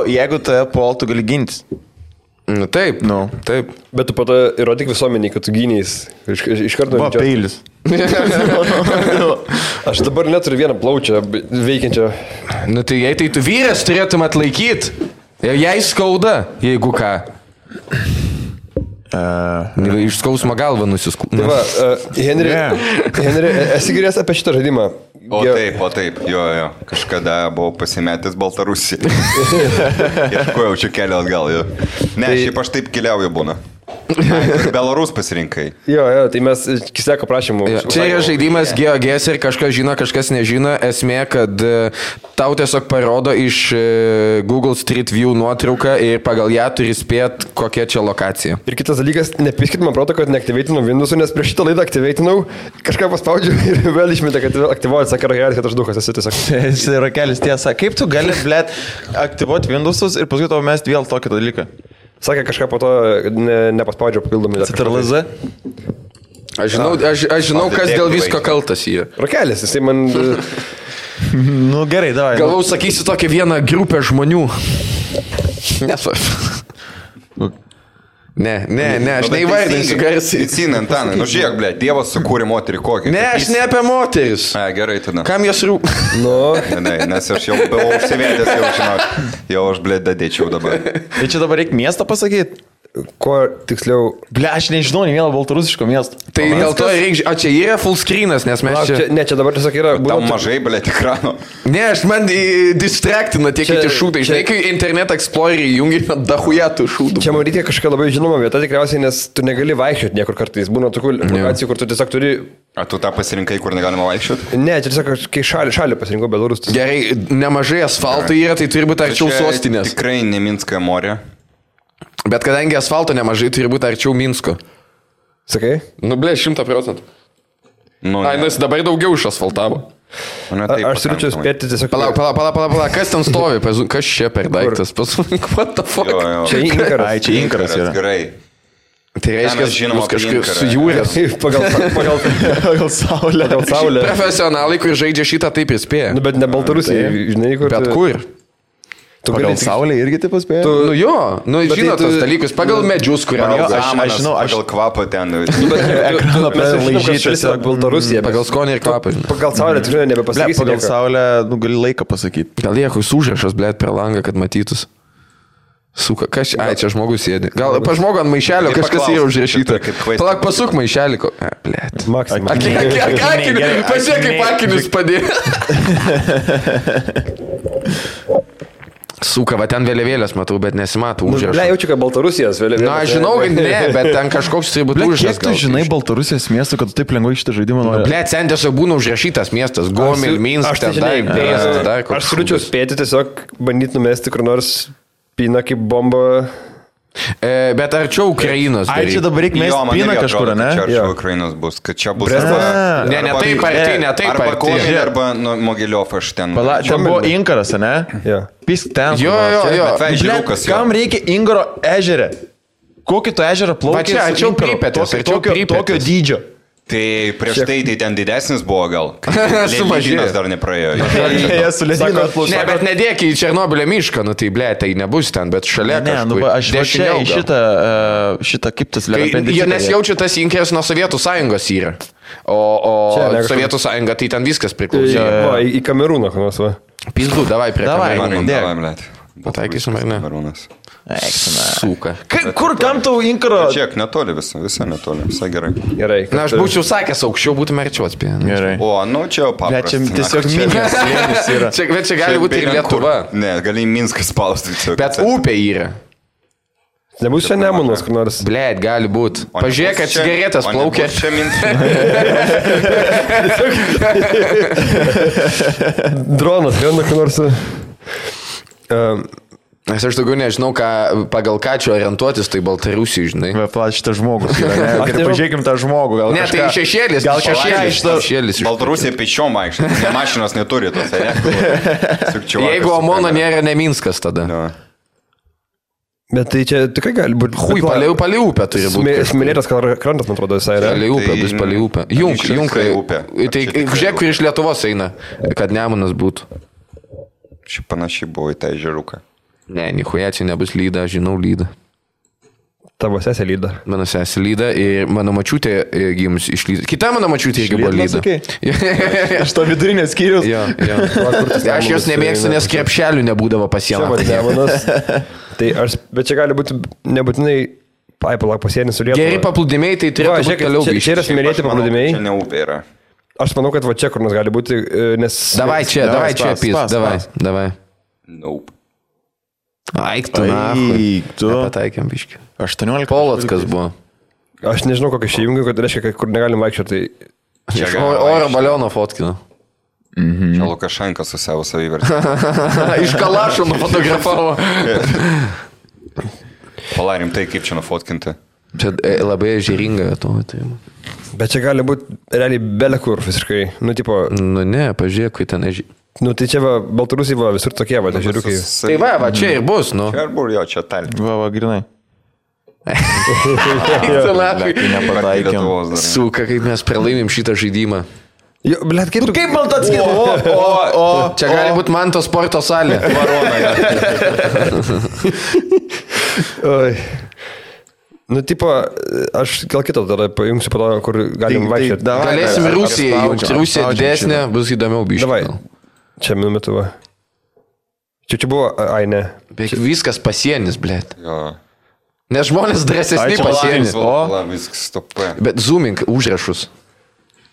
Speaker 1: jeigu tave puol, tu gali gintis.
Speaker 2: Taip, taip.
Speaker 4: Bet tu po to įrodyk visuomeniai, kad tu gynys. Iš karto...
Speaker 1: Va, peilis.
Speaker 4: Aš dabar neturiu vieną plaučią veikiančią.
Speaker 2: Tai jei tai tu vyras turėtum atlaikyti. Jei skauda, jeigu ką. Iš skausmo galvą nusiskūpė.
Speaker 4: Henri, esi girdėjęs apie šitą žaidimą?
Speaker 3: O taip, jo. Kažkada buvau pasimetęs Baltarusiją. Ieškojau čia kelią atgal, jo. Ne, šiaip aš taip keliauju būna. Belarus pasirinkai.
Speaker 4: Jo, tai mes Kiseko prašymų.
Speaker 2: Čia yra žaidimas GeoGuess ir kažkas žino, kažkas nežino. Esmė, kad tau tiesiog parodo iš Google Street View nuotrauką ir pagal ją turi spėti, kokia čia lokacija.
Speaker 4: Ir kitas dalykas, nepiskit man proto, kad neaktyveitinau Windows'ų, nes prieš šitą laidą aktyveitinau, kažką paspaudžiu ir vėl išmetė, kad aktyvuoju, sakė rakelis, kad aš dukas esi tiesiog.
Speaker 1: Jis rakelis tiesa. Kaip tu gali, blėt, aktyvuoti Windows'us ir paskui tau mesti vėl tokį dalyką?
Speaker 4: Sakė kažką po to nepaspaudžio papildomai.
Speaker 1: CTRL-Z?
Speaker 2: Aš žinau, kas dėl visko kaltas yra.
Speaker 4: Rakelis, jisai man...
Speaker 1: Nu gerai, davai.
Speaker 2: Galvau, sakysi tokią vieną grupę žmonių. Nesu. Ne, aš neįvardinsiu garsiai.
Speaker 3: Įcina, Antanai, nu žiūrėk, ble, Dievas sukūrė moterį kokį.
Speaker 2: Ne, aš ne apie moteris.
Speaker 3: Gerai, tada.
Speaker 2: Kam jos rūp?
Speaker 4: Nu,
Speaker 3: Ne, nes aš jau buvau užsivėdęs, jau žinok, jau aš, ble, dadėčiau dabar.
Speaker 1: Tai čia dabar reikia miestą pasakyti?
Speaker 4: kuo tiksliau...
Speaker 1: Ble, aš nežinau, nei vieno baltarusiško miesto.
Speaker 2: Tai dėl to reikia... O čia yra full screenas, nes mes čia...
Speaker 4: Ne, čia dabar tiesiog yra...
Speaker 3: Tau mažai, ble, ekrano.
Speaker 2: Ne, aš man distractina tie kiti šūtai. Žinai, kai Internet Explorer jungi, dahuja tų šūtų.
Speaker 4: Čia man reikia kažkokia labai žinoma vieta tikriausiai, nes tu negali vaikščioti niekur kartais. Būna tokių lokacijų, kur tu tiesiog turi...
Speaker 3: A tu tą pasirinkai, kur negalima vaikščioti?
Speaker 4: Ne, čia tiesiog kai šalį pasirinkau Belarus.
Speaker 2: Gerai, nemažai asfalto yra, tai turi būti arčiau sostinės.
Speaker 3: Tikrai ne Minsko morė.
Speaker 2: Bet kadangi asfalto nemažai, turi būti arčiau Minsko.
Speaker 4: Sakai?
Speaker 2: Nu, ble, 100%.
Speaker 3: Nu,
Speaker 2: Ai, nes dabar daugiau išasfaltavo.
Speaker 4: Aš turiu čia spėti tiesiog...
Speaker 2: Palauk, kas ten stovi? Kas čia per daiktas? What the fuck?
Speaker 4: Čia inkaras.
Speaker 1: Ai, čia inkaras yra.
Speaker 3: Gerai.
Speaker 2: Tai reiškia,
Speaker 3: žinoma,
Speaker 2: kažkaip sujūrės.
Speaker 4: Pagal saulę.
Speaker 2: Profesionalai, kur žaidžia šitą, taip įspėja.
Speaker 4: Nu, bet ne Baltarusija, žinai, kur...
Speaker 2: Bet kur?
Speaker 1: Pagal saulę irgi taip paspėja?
Speaker 2: Nu jo, nu žinot tos dalykus, pagal medžius, kurie auga.
Speaker 3: Aš žinau, pagal kvapą ten.
Speaker 1: Ekraną laižytis.
Speaker 4: Baltarusija.
Speaker 2: Pagal skonį ir kvapą.
Speaker 4: Pagal saulę tikrai nebepasakysi.
Speaker 1: Pagal saulę, nu, gali laiką pasakyti.
Speaker 2: Gal jėkus užrašas, blėt, per langą, kad matytus. Suka, kas čia? Ai, čia žmogus sėdi. Gal pa žmogų ant maišelio kažkas yra užrašyta. Palauk, pasuk maišelį. Blėt.
Speaker 4: Maksimum.
Speaker 2: Pasiek kaip akinis padėjo. Suka, va ten vėliavėlės matau, bet nesimato užrašą.
Speaker 4: Ble, jaučiu, kad Baltarusijos vėliavėlės.
Speaker 2: Na, aš žinau, kad ne, bet ten kažkoks tai būtų užrašas.
Speaker 1: Kiek tu žinai Baltarusijos miestą, kad tu taip lengvai šitą žaidimą nori?
Speaker 2: Ble, ten tiesiog būna užrašytas miestas. Gomel, Minsk, ten dar.
Speaker 4: Aš turiu spėti tiesiog bandyti numesti kur nors pina kaip bomba.
Speaker 2: Bet arčiau Ukrainos.
Speaker 1: Ai, čia dabar reikia mesti piną kažkur, ne?
Speaker 3: Čia arčiau Ukrainos bus, kad čia bus...
Speaker 2: Ne, ne taip arti, ne taip arti.
Speaker 3: Arba Komelį, arba Mogiliov aš ten.
Speaker 1: Čia buvo inkaras, ne? Pisk ten.
Speaker 2: Jo.
Speaker 1: Kam reikia Ingaro ežerę? Kokį to ežerą plaukia?
Speaker 2: Va čia, arčiau Pripetės,
Speaker 1: tokio dydžio.
Speaker 3: Tai prieš tai ten didesnis buvo gal.
Speaker 2: Sumažėjęs
Speaker 3: dar nepraėjo.
Speaker 2: Ne, bet nedėk į Černobylio mišką, nu tai ble, tai nebus ten, bet šalia kažkur.
Speaker 1: Aš čia į šitą kaip tas
Speaker 2: lėpendis. Nes jaučiu tas inkeras nuo Sovietų sąjungos yra. O Sovietų sąjunga tai ten viskas priklausė.
Speaker 4: Į Kamerūną, kas va.
Speaker 2: Pizdu, davai prie
Speaker 3: Kamerūną. Davai, blėt.
Speaker 2: Pataikysim ar ne?
Speaker 3: Kamerūnas.
Speaker 2: Suka.
Speaker 1: Kur kam tau inkaro?
Speaker 3: Čiak, netoli visą netoli, visai gerai.
Speaker 4: Gerai.
Speaker 2: Na, aš būčiau sakęs, aukščiau būtume arčiau atspėję.
Speaker 1: Gerai.
Speaker 3: O, nu čia jau paprasta.
Speaker 1: Čia tiesiog Minskas slėnis yra.
Speaker 2: Bet čia gali būti ir Lietuva.
Speaker 3: Ne, gali Minskas spausti.
Speaker 2: Bet upė yra.
Speaker 4: Nebus čia Nemunas, kur nors.
Speaker 2: Blėt, gali būti. Pažiūrėk, kad cigaretės plaukia.
Speaker 3: Čia Minskas.
Speaker 4: Dronas, viena kur nors.
Speaker 2: Nes aš daugiau nežinau, pagal ką čia orientuotis, tai Baltarusijai, žinai.
Speaker 1: Plat šitas žmogus. Pažiūrėkim tą žmogų.
Speaker 2: Ne, tai šešėlis. Gal šešėlis.
Speaker 3: Baltarusija pečiom vaikščiai. Ne mašinos neturi tos.
Speaker 2: Jeigu Omono nėra ne Minskas tada.
Speaker 4: Bet tai čia tikrai gali būti...
Speaker 2: Hui, palei upę turi būti.
Speaker 4: Smėlėtas krantas, man atrodo, visai yra.
Speaker 2: Palei upę, bus palei upę. Junkai upė. Tai žiūrėk, kur iš Lietuvos eina, kad Nemunas būtų.
Speaker 3: Ši panašiai buvo į tą ežeruką.
Speaker 2: Ne, nichuja, čia nebus lyda, žinau lydą.
Speaker 4: Tavo sesė lyda.
Speaker 2: Mano sesė lyda ir mano mačiutė gimus iš lyda. Kita mano mačiutė irgi buvo lyda.
Speaker 1: Aš to vidurinės skyrius.
Speaker 2: Jo. Aš jos nemėgstu, nes krepšelių nebūdavo pasieną.
Speaker 4: Bet čia gali būti nebūtinai... Palauk, pasienis su Lietuva.
Speaker 2: Geri paplūdimiai, tai turėtų būti toliau grįžti.
Speaker 4: Čia yra smėlėti paplūdimiai.
Speaker 3: Čia ne upė yra.
Speaker 4: Aš manau, kad va čia kur nors gali būti, nes...
Speaker 2: Davai čia, pys, davai.
Speaker 3: Nope.
Speaker 2: Aik tu, nahui. Nepataikėm biškį.
Speaker 1: 18.
Speaker 2: Polockas buvo.
Speaker 4: Aš nežinau, kokia šia jungia, kad reiškia, kur negalim vaikščioti.
Speaker 2: Oro baliono fotkino.
Speaker 3: Čia Lukašenka su savo savivertį.
Speaker 2: Iš Kalašo nufotografavo.
Speaker 3: Palarim tai, kaip čia nufotkinti.
Speaker 2: Čia labai ežeringa to.
Speaker 4: Bet čia gali būti realiai belekur visiškai. Nu, tipo...
Speaker 2: Nu ne, pažiūrėk, kai ten ežeringa.
Speaker 4: Nu, tai čia va, Baltarusija va, visur tokie, va, ežeriukai.
Speaker 2: Tai va, čia ir bus, nu.
Speaker 3: Čia ir buvo, jo, čia talė.
Speaker 1: Va, grinai. Nepataikėm.
Speaker 2: Suka, kaip mes pralaimim šitą žaidimą.
Speaker 4: Jo, blėt, kaip tu...
Speaker 1: Kaip man tas
Speaker 2: Čia gali būti man to sporto salė.
Speaker 4: Oi. Nu, tipo, aš gal kitą tada pajungsiu po to, kur galim vaikščioti.
Speaker 2: Galėsim Rusijai, Rusija didesnė, bus įdomiau biškai.
Speaker 4: Davai, čia minumetu va. Čia buvo, ai ne.
Speaker 2: Beveik viskas pasienis, blėt.
Speaker 3: Jo.
Speaker 2: Nes žmonės drąsesni
Speaker 1: Ai, čia
Speaker 2: pasienis.
Speaker 3: Viskas stopė.
Speaker 2: Bet zooming užrašus.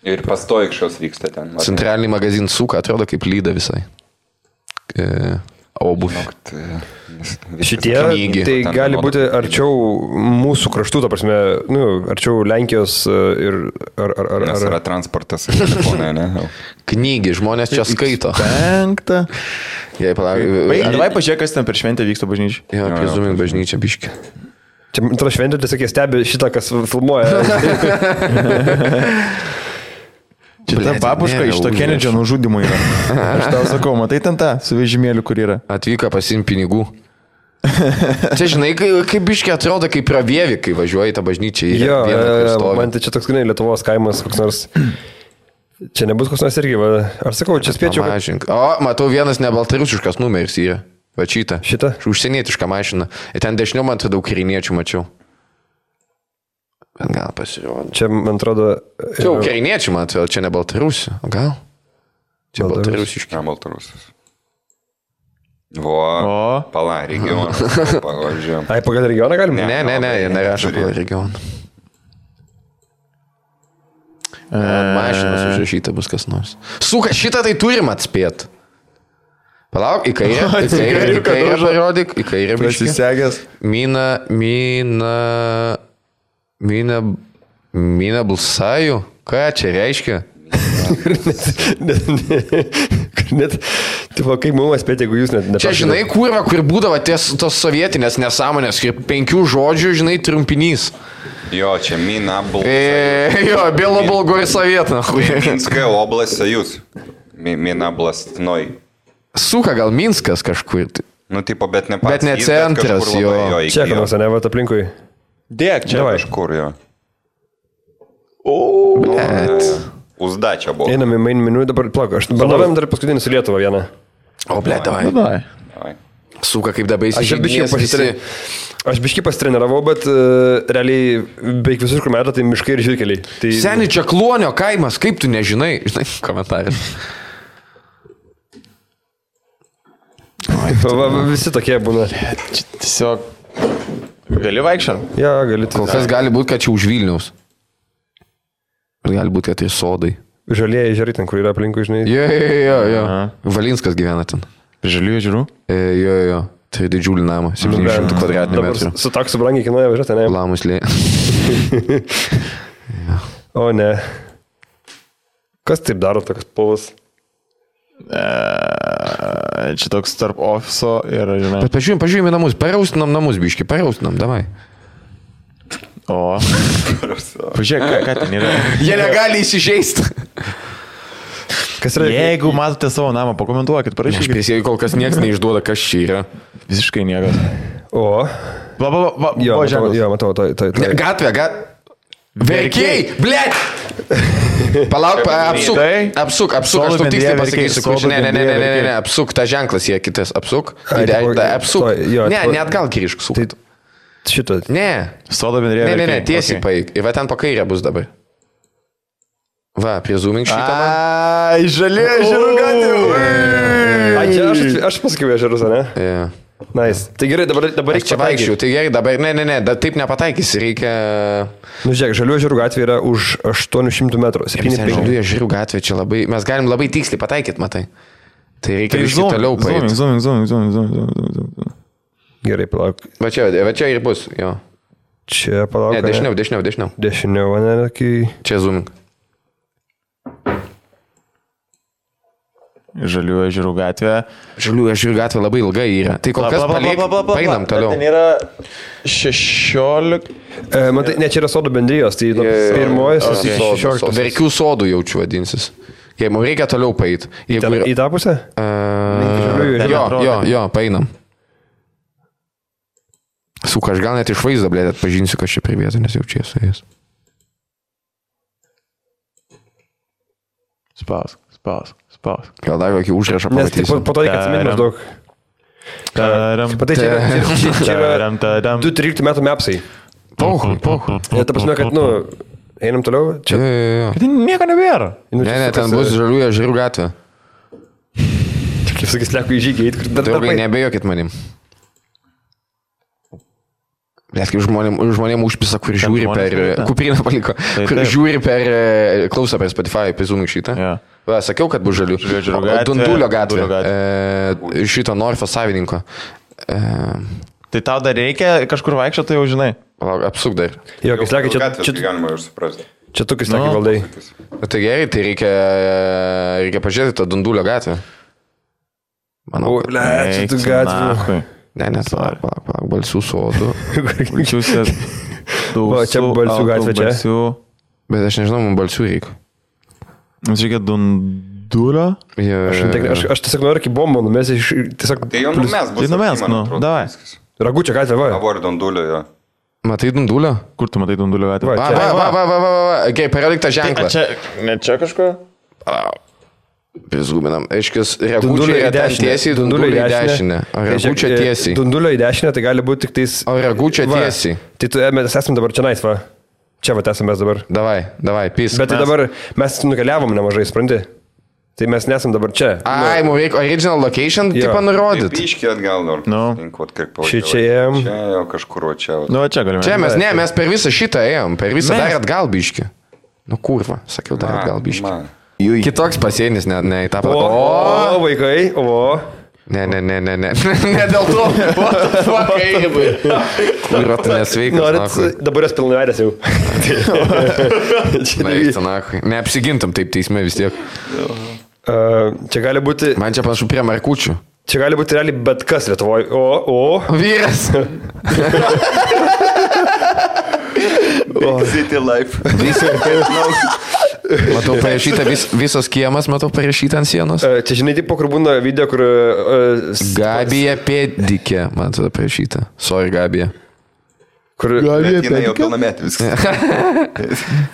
Speaker 3: Ir pastojikščios vyksta ten.
Speaker 2: Centralinį magaziną suka, atrodo kaip lyda visai. Obuvį.
Speaker 4: Šitie,
Speaker 2: Knygi.
Speaker 4: tai gali būti arčiau mūsų kraštų, ta prasme, nu, arčiau Lenkijos ir...
Speaker 3: Nes yra transportas. Telefonai, ne?
Speaker 2: Knygi, žmonės čia skaito.
Speaker 1: 5.
Speaker 2: Jei palauk.
Speaker 1: Davai pažiūrėk, kas ten per šventę vyksta bažnyčiai.
Speaker 2: Jo, apie zooming bažnyčią biškį.
Speaker 4: Čia, man atrodo, šventė, tiesiog jie stebi šitą, kas filmuoja.
Speaker 1: Čia ta babuška iš to Kenedžio nužudimo yra. Aš tau sakau, matai ten tą su vežimėliu, kur yra.
Speaker 2: Atvyko pasim pinigų. Čia žinai, kaip biškį atrodo, kaip pravievi, kai važiuoji tą bažnyčią.
Speaker 4: Jo, man tai čia toks, žinai, Lietuvos kaimas, koks nors... Čia nebus koks nors irgi, va. Aš sakau, čia spėčiau.
Speaker 2: Kad... O, matau, vienas nebaltarusiškas numeris yra. Va šitą.
Speaker 4: Šitą?
Speaker 2: Užsienietišką mašiną. Ir ten dešiniau man atrodo ukrainiečių mačiau. Bet gal pasirodo.
Speaker 4: Čia, man atrodo...
Speaker 2: Čia ukrainiečių, man atrodo, čia ne baltarusių. Gal? Čia baltarusiški.
Speaker 3: Ne baltarusis. Vo, pala, regionas. Pavyzdžiui.
Speaker 4: Ai, pagal regioną galim?
Speaker 2: Ne, jie nerašo pagal regioną. Mašinas užrašyta bus kas nors. Suka, šitą tai turim atspėt. Palauk, į kairę parodyk, į kairę biškį.
Speaker 1: Prisisegęs.
Speaker 2: Mina balsaju? Ką čia reiškia?
Speaker 4: Net, tipo, kaip mums spėti, jeigu jūs net...
Speaker 2: Čia, žinai, kurva, kur būdavo tos sovietinės nesąmonės, kaip 5 žodžių, žinai, trumpinys.
Speaker 3: Jo, čia Mina balsaju.
Speaker 2: Jo, Белоболгой совет, нахуй.
Speaker 3: Minskая область, союз. Mina blastnoj.
Speaker 2: Suka, gal Minskas kažkur.
Speaker 3: Nu, tipo, bet ne pats.
Speaker 2: Bet ne centras, jo.
Speaker 4: Čia, kad nors, ne, va, aplinkui.
Speaker 1: Dėk, čia.
Speaker 3: Kažkur, jo.
Speaker 2: Blet.
Speaker 3: Uzdačia buvo.
Speaker 4: Einam į main menu, dabar plak, aš bandavėm dar paskutinį su Lietuva vieną.
Speaker 2: O, blet, davai.
Speaker 3: Davai.
Speaker 2: Suka, kaip dabar įsižeidinės.
Speaker 4: Aš biškį pasitreniravau, bet realiai beveik visur, kur metą, tai miškai ir žirkeliai. Tai...
Speaker 2: Seni, čia Kluonio kaimas, kaip tu nežinai? Žinai, komentarai.
Speaker 4: Visi tokie būna.
Speaker 1: Tiesiog gali vaikščiant?
Speaker 4: Ja, gali.
Speaker 2: Kol kas gali būti, kad čia už Vilniaus. Gali būti, kad tai sodai.
Speaker 4: Žalieji ežerai ten, kur yra aplinkui, žinai.
Speaker 2: Jo. Valinskas gyvena ten.
Speaker 1: Žaliųjų ežerų?
Speaker 2: Jo. Tai didžiulį namą, 700 kvadratinių metrų.
Speaker 4: Su taksu brangiai kainuoja važiuoti, ne?
Speaker 2: Lamuslė.
Speaker 4: O ne. Kas taip daro toks povas?
Speaker 1: Čia toks tarp ofiso ir, žinai.
Speaker 2: Bet pažiūrėjome namus, paraustinam namus, biški, paraustinam, davai.
Speaker 1: O. Pažiūrėk, ką ten yra.
Speaker 2: Jie negali įsižeisti.
Speaker 4: Kas yra?
Speaker 1: Jeigu matote savo namą, pakomentuokit,
Speaker 2: Aš
Speaker 1: parašykit.
Speaker 2: prisėjau, kol kas niekas neišduoda, kas čia yra.
Speaker 1: Visiškai niekas.
Speaker 4: O. Jo, matau, tai.
Speaker 2: Gatvė. Verkiai, blėt! Palauk, apsuk, aš tau tiksliai pasakysiu, kur ne, apsuk, ta ženklas yra kitas, apsuk, apsuk, ne, net gal grįžk, suk.
Speaker 4: Šitą.
Speaker 2: Ne.
Speaker 1: Sodo bendrėje.
Speaker 2: Ne, tiesiai paeik. Ir va ten po kairę bus dabar. Va, prie zooming šitą.
Speaker 1: Ai, žalė ežerų gatvė.
Speaker 4: Ai, čia aš pasakiau ežerus, ne?
Speaker 2: Jo.
Speaker 4: Nice. Tai gerai, dabar reikia
Speaker 2: čia vaikščiau, tai gerai, dabar, ne, taip nepataikysi, reikia...
Speaker 4: Nu, žiūrėk, žalių ežerų gatvė yra už 800 metrų.
Speaker 2: Žalių ežerų gatvė čia labai, mes galim labai tiksliai pataikyti, matai. Tai reikia biškį toliau paeiti.
Speaker 1: Zooming.
Speaker 4: Gerai, palauk.
Speaker 2: Va čia ir bus, jo.
Speaker 4: Čia palauk.
Speaker 2: Ne, dešiniau.
Speaker 4: Dešiniau, ne, kai...
Speaker 2: Čia zooming.
Speaker 1: Žalių ežerų gatvė.
Speaker 2: Žalių ežerų gatvė labai ilga yra. Tai kol kas paeinam toliau.
Speaker 1: Ten yra 16.
Speaker 4: Matai, ne, čia yra sodų bendrijos, tai pirmojas 16.
Speaker 2: Verkių sodų jaučiu vadinsis. Jei mums reikia toliau paeiti.
Speaker 4: Į tą pusę?
Speaker 2: Jo, paeinam. Suka, aš gal net iš vaizdo, blėt, atpažinsiu, kad čia prie vietų, nes jau čia esu jais.
Speaker 1: Spaus.
Speaker 2: Gal dar kokį užrašą
Speaker 4: Nes tik
Speaker 2: pamatysiu.
Speaker 4: po to reikia atsiminti maždaug. Patai, čia yra 2-13 metų mepsai.
Speaker 2: Pohui.
Speaker 4: Ir ta prasme, kad, einam toliau. Čia.
Speaker 2: Jo.
Speaker 1: Tai nieko nebėra.
Speaker 2: Ne, ten bus žaliųjų ežerų gatvė.
Speaker 4: Kaip sakys, leku į žygį.
Speaker 2: Draugai, nebejokit manim. Nes kaip žmonėm užpisa, kur žiūri per... Kuprinę paliko. Kur žiūri per... Klauso per Spotify, pizūnų šitą. Va, sakiau, kad bus žalių. Dundulio gatvė. Šito Norfo savininko.
Speaker 1: Tai tau dar reikia kažkur vaikščioti, tai jau žinai.
Speaker 2: Apsuk dar.
Speaker 4: Jo, kai slekia,
Speaker 3: Čia galima ir suprasti.
Speaker 4: čia tu kai slekia valdai.
Speaker 2: Tai gerai, tai reikia pažiūrėti tą Dundulio gatvę. Manau, kad...
Speaker 4: Čia tu gatvė.
Speaker 2: Ne, palauk, balsių sodų.
Speaker 1: Balsiuose.
Speaker 4: Va, čia balsių gatvė čia.
Speaker 2: Bet aš nežinau, man balsių reikia.
Speaker 1: Mums reikia Dundulio.
Speaker 4: Aš tiesiog noriu iki bombą numesti.
Speaker 3: Tai jau numes bus.
Speaker 1: Tai numes, davai.
Speaker 4: Ragučio gatvė, va.
Speaker 3: Avori Dundulio, jo.
Speaker 2: Matai Dundulio?
Speaker 1: Kur tu matai Dundulio gatvę?
Speaker 2: Va. Gerai, parodyk tą ženklą.
Speaker 1: Ne čia kažkur?
Speaker 2: Prizguminam. Aiškis, Ragučio į tiesiai, Dundulio į dešinę. O Ragučio tiesiai.
Speaker 4: Dundulio į dešinę, tai gali būti tik tais...
Speaker 2: O Ragučio tiesiai.
Speaker 4: Tai mes esame dabar čia nais, va. Čia va esame mes dabar.
Speaker 2: Davai, pys.
Speaker 4: Bet tai dabar mes nukeliavom nemažai, supranti? Tai mes nesam dabar čia.
Speaker 2: Ai, mums reikia original location, tipo nurodyti.
Speaker 3: Piškį atgal dar.
Speaker 4: Čia ėjom.
Speaker 3: Čia jau kažkur, čia.
Speaker 1: Čia galime.
Speaker 2: Čia mes per visą šitą ėjom, per visą dar atgal biškį. Kurva, sakiau, dar atgal biškį. Kitoks pasienis, ne į tą patį.
Speaker 4: O, vaikai, o.
Speaker 2: Ne. Ne dėl to. What the fuck, Eigibai. Kurva, tu nesveikas.
Speaker 4: Norit, dabar jas pilnavedęs jau.
Speaker 2: Neapsigintum taip teisme vis tiek.
Speaker 4: Čia gali būti...
Speaker 2: Man čia panašu prie markučių.
Speaker 4: Čia gali būti realiai bet kas Lietuvoje. O.
Speaker 2: Vyras.
Speaker 3: City life.
Speaker 2: Matau parašyta visos kiemas, matau parašyta ant sienos.
Speaker 4: Čia žinai, tipo, kur būna video, kur...
Speaker 2: Gabija Pėdikė, man tada parašyta. Sorry, Gabija.
Speaker 4: Kur...
Speaker 3: Bet jinai jau pilnametį viskas.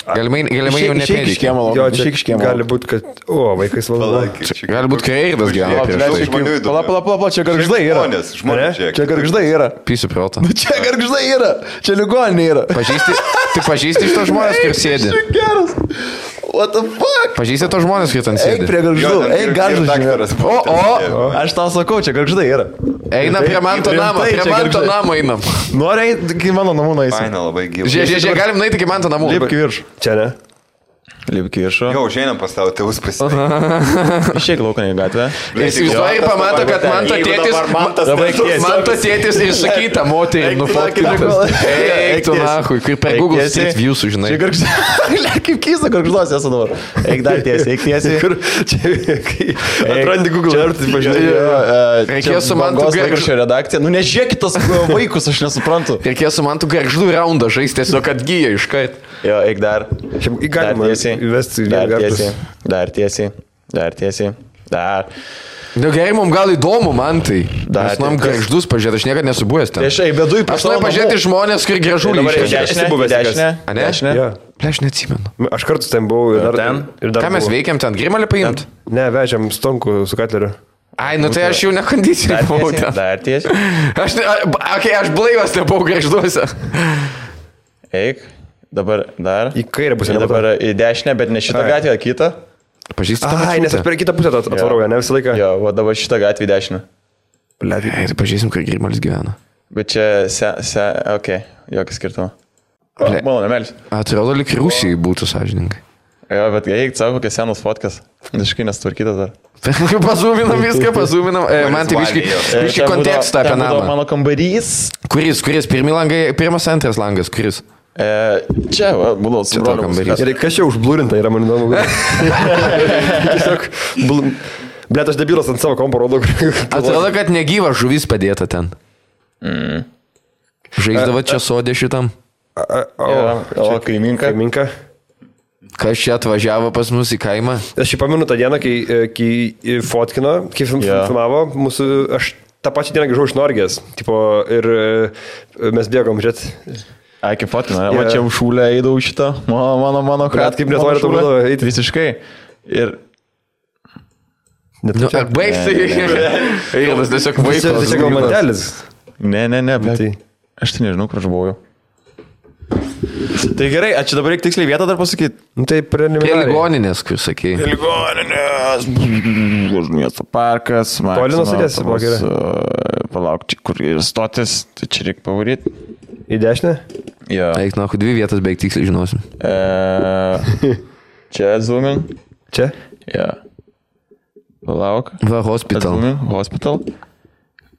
Speaker 2: Galimai jau nepėdikė.
Speaker 4: Jo, čia gali būti, kad... O, vaikais valdo.
Speaker 2: Gali būti kareidas gyvena.
Speaker 1: Pala, čia gargždai yra. Čia gargždai yra.
Speaker 2: Pysiu protą.
Speaker 1: Čia gargždai yra. Čia ligoninė yra.
Speaker 2: Tu pažįsti iš to žmonės, kur sėdi.
Speaker 1: Geras. What the fuck?
Speaker 2: Pažįsti to žmonės, kur ten sėdi.
Speaker 1: Eik prie gargždų. Eik gargždų. O. Aš tau sakau, čia gargždai yra.
Speaker 2: Eina prie manto namo. Prie manto namo einam.
Speaker 1: Nori eiti, kai mano namų nueisim.
Speaker 3: Faina, labai gyva.
Speaker 2: Žiūrėk, galim nueiti iki manto namų.
Speaker 1: Lipk į viršų.
Speaker 4: Čia ne?
Speaker 1: Lipk į viršų.
Speaker 3: Jau, šiandien pas tavo tėvus pasisveikinu.
Speaker 1: Išeik lauką į gatvę.
Speaker 2: Įsivaizduoji ir pamato, kad manto tėtis ir sakyta moterį nufotkintas. Eik tu nahui, kaip per Google Street View sužinai.
Speaker 1: Čia gargždai. Kaip keista gargždos esu dabar. Eik dar tiesiai, eik tiesiai.
Speaker 4: Kur čia... Atrandi Google Earth, pažiūrėjau.
Speaker 2: Reikėjo su mantu
Speaker 1: gargždų redakcija. Nu nežiūrėkit tos vaikus, aš nesuprantu.
Speaker 2: Reikėjo su mantu gargždų raundą žaisti, tiesiog atgyja iškart.
Speaker 1: Jo, eik dar.
Speaker 4: Galima įvesti
Speaker 1: Dar tiesiai.
Speaker 2: Nu gerai, mums gal įdomu, man tai. Mes nuom gargždus pažiūrėti, aš niekada nesu buvęs ten.
Speaker 1: Aš bedu į
Speaker 2: Aš noriu pažiūrėti žmonės, kur gražulį
Speaker 1: Dešinė.
Speaker 2: Aš neatsimenu.
Speaker 4: Aš kartus ten buvau ir dar...
Speaker 2: Ką mes veikiam ten, grimalį paimt?
Speaker 4: Ne, vežiam stonkų su katleriu.
Speaker 2: Ai, nu tai aš jau nekondicijai buvau ten.
Speaker 1: Dar tiesiai.
Speaker 2: Aš blaivas nebuvau gargžduose.
Speaker 1: Eik. Dabar dar.
Speaker 4: Į kairę pusę.
Speaker 1: Dabar į dešinę, bet ne šitą gatvę, kitą.
Speaker 2: Pažįsti tą
Speaker 4: Ai, nes aš per kitą pusę atvarau, ne visą laiką.
Speaker 1: Jo, va dabar šitą gatvę į dešinę.
Speaker 2: Ai, tai pažįsim, kur grimalis gyvena.
Speaker 1: Bet čia okei, jokio skirtumo. Mano nemelis.
Speaker 2: Atrodo, lyg Rusijai būtų sąžininkai.
Speaker 1: Jo, bet eik, savo kokias senos fotkas. Visiškai nesutvarkytas dar.
Speaker 2: Pazūminam viską, pazūminam. Man tai biškai kontekstą apie namą.
Speaker 1: Mano kambarys.
Speaker 2: Kuris? Pirmas, antras langas, kuris?
Speaker 1: Čia, būdavo su broliu kambarys.
Speaker 4: Ir kas čia užblūrinta yra, man įdomu. Tiesiog, blėt, aš debilas ant savo kompo rodo.
Speaker 2: Atrodo, kad negyva žuvis padėta ten. Žaisdavo čia sodė šitam.
Speaker 1: O, kaiminka.
Speaker 2: Kas čia atvažiavo pas mus į kaimą?
Speaker 4: Aš jį pamenu tą dieną, kai fotkino, kai filmavo mūsų, aš tą pačią dieną grįžau iš Norgės, tipo, ir mes bėgom, žiūrėt.
Speaker 1: Ai, kaip fotkina, va čia šūlę eidau šitą, mano
Speaker 4: Kad kaip netvari to būdavo eiti.
Speaker 1: Visiškai. Ir...
Speaker 2: Baigsi. Ir tas tiesiog vaikas.
Speaker 4: Tai čia gal mantelis.
Speaker 1: Ne, bet
Speaker 4: Tai.
Speaker 1: aš tai nežinau, kur aš buvau. Tai gerai, čia dabar reikia tiksliai vietą dar pasakyti.
Speaker 4: Tai
Speaker 2: Prie ligoninės, kur sakei.
Speaker 1: Ligoninės, miesto parkas,
Speaker 4: Toli nuo stoties, buvo gerai.
Speaker 1: Palauk, čia kur ir stotis, tai čia reikia pavaryti.
Speaker 4: Į dešinę?
Speaker 1: Jo.
Speaker 2: Eik, na, 2 vietas beveik tiksliai žinosim.
Speaker 1: Čia zoomin.
Speaker 4: Čia?
Speaker 1: Jo. Palauk.
Speaker 2: Va, hospital.
Speaker 1: Hospital.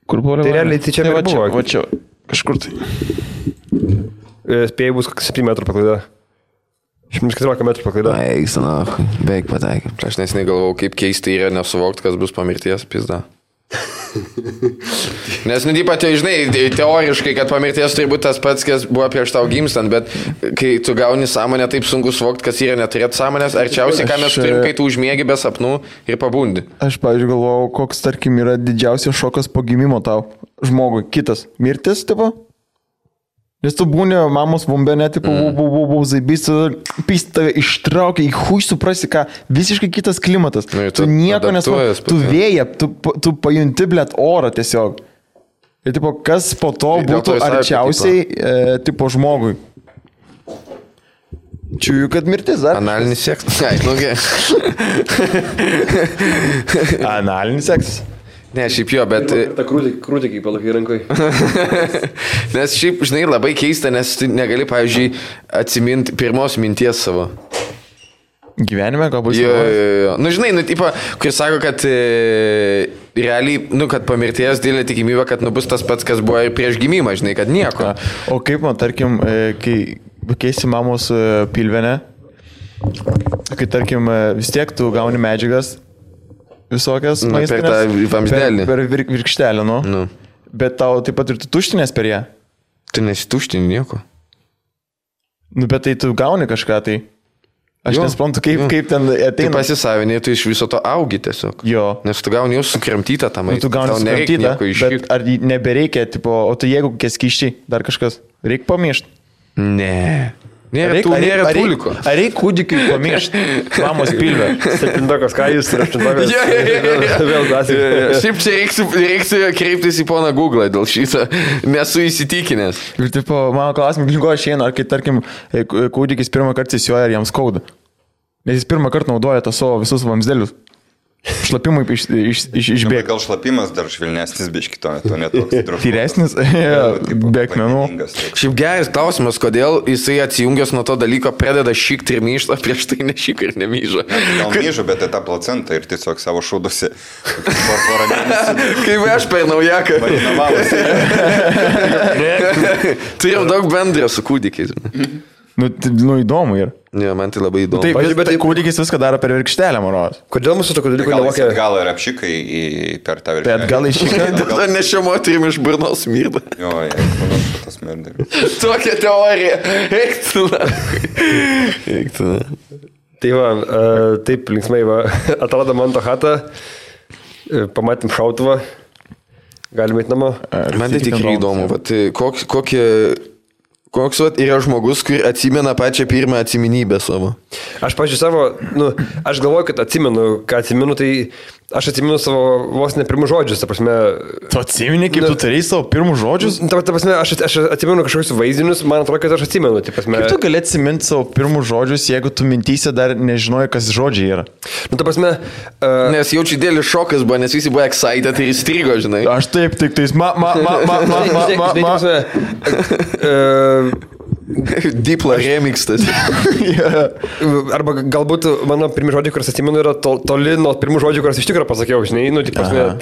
Speaker 1: Kur buvo?
Speaker 4: Tai realiai tai čia
Speaker 1: va
Speaker 4: buvo.
Speaker 1: Va čia, kažkur tai.
Speaker 4: Spėjai bus 7 metrų paklaida. 114 metrų paklaida.
Speaker 2: Eik, na, beveik pataikė. Aš nesiniai galvojau, kaip keistai yra nesuvokti, kas bus po mirties, pizda. Nes, nu, taip, žinai, teoriškai, kad po mirties turi būti tas pats, kas buvo prieš tau gimstant, bet kai tu gauni sąmonę, taip sunku suvokti, kas yra neturėti sąmonės, arčiausiai, ką mes turim, kai tu užmiegi be sapnų ir pabundi.
Speaker 1: Aš, pavyzdžiui, galvojau, koks, tarkim, yra didžiausias šokas po gimimo tau žmogui. Kitas. Mirtis, tipo? Nes tu būni mamos bombene, tipo, zaibys, tave ištraukia, į hui suprasi, ką, visiškai kitas klimatas. Tu nieko nesupranti, tu vėja, tu pajunti, blėt, orą tiesiog. Ir, tipo, kas po to būtų arčiausiai, tipo, žmogui. Čiūju, kad mirtis, ar?
Speaker 2: Analinis seksas. Ai, nu,
Speaker 1: Analinis seksas.
Speaker 2: Ne, šiaip jo, bet...
Speaker 4: Ta krūtė kaip palakai rankai.
Speaker 2: Nes šiaip, žinai, labai keista, nes tu negali, pavyzdžiui, atsiminti pirmos minties savo.
Speaker 1: Gyvenime galbūt?
Speaker 2: Jo. Nu, žinai, nu, tipo, kur sako, kad realiai, nu, kad po mirties didelė tikimybė, kad nu bus tas pats, kas buvo ir prieš gimimą, žinai, kad nieko.
Speaker 1: O kaip man, tarkim, kai keisi mamos pilvenę, kai, tarkim, vis tiek tu gauni medžiagas, visokias maistinės.
Speaker 2: Per tą vamzdelį.
Speaker 1: Per virkštelę, nu. Bet tau taip pat ir tu tuštinės per ją.
Speaker 2: Tu nesituštini nieko.
Speaker 1: Nu, bet tai tu gauni kažką, tai. Aš nesuprantu, kaip ten ateina.
Speaker 2: Tai pasisavinė, tu iš viso to augi tiesiog.
Speaker 1: Jo.
Speaker 2: Nes tu gauni jau sukramtytą tą maistą.
Speaker 1: Tu gauni sukramtytą, bet ar nebereikia, tipo, o tu jeigu kokie skyščiai, dar kažkas, reikia pamiršti?
Speaker 2: Ne. Nėra tuliko.
Speaker 1: Ar reikia kūdikiui pamiršti mamos pilvę?
Speaker 4: 7-okas, ką jūs ir 8-okas? Vėl dasai.
Speaker 2: Šiaip čia reiks kreiptis į poną Google dėl šitą. Nesu įsitikinęs.
Speaker 1: Ir tipo, mano klausimai knygo išeina, ar kai, tarkim, kūdikis pirmą kartą įsijuoja, ar jam skauda. Nes jis pirmą kartą naudoja tą savo visus vamzdelius. Šlapimui išbėga.
Speaker 3: Gal šlapimas dar švelnesnis biški, to netoks drožus.
Speaker 1: Tyresnis, be akmenų.
Speaker 2: Šiaip geras klausimas, kodėl jisai atsijungęs nuo to dalyko pradeda šikti ir myšta, prieš tai nešik ir nemyžo.
Speaker 3: Gal myžo, bet tai tą placentą ir tiesiog savo šaudusi.
Speaker 2: Kaip aš per naujaką. Turim daug bendrio su kūdikiais.
Speaker 1: Nu, įdomu ir.
Speaker 2: Ne, man tai labai įdomu.
Speaker 1: Taip, bet kūdikis viską daro per virkštelę, manos.
Speaker 4: Kodėl mūsų tokio dalyko nevokia?
Speaker 3: Gal ir apšikai per tą virkštelę.
Speaker 1: Bet gal iššikai.
Speaker 2: Tada nešio moterim iš burnos smirda.
Speaker 3: Jo, manau, tas smirda.
Speaker 2: Tokia teorija. Eiktų.
Speaker 4: Tai va, taip linksmai va, atrado man tą chatą, pamatėm šautuvą, galime eiti namo.
Speaker 2: Man tai tikrai įdomu, koks yra žmogus, kur atsimena pačią pirmą atsiminybę savo.
Speaker 4: Aš, pažiūrėjau, savo, aš galvoju, kad atsimenu, tai aš atsimenu savo vos ne pirmus žodžius, ta prasme.
Speaker 1: Tu atsimeni, kaip tu turėjai savo pirmus žodžius?
Speaker 4: Ta prasme, aš atsimenu kažkokius vaizdinius, man atrodo, kad aš atsimenu. Ta prasme,
Speaker 1: kaip tu gali atsiminti savo pirmus žodžius, jeigu tu mintyse dar nežinoji, kas žodžiai yra?
Speaker 2: Ta prasme. Nes jaučiu didelis šokas buvo, nes visi buvo excited ir įstrigo, žinai.
Speaker 1: Aš taip, tik tais
Speaker 2: Dipla remixtas.
Speaker 4: Arba galbūt mano pirmi žodžiai, kuriuos atsimenu, yra toli nuo pirmų žodžių, kuriuos iš tikrųjų pasakiau, žinai,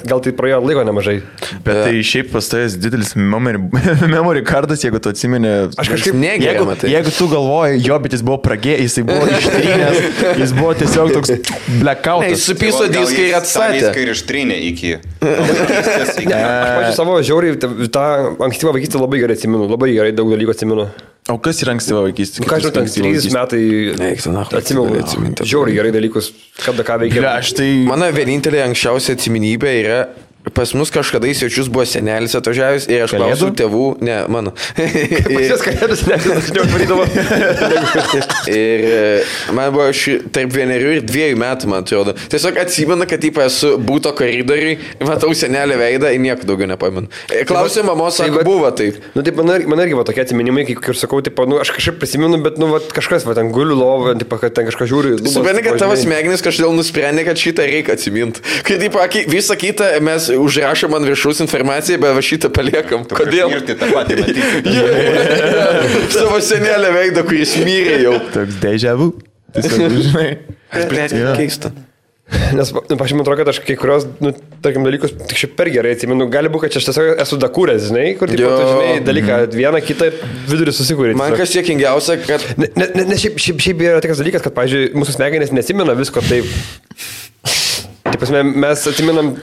Speaker 4: gal tai praėjo laiko nemažai.
Speaker 1: Bet tai šiaip pastovės didelis memory cardas, jeigu tu atsimeni.
Speaker 2: Aš kažkaip negeriu.
Speaker 1: Jeigu tu galvoji, jo, bet jis buvo pragėjęs, jisai buvo ištrynęs, jis buvo tiesiog toks blackoutas.
Speaker 2: Jis supiso diską ir atstatė.
Speaker 3: Diską ir ištrynė iki.
Speaker 4: Aš, pažiūrėjau, savo žiauriai, tą ankstyvą vaikystę labai gerai atsimenu, labai gerai daug dalykų atsimenu.
Speaker 1: O kas yra ankstyva vaikystė?
Speaker 4: Ką žinau, ten 3 metai atsimenu, žiauriai gerai dalykus, kada ką veikia.
Speaker 2: Mano vienintelė anksčiausia atsiminybė yra pas mus kažkada į svečius buvo senelis atvažiavęs ir aš klausiau tėvų, ne, mano.
Speaker 4: Pas kalėdas dažniau varydavo.
Speaker 2: Ir man buvo tarp 1 ir 2 metų, man atrodo. Tiesiog atsimenu, kad esu būto koridoriui, matau senelį veidą ir nieko daugiau nepamenu. Klausiau mamos, sako, buvo taip.
Speaker 4: Nu, taip, man irgi buvo tokie atsiminimai, kaip sakau, taip, nu, aš kažkaip prisimenu, bet, nu, kažkas, va, ten guliu lovą, taip, kad ten kažką žiūri.
Speaker 2: Supranti, kad tavo smegenys kažkodėl nusprendė, kad šitą reikia atsiminti. Kai taip, visą kitą mes užrašom ant viršaus informaciją, bet va šitą paliekam. Kodėl?
Speaker 3: Ir tai tą patį matyti.
Speaker 2: Savo senelę veidą, kuris mirė jau.
Speaker 1: Toks deja vu. Tiesiog, žinai.
Speaker 2: Blėt, keista.
Speaker 4: Nes, aš man atrodo, kad aš kai kurios, nu, tarkim, dalykus tik šiaip per gerai atsimenu. Gali būti, kad aš tiesiog esu dakūręs, žinai, kur, tipo, tu žinai, dalyką, vieną, kitą vidurį susikūrė.
Speaker 2: Man kas siekingiausia, kad...
Speaker 4: Ne, šiaip yra toks dalykas, kad, pavyzdžiui, mūsų smegenys nesimena visko taip. Taip, mes atsiminam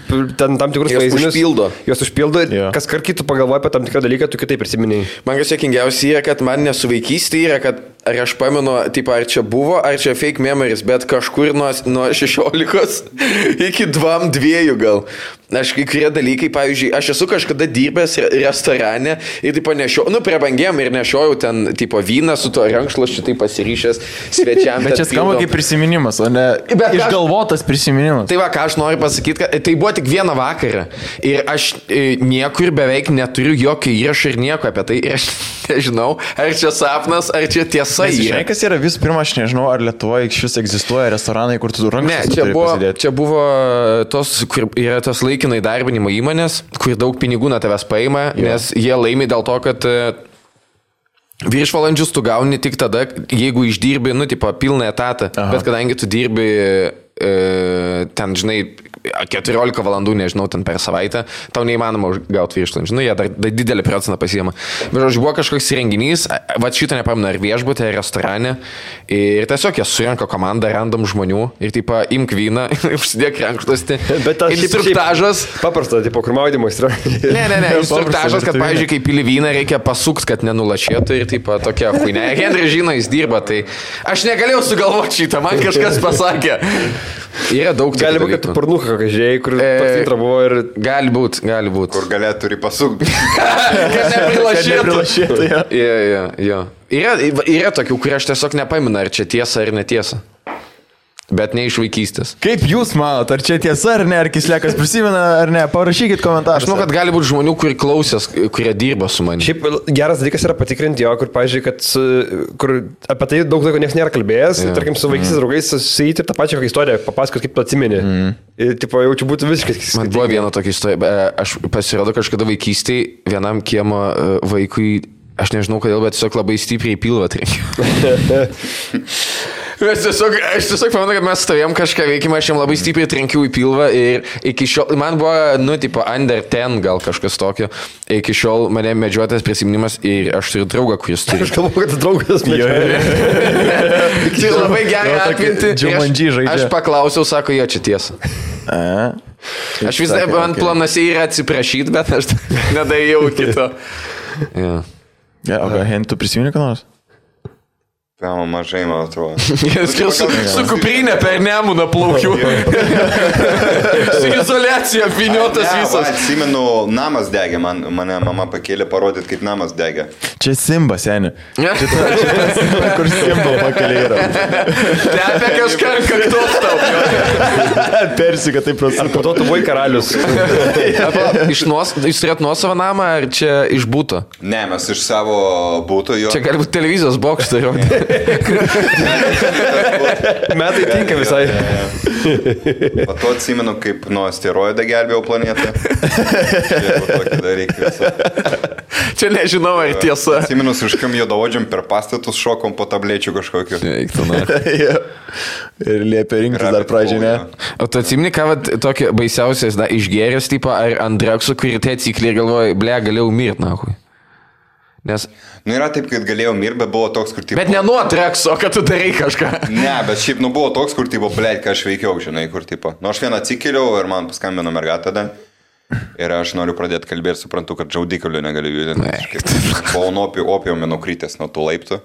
Speaker 4: tam tikrus vaizdinius. Jos užpildo ir kas kart kitų pagalvoja apie tam tikrą dalyką, tu kitaip prisiminėjai.
Speaker 2: Man kas siekingiausia yra, kad man nesuvaikystė yra, kad ar aš pamenu, tipo, ar čia buvo, ar čia fake memories, bet kažkur nuo 16 iki 2 gal. Aš kai kurie dalykai, pavyzdžiui, aš esu kažkada dirbęs restorane ir tipo nešiojau, nu, prabangiam ir nešiojau ten, tipo, vyną su to rankšluosčiu, tai pasiryšęs svečiam.
Speaker 1: Bet čia skamba kaip prisiminimas, o ne išgalvotas prisiminimas.
Speaker 2: Tai va, ką aš noriu pasakyti, kad tai buvo tik vieną vakarą ir aš niekur beveik neturiu jokio įrašo ir nieko apie tai ir aš nežinau, ar čia sapnas, ar čia tiesa.
Speaker 1: Žinai, kas yra visų pirma, aš nežinau, ar Lietuvoje iš vis egzistuoja restoranai, kur tu rankšluosčius turi pasidėti.
Speaker 2: Ne, čia buvo tos, kur yra tos laikinai darbinimo įmonės, kur daug pinigų nuo tavęs paima, nes jie laimi dėl to, kad viršvalandžius tu gauni tik tada, jeigu išdirbi, nu, tipo, pilną etatą. Aha. Bet kadangi tu dirbi ten, žinai, 14 valandų, nežinau, ten per savaitę, tau neįmanoma gauti viršvalandžių. Nu, jie dar didelį procentą pasiema. Bet, žodžiu, buvo kažkoks renginys, va šitą nepamenu, ar viešbutė, ar restorane. Ir tiesiog jie surenka komandą random žmonių ir, tipo, imk vyną, užsidėk rankšluostį.
Speaker 4: Bet tas
Speaker 2: instruktažas.
Speaker 4: Paprasta, tipo, kur maudymas yra.
Speaker 2: Ne, instruktažas, kad, pavyzdžiui, kai pili vyną, reikia pasukti, kad nenulašėtų ir, tipo, tokia huinė. Henry žino, jis dirba, tai aš negalėjau sugalvoti šitą, man kažkas pasakė. Yra daug dalykų.
Speaker 4: Gali būti, kad tu pornuką kokią žiūrėjai, kur pats intro buvo ir...
Speaker 2: Gali būt.
Speaker 3: Kur galėtų turi pasukti.
Speaker 2: Kad neprilašėtų. Jo. Yra tokių, kurie aš tiesiog nepaminu, ar čia tiesa ar netiesa. Bet ne iš vaikystės.
Speaker 1: Kaip jūs manot, ar čia tiesa ar ne, ar Kislekas prisimena ar ne, parašykit komentarus.
Speaker 2: Aš manau, kad gali būti žmonių, kurie klausės, kurie dirba su manimi.
Speaker 4: Šiaip geras dalykas yra patikrinti jo, kur, pavyzdžiui, kad kur apie tai daug laiko niekas nėra kalbėjęs, tarkim, su vaikystės draugais susijyti ir tą pačią istoriją, papasakot, kaip tu atsimeni. Ir, tipo, jaučiu būtų visiškai.
Speaker 2: Man buvo viena tokia istorija, aš pasirodo kažkada vaikystėje vienam kiemo vaikui, aš nežinau kodėl, bet tiesiog labai stipriai pilvą trenkiau. Aš tiesiog pamenu, kad mes stovėjom kažką veikimą, aš jam labai stipriai trenkiau į pilvą ir iki šiol, man buvo, nu, tipo, under 10 gal kažkas tokio, iki šiol mane medžiotas prisiminimas ir aš turiu draugą, kuris turi.
Speaker 4: Aš galvoju, kad draugas medžioja.
Speaker 2: Tai labai gerai atminti. Aš paklausiau, sako, jo, čia tiesa. Aš vis dar, man planuose yra atsiprašyti, bet aš nedėjau kito.
Speaker 1: O ką, Hen, tu prisimeni ką nors?
Speaker 3: Pėma mažai, man atrodo.
Speaker 2: Su kuprinė per Nemuną plaukiu. Su izoliacija apviniotas visas.
Speaker 3: Atsimenu, namas degė, mane mama pakėlė parodyti, kaip namas degė.
Speaker 1: Čia Simba, seni. Kur Simba pakėlė yra.
Speaker 2: Tepė kažką ant kaktos tau.
Speaker 1: Persika taip prasme.
Speaker 4: Ar po to tu buvai karalius?
Speaker 2: Jūs turėt nuosavą namą, ar čia iš būto?
Speaker 3: Ne, mes iš savo būto jo.
Speaker 2: Čia gali būti televizijos bokštą jau.
Speaker 4: Metai tinka visai.
Speaker 3: Po to atsimenu, kaip nuo asteroidą gelbėjau planetą.
Speaker 2: Čia nežinau, ar tiesa.
Speaker 3: Atsimenu, užkam juodaodžiam per pastatus šokom po tablečių kažkokiu.
Speaker 1: Ir liepia rinktis dar pradžią, ne?
Speaker 2: O tu atsimeni, ką tokio baisiausias, išgeręs, tipo, ar ant draksų, kurį tai atsikliai ir galvoja, ble, galėjau mirti, nahui. Nes...
Speaker 3: Nu yra taip, kad galėjau mirti, bet buvo toks, kur tipo...
Speaker 2: Bet ne nuo trekso, kad tu darai kažką.
Speaker 3: Ne, bet šiaip, nu buvo toks, kur tipo, blėt, ką aš veikiau, žinai, kur tipo... Nu aš vieną atsikėliau ir man paskambino mergata tada. Ir aš noriu pradėti kalbėti ir suprantu, kad džaudikalių negaliu judinti. Buvau nuo opiumį nukrytęs nuo tų laiptų.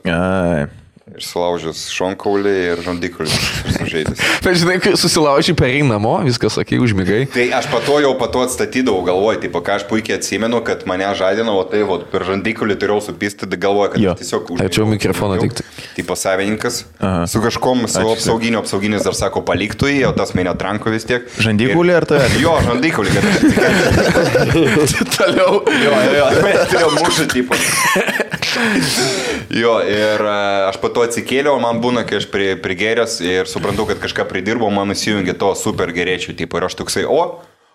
Speaker 3: Ir sulaužęs šonkaulį ir žandikaulį sužeidęs.
Speaker 2: Bet žinai, kai susilaužiai perėjai namo, viskas, sakai, užmigai.
Speaker 3: Tai aš pato atstatydavau, galvoju, tipo, ką aš puikiai atsimenu, kad mane žadino, o tai per žandikaulį turėjau supisti, tai galvoju, kad tiesiog užmigau.
Speaker 2: Ačiū mikrofoną tik.
Speaker 3: Tipo savininkas, su kažkom, su apsauginis dar sako paliktų jį, o tas mane tranko vis tiek.
Speaker 1: Žandikaulį ar tai?
Speaker 3: Jo, žandikaulį, kad aš
Speaker 2: Toliau.
Speaker 3: Jo, turėjau mušą, tipo. Jo, ir aš pato atsikėliau, man būna, kai aš prigėręs ir suprantu, kad kažką pridirbau, man įsijungia to super gerėčių, tipo, ir aš toksai,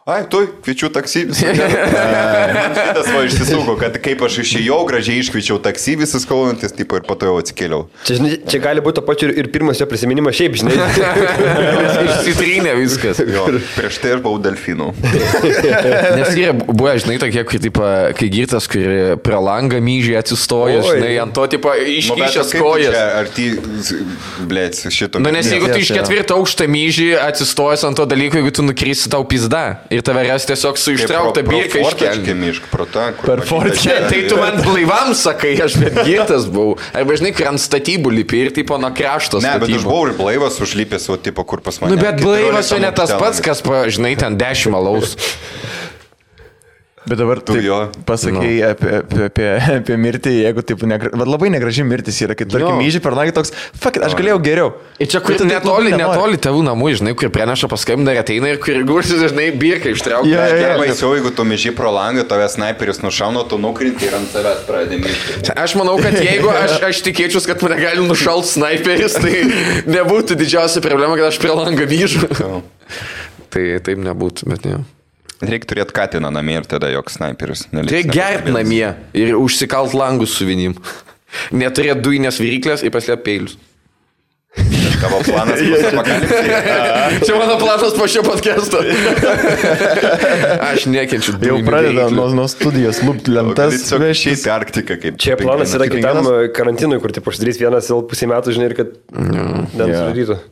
Speaker 3: ai, tu, kviečiu taksi visą. Man šitas va išsisuko, kad kaip aš išėjau, gražiai iškviečiau taksi visas kalbantis, tipo, ir po to jau atsikėliau.
Speaker 4: Čia gali būti to pačiu ir pirmas jo prisiminimas šiaip, žinai.
Speaker 2: Išsitrynė viskas.
Speaker 3: Jo, prieš tai aš buvau delfinų.
Speaker 2: Nes yra buvę, žinai, tokie, kai girtas, kur prie langą myžiai atsistoja, žinai, ant to, tipo, iškišęs kojas.
Speaker 3: Ar ty, blėt, šito.
Speaker 2: Nu, nes jeigu tu iš 4 aukštą myžį atsistojęs ant to dalyko, jeigu tu nukrisi tau pizda. Ir tave ras tiesiog su ištraukta birka iškelti.
Speaker 1: Per fortkę.
Speaker 2: Tai tu man blaivam sakai, aš bet girtas buvau. Arba žinai, kur ant statybų lipi ir tipo nuo krašto statybų.
Speaker 3: Ne, bet aš buvau ir blaivas užlipęs, o tipo, kur pas mane.
Speaker 2: Nu, bet blaivas jau ne tas pats, kas, žinai, ten 10 alaus.
Speaker 1: Bet dabar tu pasakėjai apie mirtį, jeigu taip, labai negraži mirtis yra, kai tarkim myžiai per nagį toks, fuck it, aš galėjau geriau.
Speaker 2: Ir čia kur netoli tėvų namų, žinai, kur preneša paskambina ir ateina ir kur gursis, žinai, birka ištraukia.
Speaker 3: Baisiau, jeigu tu myžiai pro langą, tave snaiperis nušauna, tu nukrinti ir ant savęs pradedi myžti.
Speaker 2: Aš manau, kad jeigu aš tikėčiau, kad mane gali nušalt snaiperis, tai nebūtų didžiausia problema, kad aš prie langą myžu. Tai taip nebūtų, bet ne.
Speaker 3: Reikia turėti katiną namie ir tada joks snaiperis.
Speaker 2: Reikia gerti namie ir užsikalt langus su vinim. Neturėti dujinės viryklės ir paslėpti peilius.
Speaker 3: Tavo planas bus apokalipsija.
Speaker 2: Čia mano planas po šio podcast'o. Aš nekenčiu dujinių.
Speaker 1: Jau pradeda nuo studijos lūpti lentas.
Speaker 3: Šiais Arktika kaip.
Speaker 4: Čia planas yra kitam karantinui, kur taip uždarys vienas pusę metų, žinai, ir kad nesudarytų.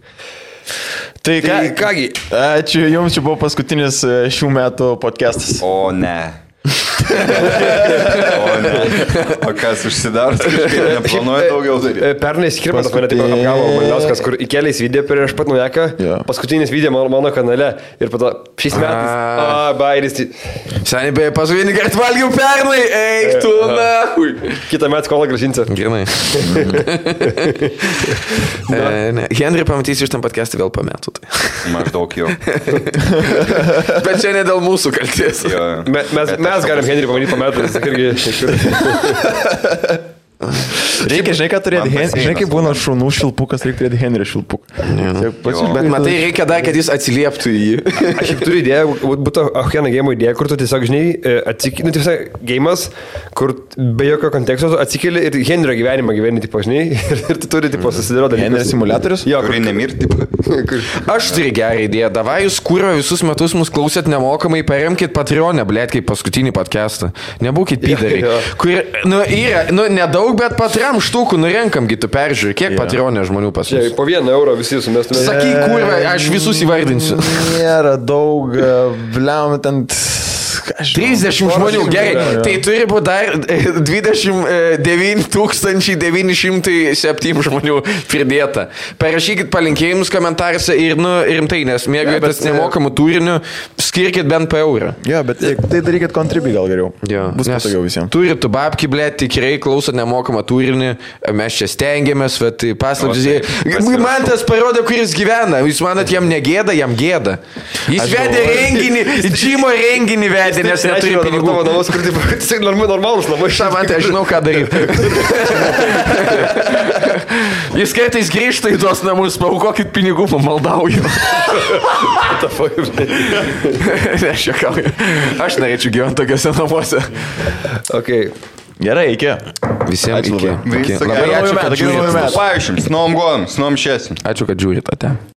Speaker 1: Tai kągi, ačiū Jums, čia buvo paskutinis šių metų podcastas.
Speaker 3: O ne. O kas užsidaro, neplanuoja daugiau daryti.
Speaker 4: Pernai Skirmantas mane taip apgavo Malinauskas, kur įkeliais video prieš pat naujaką, paskutinis video mano kanale ir po to šiais metais, bairis.
Speaker 2: Seniai beje, paskutinį kartą valgiau pernai, eik tu, na.
Speaker 4: Kitą metą skolą grąžinsiu.
Speaker 2: Gerai. Henry pamatysi iš tam podcast'ą vėl po metų.
Speaker 3: Maždaug jau.
Speaker 2: Bet čia ne dėl mūsų kalties.
Speaker 4: Mes galim Henry pamatyti po metų, jis irgi.
Speaker 1: Reikia, žinai, ką turėti, žinai, kaip būna šunų šilpukas, reikia turėti Henry šilpuką.
Speaker 2: Bet matai, reikia dar, kad jis atsilieptų į jį.
Speaker 4: Aš jau turiu idėją, būtų Ahjena game idėja, kur tu tiesiog, žinai, atsikeli, nu, tiesiog game'as, kur be jokio konteksto atsikeli ir Henrio gyvenimą gyveni, tipo, žinai, ir tu turi, tipo, susidėlioti.
Speaker 1: Henry simulatorius?
Speaker 4: Jo,
Speaker 3: kurį nemirti.
Speaker 2: Aš turiu gerą idėją, davai jūs kūro visus metus mus klausėt nemokamai, paremkit Patreon'e, blėt, kaip paskutinį podcastą. Nebūkit pydariai. Kur, nu, yra, nu, nedaug, bet patram štukų nurenkamgi tu peržiūrį, kiek Patreon'e žmonių pas mus.
Speaker 4: Po 1 eurą visi sumestume.
Speaker 2: Sakyk, kurva, aš visus įvardinsiu.
Speaker 1: Nėra daug, bliam, ten
Speaker 2: 30 žmonių, gerai, tai turi būti dar 29 907 žmonių pridėta. Parašykit palinkėjimus komentaruose ir, nu, rimtai, nes mėgaujatės nemokamų turinių, skirkit bent po eurą.
Speaker 1: Jo, bet tai darykit kontribį gal geriau.
Speaker 2: Jo,
Speaker 1: bus patogiau visiems.
Speaker 2: Turit tu babki, blėt, tikrai klausot nemokamą turinį, mes čia stengiamės, bet paslaptis. Man tas parodo, kur jis gyvena. Jūs manot, jam negėda, jam gėda. Jis vedė renginį, Džimo renginį vedė. Nes neturi pinigų.
Speaker 4: Namus, kur tai normalus namai.
Speaker 2: Man tai aš žinau, ką daryti. Jis kartais grįžta į tuos namus, paaukokit pinigų, pamaldauju. Aš norėčiau gyventi tokiuose namuose.
Speaker 4: Okay.
Speaker 1: Gerai, iki.
Speaker 2: Visiems iki.
Speaker 3: Labai ačiū, kad žiūrite. Paaiškim, snom gon, snom šesim.
Speaker 2: Ačiū, kad žiūrite.